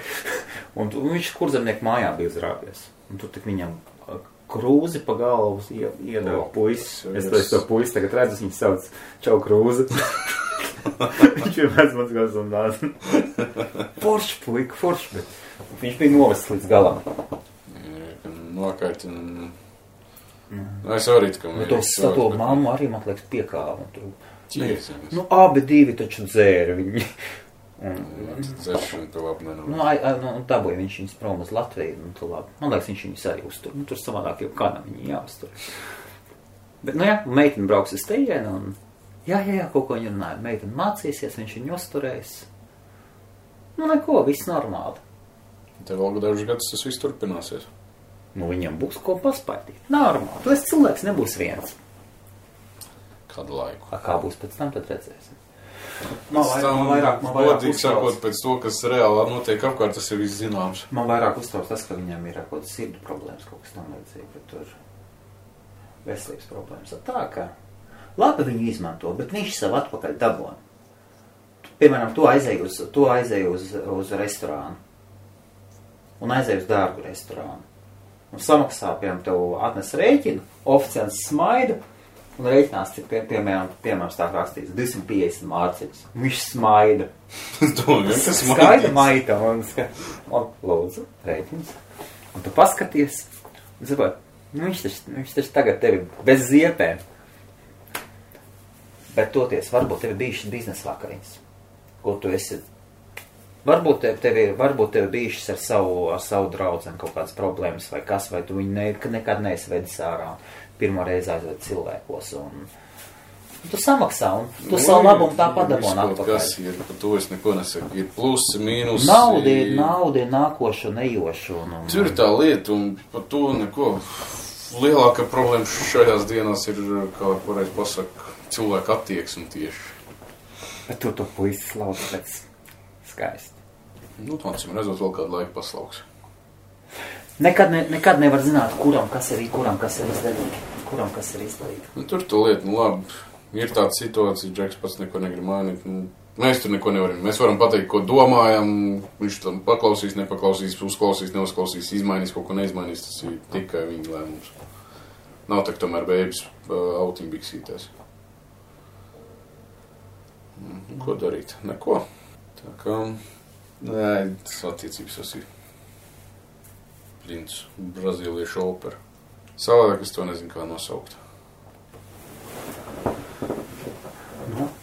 Un viņš kurzemnieku mājā bija uzrāpies. Un tur tik viņam krūzi pa galvu iedeva puisis. Es to puisi tagad redzu, viņš sauc Čau Krūzi. Viņš ir mans gals un nāc. Forši puika, forši, bet viņš bija novests līdz galam. Nokaiti. Es arī tikam. To mammu arī, man liekas, piekāva. Abi divi taču dzēra viņi. Dzēršana pie labi nenāk. Dabūja viņš viņus prom uz Latviju. Man liekas, viņš viņus arī uztur. Tur savādāk jau kādam viņi jāuztur. Bet, meitene brauks uz tejienu un jā, kaut ko viņa runāja. Meitene mācīsies, viņš viņu uzturēs. Neko, viss normāli. Tev vēl dažus gadus tas viss turpināsies. Viņam būs ko paspētīt. Normāli. Tu esi cilvēks, nebūs viens. Kādu laiku? Kā būs pēc tam, tad redzēsim. Man vairāk sakot, pēc to, kas reāli notiek apkārt, tas ir viss zināms. Man vairāk uztrauc tas, ka viņam ir kaut kāds sirdu problēmas, kaut kas tam līdzīgi, bet tur veselības problēmas. Tā kā labi viņu izmanto, bet viņš sev atpakaļ dabona. Piemēram, tu aizēji uz restorānu un aizēji uz dārgu restorānu. Un samaksā, piemēram, tev atnes rēķinu, oficiāls smaida, un rēķinās, cik, piemēram, stāv rakstīts 250 mārciņas. Viņš smaida. Skaida maita, un lūdzu, rēķins. Un tu paskaties, un saprot, viņš taču tagad tevi bez ziepēm. Bet toties, varbūt tevi bijušas biznesa vakariņas, ko tu esi. Varbūt tevi bijušas ar savu draudzeni kaut kādas problēmas vai kas, vai tu viņu nekad neesi vedis ārā, pirmo reizi aizved cilvēkos, un tu samaksā, un tu savu labumu tā padabon atpakaļ. Kas ir, par to es neko nesaku, ir plusi, mīnusi. Nauda ir nākošu, nejošu. Tur ir tā lieta, un par to neko. Lielākā problēma šajās dienās ir, kā pareiz pasaka, cilvēku attieksme tieši. Bet tu to puisi slauc pēc skaisti. Acīm redzot, vēl kādu laiku paslauks. Nekad nevar zināt, kuram kas ir izdevīgi. Tur to lietu, labi, ir tāda situācija, Džeks pats neko negrib mainīt. Mēs tur neko nevaram. Mēs varam pateikt, ko domājam, viņš tam paklausīs, nepaklausīs, uzklausīs, neuzklausīs, izmainīs, kaut ko neizmainīs, tas ir tikai viņa lēmums. Nav tā, ka tomēr bēbis autiņbiksītēs. Ko darīt? Neko. Tā kā, tas attiecības tas ir princis, brazīliešu opera. Savādāk es to nezinu, kā nosaukt.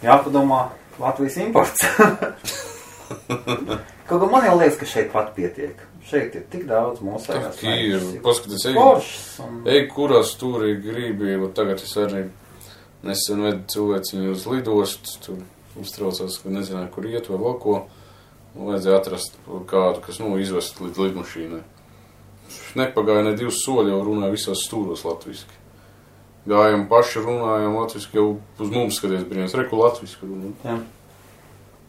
Jāpadomā Latvijas imports. Kaut kā man jau liekas, ka šeit pat pietiek. Šeit ir tik daudz mūsējās. Tā ir, paskaties, kurā stūrī gribi, tagad es arī nesen vedu cilvēciņu uz lidostu, tur uztraucās, ka nezināju, kur iet vai vēl ko. Vajadzēja atrast kādu, kas, izvest līdz lidmašīnai. Nepagāja ne 2 soļi, jau runāja visās stūros latviski. Gājam paši, runājam latviski, jau uz mums skaties brīnās, reku latviski runājam.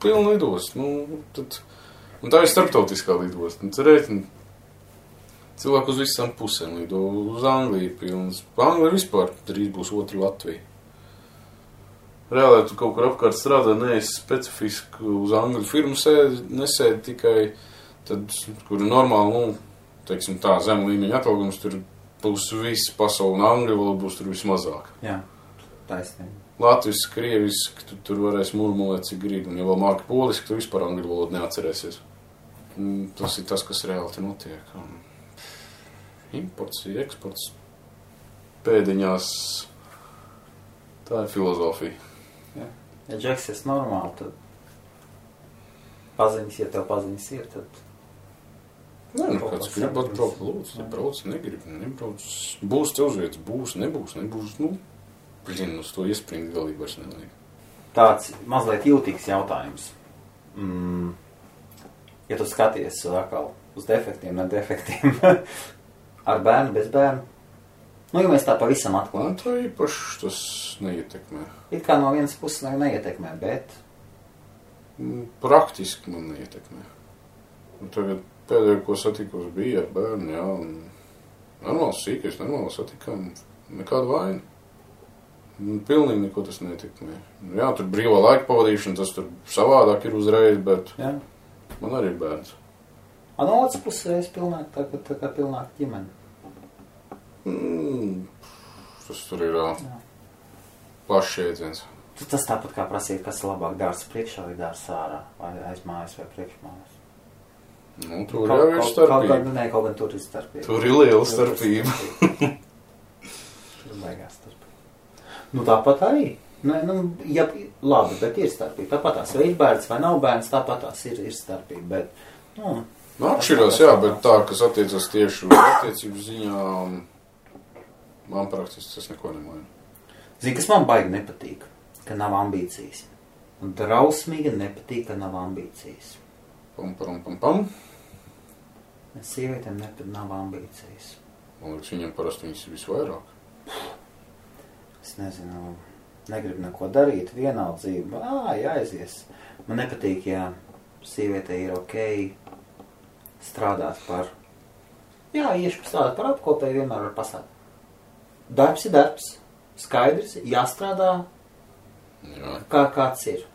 Pilna lidost, un tā ir starptautiskā lidost. Tad rēķini cilvēku uz visām pusēm lido, uz Angliju pilnas. Anglija vispār drīz būs otra Latvija. Reāli, tu kaut kur apkārt strādā, neesi specifiski uz angļu firmu nesēdi tikai, tad, kur ir normāli, teiksim tā, zem līmeņa atalgums, tur būs viss pasauli un angļu valoda būs tur vismazāk. Jā, taisnība. Latviski, krieviski, tu tur varēs murmulēt, cik grib, un ja vēl māki poliski, tu vispār angļu valodu neatcerēsies. Tas ir tas, kas reāli te notiek. Imports, eksports, pēdiņās, tā ir filozofija. Ja Džeks ir normāli, tad paziņas, ja tev paziņas ir, tad... Kāds grib atbraukt, lūdzu, brauc, nebrauc. Būs te uzvietas, būs, nebūs, uz to iespringt galīgi vairs nevajag. Tāds mazliet jūtīgs jautājums. Ja tu skaties atkal uz defektiem, ne defektiem, ar bērnu, bez bērnu, nu, ja mēs tā pavisam atklāt. Man tā īpaši tas neietekmē. It kā no vienas puses neietekmē, bet... Praktiski man neietekmē. Un tagad pēdējo, ko satikos, bija ar bērnu, jā, un normāls sīkais, normāli satikām, nekāda vaina. Pilnīgi neko tas neietekmē. Jā, tur brīvā laika pavadīšana, tas tur savādāk ir uzreiz, bet jā. Man arī ir bērns. No otras puses es pilnāk, tā kā pilnāk ģimeni. Tas tur ir plašs jēdziens. Tas tāpat kā prasīt, kas labāk dārs priekšā vai dārs ārā, vai aiz mājas vai priekšmājas. Nu, tur jau ir starpība. Kaut gan tur ir starpība. Tur ir liela starpība. Tur baigās starpība. Nu, tāpat arī. Ja, labi, bet ir starpība. Tāpatās, vai ir bērns vai nav bērns, tāpatās ir starpība. Bet, atšķirās, jā, bet tā, kas attiecas tieši uz attiecību ziņā, man praktiski tas neko nemaina. Zini, kas man baigi nepatīk, ka nav ambīcijas. Un drausmīgi nepatīk, ka nav ambīcijas. Pam. Sievietēm nav ambīcijas. Man liekas, viņam parasti viņas ir visvairāk. Es nezinu, negribu neko darīt, vienaldzība, jāaizies. Man nepatīk, ja sievietē ir ok strādāt par, iešu strādāt par apkopēju, vienmēr var pasāt. Darbs ir darbs, skaidrs, jāstrādā, kāds ir.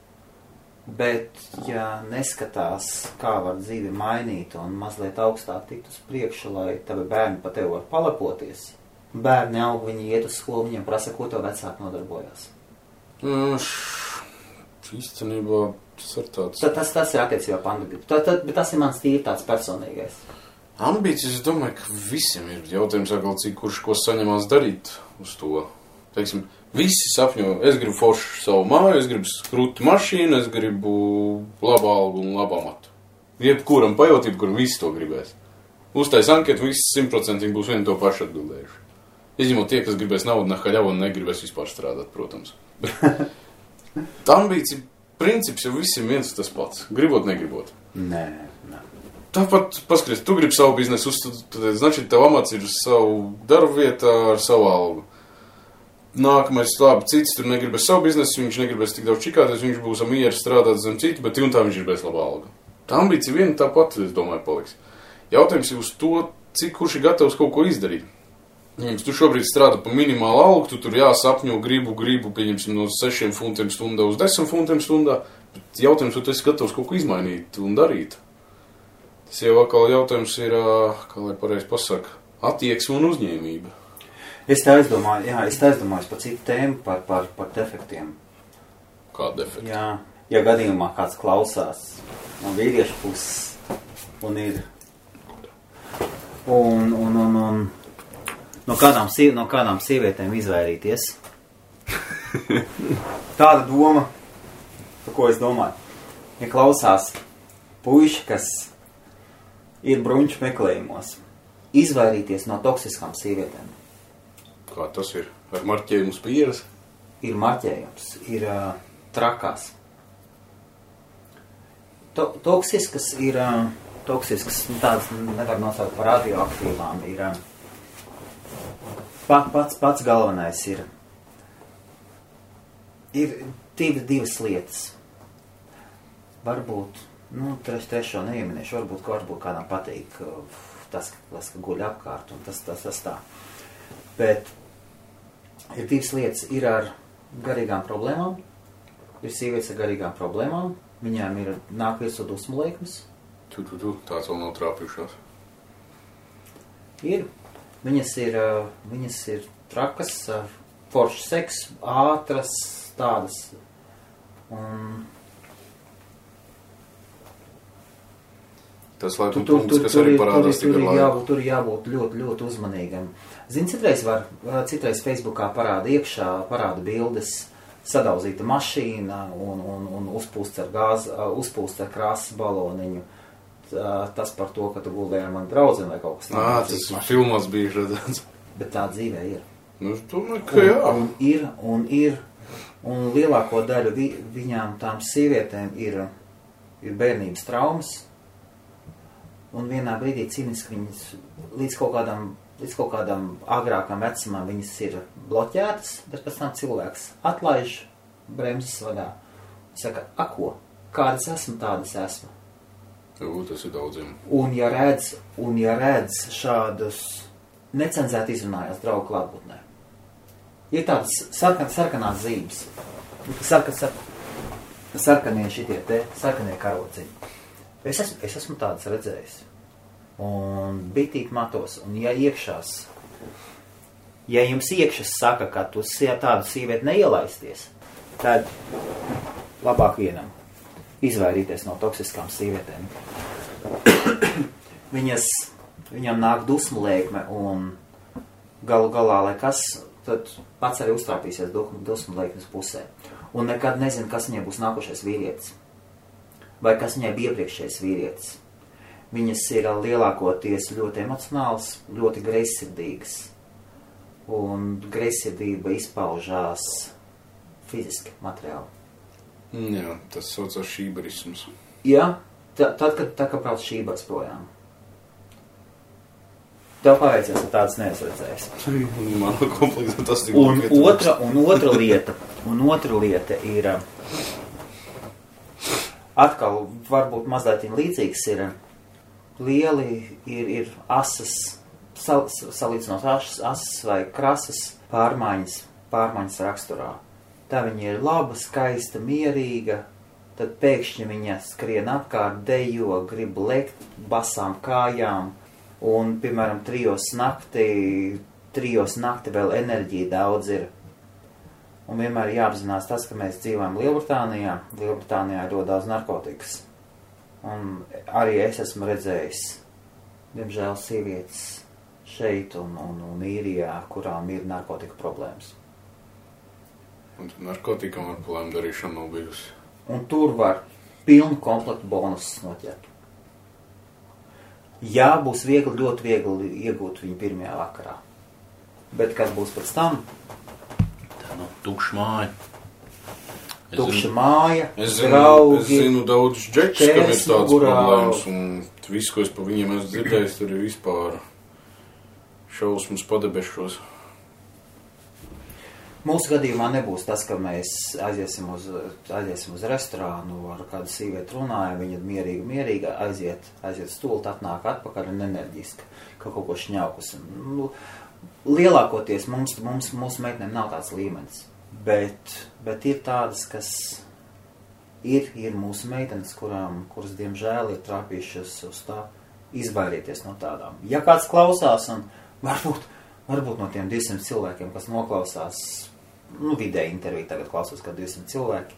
Bet, ja neskatās, kā var dzīvi mainīt un mazliet augstāk tikt uz priekšu, lai tavi bērni pa tevi var palepoties, bērni aug, viņi iet uz skolu, viņiem prasa, ko tev vecāki nodarbojās. Īstenībā tas ir tāds... Tas ir attiecībā pandēmija. Bet tas ir mans tīri tāds personīgais. Ambīcijas, es domāju, ka visiem ir jautājums, cik kurš ko saņemās darīt uz to. Teiksim, visi sapņo, es gribu foršu savu māju, es gribu skrutu mašīnu, es gribu labu algu un labu amatu. Jebkuram pajot, jebkuram visi to gribēs. Uztais anketu, visi 100% būs vieni to pašu atbildējuši. Izņemot tie, kas gribēs naudu nahaļavu un negribēs vispār strādāt, protams. Ambīcija princips jau visiem viens tas pats. Gribot, negribot. Nē. Tāpat, paskaties, tu gribi savu biznesu uzstādīt, значит, tev amats ir savu darbu vietā ar savu algu. Nākamais, labi, cits tur negribēs savu biznesu, viņš negribēs tik daudz čikāties, viņš būs mieru strādāt zem citu, bet un tā viņš gribēs labu algu. Tā ambīcija viena tāpat, es domāju, paliks. Jautājums ir uz to, cik kurš ir gatavs kaut ko izdarīt. Ja tu šobrīd strādā pa minimālu algu, tu tur jāsapņo, gribu, pieņemsim no 6 funtiem stundā uz 10 funtiem stundā, bet jautājums, vai tu esi gatavs kaut ko izmainīt un darīt. Tas jau atkal jautājums ir, kā lai pareizi pasaka, attieksme un uzņēmība. Es te aizdomājos par citu tēmu, par defektiem. Kāda defekta? Jā, ja gadījumā kāds klausās no vīriešu puses un ir un no kādām sievietēm izvairīties. Tāda doma, par ko es domāju. Ja klausās puiši, kas ir bruņķu meklējumos, izvairīties no toksiskām sievietēm. Kā tas ir? Ar marķējumu uz pieres? Ir marķējums, ir trakās. Toksiskas ir, tādas nevar nosaukt par radioaktīvām, ir pats galvenais ir divas lietas. Varbūt, trešo neieminēšu, varbūt kādam patīk tas, ka guļ apkārt un tas tā. Bet ir divas lietas, ir ar garīgām problēmām, ir sievietes ar garīgām problēmām, viņām ir nāk virsū dusmu laikmes. Tāds vēl nav trāpījušās. Ir. Viņas ir trakas, foršs seks, ātras, tādas. Tas laikam punkts, kas arī parādās tikai laiku. Tur jābūt ļoti, ļoti uzmanīgam. Zini, citreiz Facebookā parāda bildes, sadauzīta mašīna un uzpūsts ar krāsas baloniņu. Tas par to, ka tu guldēji ar mani draudzeni vai kaut kas tāds. Tas filmās bija redzēts. Bet tā dzīvē ir. Nu, es domāju, ka jā. Un lielāko daļu viņām tām sievietēm ir bērnības traumas, un vienā brīdī cīniski viņas līdz kaut kādam agrākam vecumam viņas ir bloķētas, bet pēc tam cilvēks atlaiž bremzes vadā. Saka, ko? Kādas esmu, tādas esmu. Tas ir daudziem. Un ja redz šādus necenzēt izrunājās draugu klātbūtnē, ir tādas sarkanās zīmes, sarkanie šitie te, sarkanie karociņi. Es esmu tādas redzējis. Un bitīgi matos, un ja jums iekšas saka, ka tu tādu sīvieti neielaisties, tad labāk vienam izvairīties no toksiskām sīvietēm. Viņam nāk dusmu lēkme, un galu galā, lai kas, tad pats arī uztrāpīsies dusmu lēkmes pusē. Un nekad nezinu, kas viņai būs nākošais vīrietis. Vai kas viņai bija iepriekšējais vīrietis. Viņas ir lielākoties ļoti emocionāls, ļoti greizsirdīgas. Un greizsirdība izpaužās fiziski, materiāli. Jā, tas saucās šībarisms. Jā, tad, kad brauc šībars projām. Tev paveicies, ka tāds neesredzējis. Man kompleksā tas tik un otra lieta ir atkal varbūt mazliet līdzīgs ir lieli, ir asas, salīdzinot asas vai krasas pārmaiņas raksturā. Tā viņa ir laba, skaista, mierīga, tad pēkšņi viņa skrien apkārt, dejo, grib lekt basām kājām, un, piemēram, 3 nakti vēl enerģija daudz ir. Un vienmēr jāapzinās tas, ka mēs dzīvojam Lielbritānijā. Lielbritānijā ir ļoti daudz narkotikas. Un arī es esmu redzējis, diemžēl, sievietes šeit un īrijā, kurām ir narkotika problēmas. Un narkotikām ar problēmu darīšanu nav bijusi. Un tur var pilnu komplektu bonusus noķert. Jā, būs viegli, ļoti viegli iegūt viņu pirmajā vakarā. Bet kas būs pēc tam? Tukša māja. Tukša māja, draugi. Es zinu daudz džekus, kam ir tāds problēmas, un visu, ko es pa viņiem esmu dzirdējis, tur ir vispār šausmas padebešos. Mūsu gadījumā nebūs tas, ka mēs aiziesim uz restorānu, ar kādu sīvieti runājam, viņa mierīgi aiziet stult, atnāk atpakaļ un enerģiski, ka kaut ko šņaukus. Lielākoties mūsu meitenēm nav tāds līmenis, bet ir tādas, kas ir mūsu meitenes, kuras diemžēl ir trāpījušas uz tā izvairīties no tādām. Ja kāds klausās, un varbūt no tiem 200 cilvēkiem, kas noklausās, vidēji interviju tagad klausos, kā 200 cilvēki,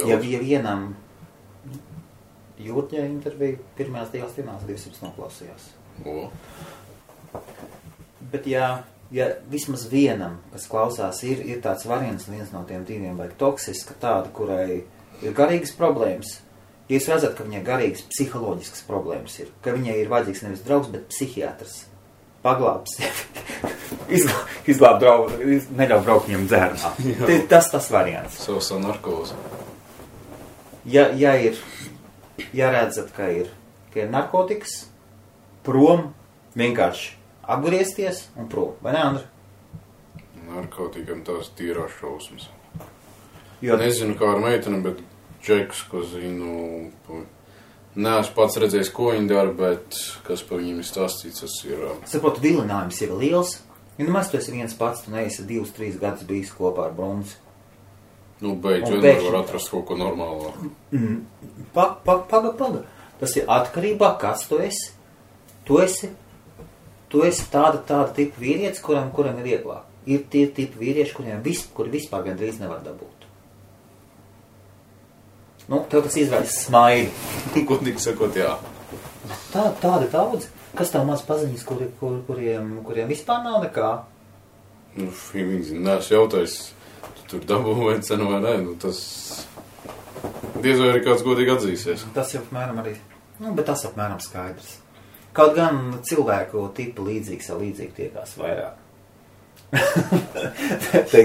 ja vienam Jūrģē interviju pirmajās 2 dienās 200 noklausījās. Bet ja vismaz vienam, kas klausās, ir tāds variants, viens no tiem 2 vajag toksiska, tāda, kurai ir garīgas problēmas, ja jūs redzat, ka viņai garīgas psiholoģiskas problēmas ir, ka viņai ir vajadzīgs nevis draugs, bet psihiatrs, paglābs, izglāb draugu, neļauj braukt viņam dzērnā. Tas variants. Savs narkozi. Ja redzat, ka ir narkotikas, prom, vienkārši apgriezties un prom. Vai ne, Andri? Narkotikam tās tīrās šausmas. Jo... Nezinu, kā ar meiteni, bet džekus, ko zinu, neesmu pats redzējis, ko viņi dara, bet kas par viņiem ir stāstīts, tas ir... Saprotu, vilinājums ir liels. Ja nemaz tu esi viens pats, tu neesi 2-3 gadus bijis kopā ar Brunzi. Beidz, vienmēr var atrast kaut ko normālā. Paga. Tas ir atkarībā, kas tu esi. Tu esi tāda tipa vīrietis, kuram ir vieglāk. Ir tie tipi vīrieši, kuri vispār gandrīz nevar dabūt. Tev tas izraisa smaidi. Godīgi sakot, jā. Tādi daudz. Kas tev maz paziņas, kuriem vispār nav nekā? Viņi neesmu jautājis, tu tur dabū vai cenu vai nē. Tas diez vai arī kāds godīgi atzīsies. Tas jau apmēram arī, bet tas apmēram skaidrs. Kaut gan cilvēku tipu līdzīgi tiekās vairāk.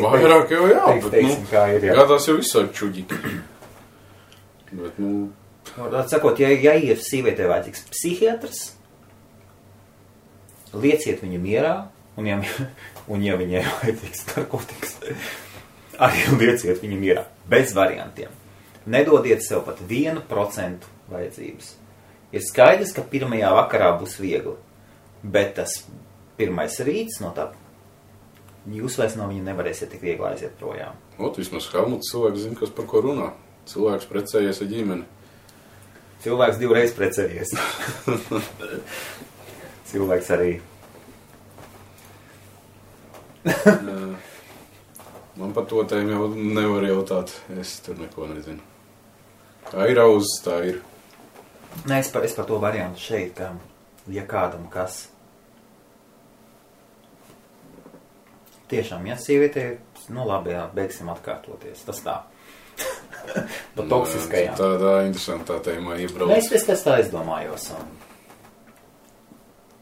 Vairāk jau jā, bet, kā ir, jā. Gādās jau visādi čuģiki. Bet, Sakot, ja ir sīvietē vajadzīgs psihiatrs, lieciet viņu mierā, un ja viņai vajadzīgs narkotikas, arī lieciet viņu mierā, bez variantiem. Nedodiet sev pat 1% vajadzības. Ir skaidrs, ka pirmajā vakarā būs viegli, bet tas pirmais rīts no tā, jūs vairs no viņa nevarēsiet tik viegli aiziet projām. Vismaz Helmuts cilvēks zina, kas par ko runā. Cilvēks precējies ar ģimeni. Cilvēks 2 reizes precējies. Cilvēks arī. Man par to tēmu jau nevar jautāt. Es tur neko nezinu. Kā ir auzes, tā ir. Nē, es par to variantu šeit, ka ja kādam kas. Tiešām, ja sievietē, labi, jā, beigsim atkārtoties. Tas tā. Pa toksiskajām. Tā interesantā tēmā iebrauc. Es tā izdomājos.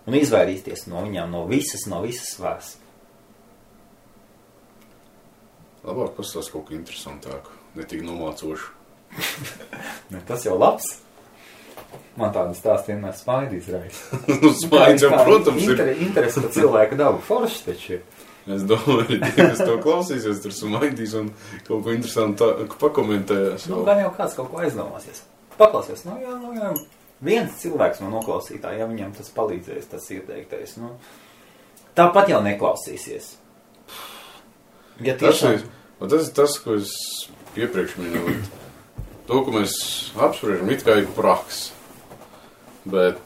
Un izvairīties no viņām, no visas svars. Labāk pastāst kaut ko interesantāku, ne tik nomācošu. Tas jau labs. Man tādu stāstu vienmēr Smaidīs raisa. Smaidīs jau, protams, ir. Interesi par cilvēku dabu forši taču ir. Es domāju, kas to klausīsies, tur Smaidīs un kaut ko interesantāku pakomentēs. Gan jau kāds kaut ko aizdomāsies. Paklausies, jā. Viens cilvēks no noklausītā, ja viņam tas palīdzēs, tas ieteiktais, tāpat jau neklausīsies. Ja tiešām... Tas ir tas, ko es iepriekš minēju. To, ko mēs apspriežam, it kā ir praks. Bet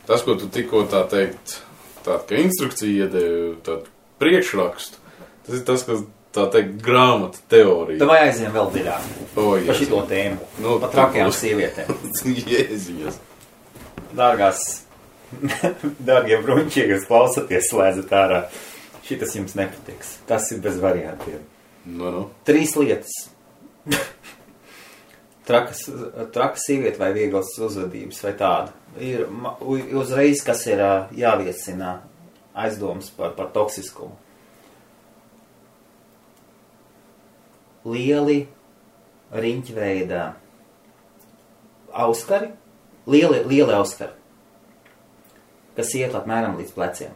tas, ko tu tikko tā teikt, tāda kā instrukcija iedevi, tādu priekšrakstu, tas ir tas, kas tā teikt grāmata teorija. Tev aiziem vēl dziļāk par šito tēmu. Par trakajām sievietēm. Jēziņas. Dārgie bruņķie, kas klausaties, slēdzat ārā. Šitas jums nepatiks. Tas ir bez variantiem. 3 lietas. Traka sieviete vai vieglas uzvedības vai tāda. Ir uzreiz, kas ir jāviecina aizdomas par toksiskumu. Lieli riņķveida auskari, lieli auskari, kas iet apmēram līdz pleciem.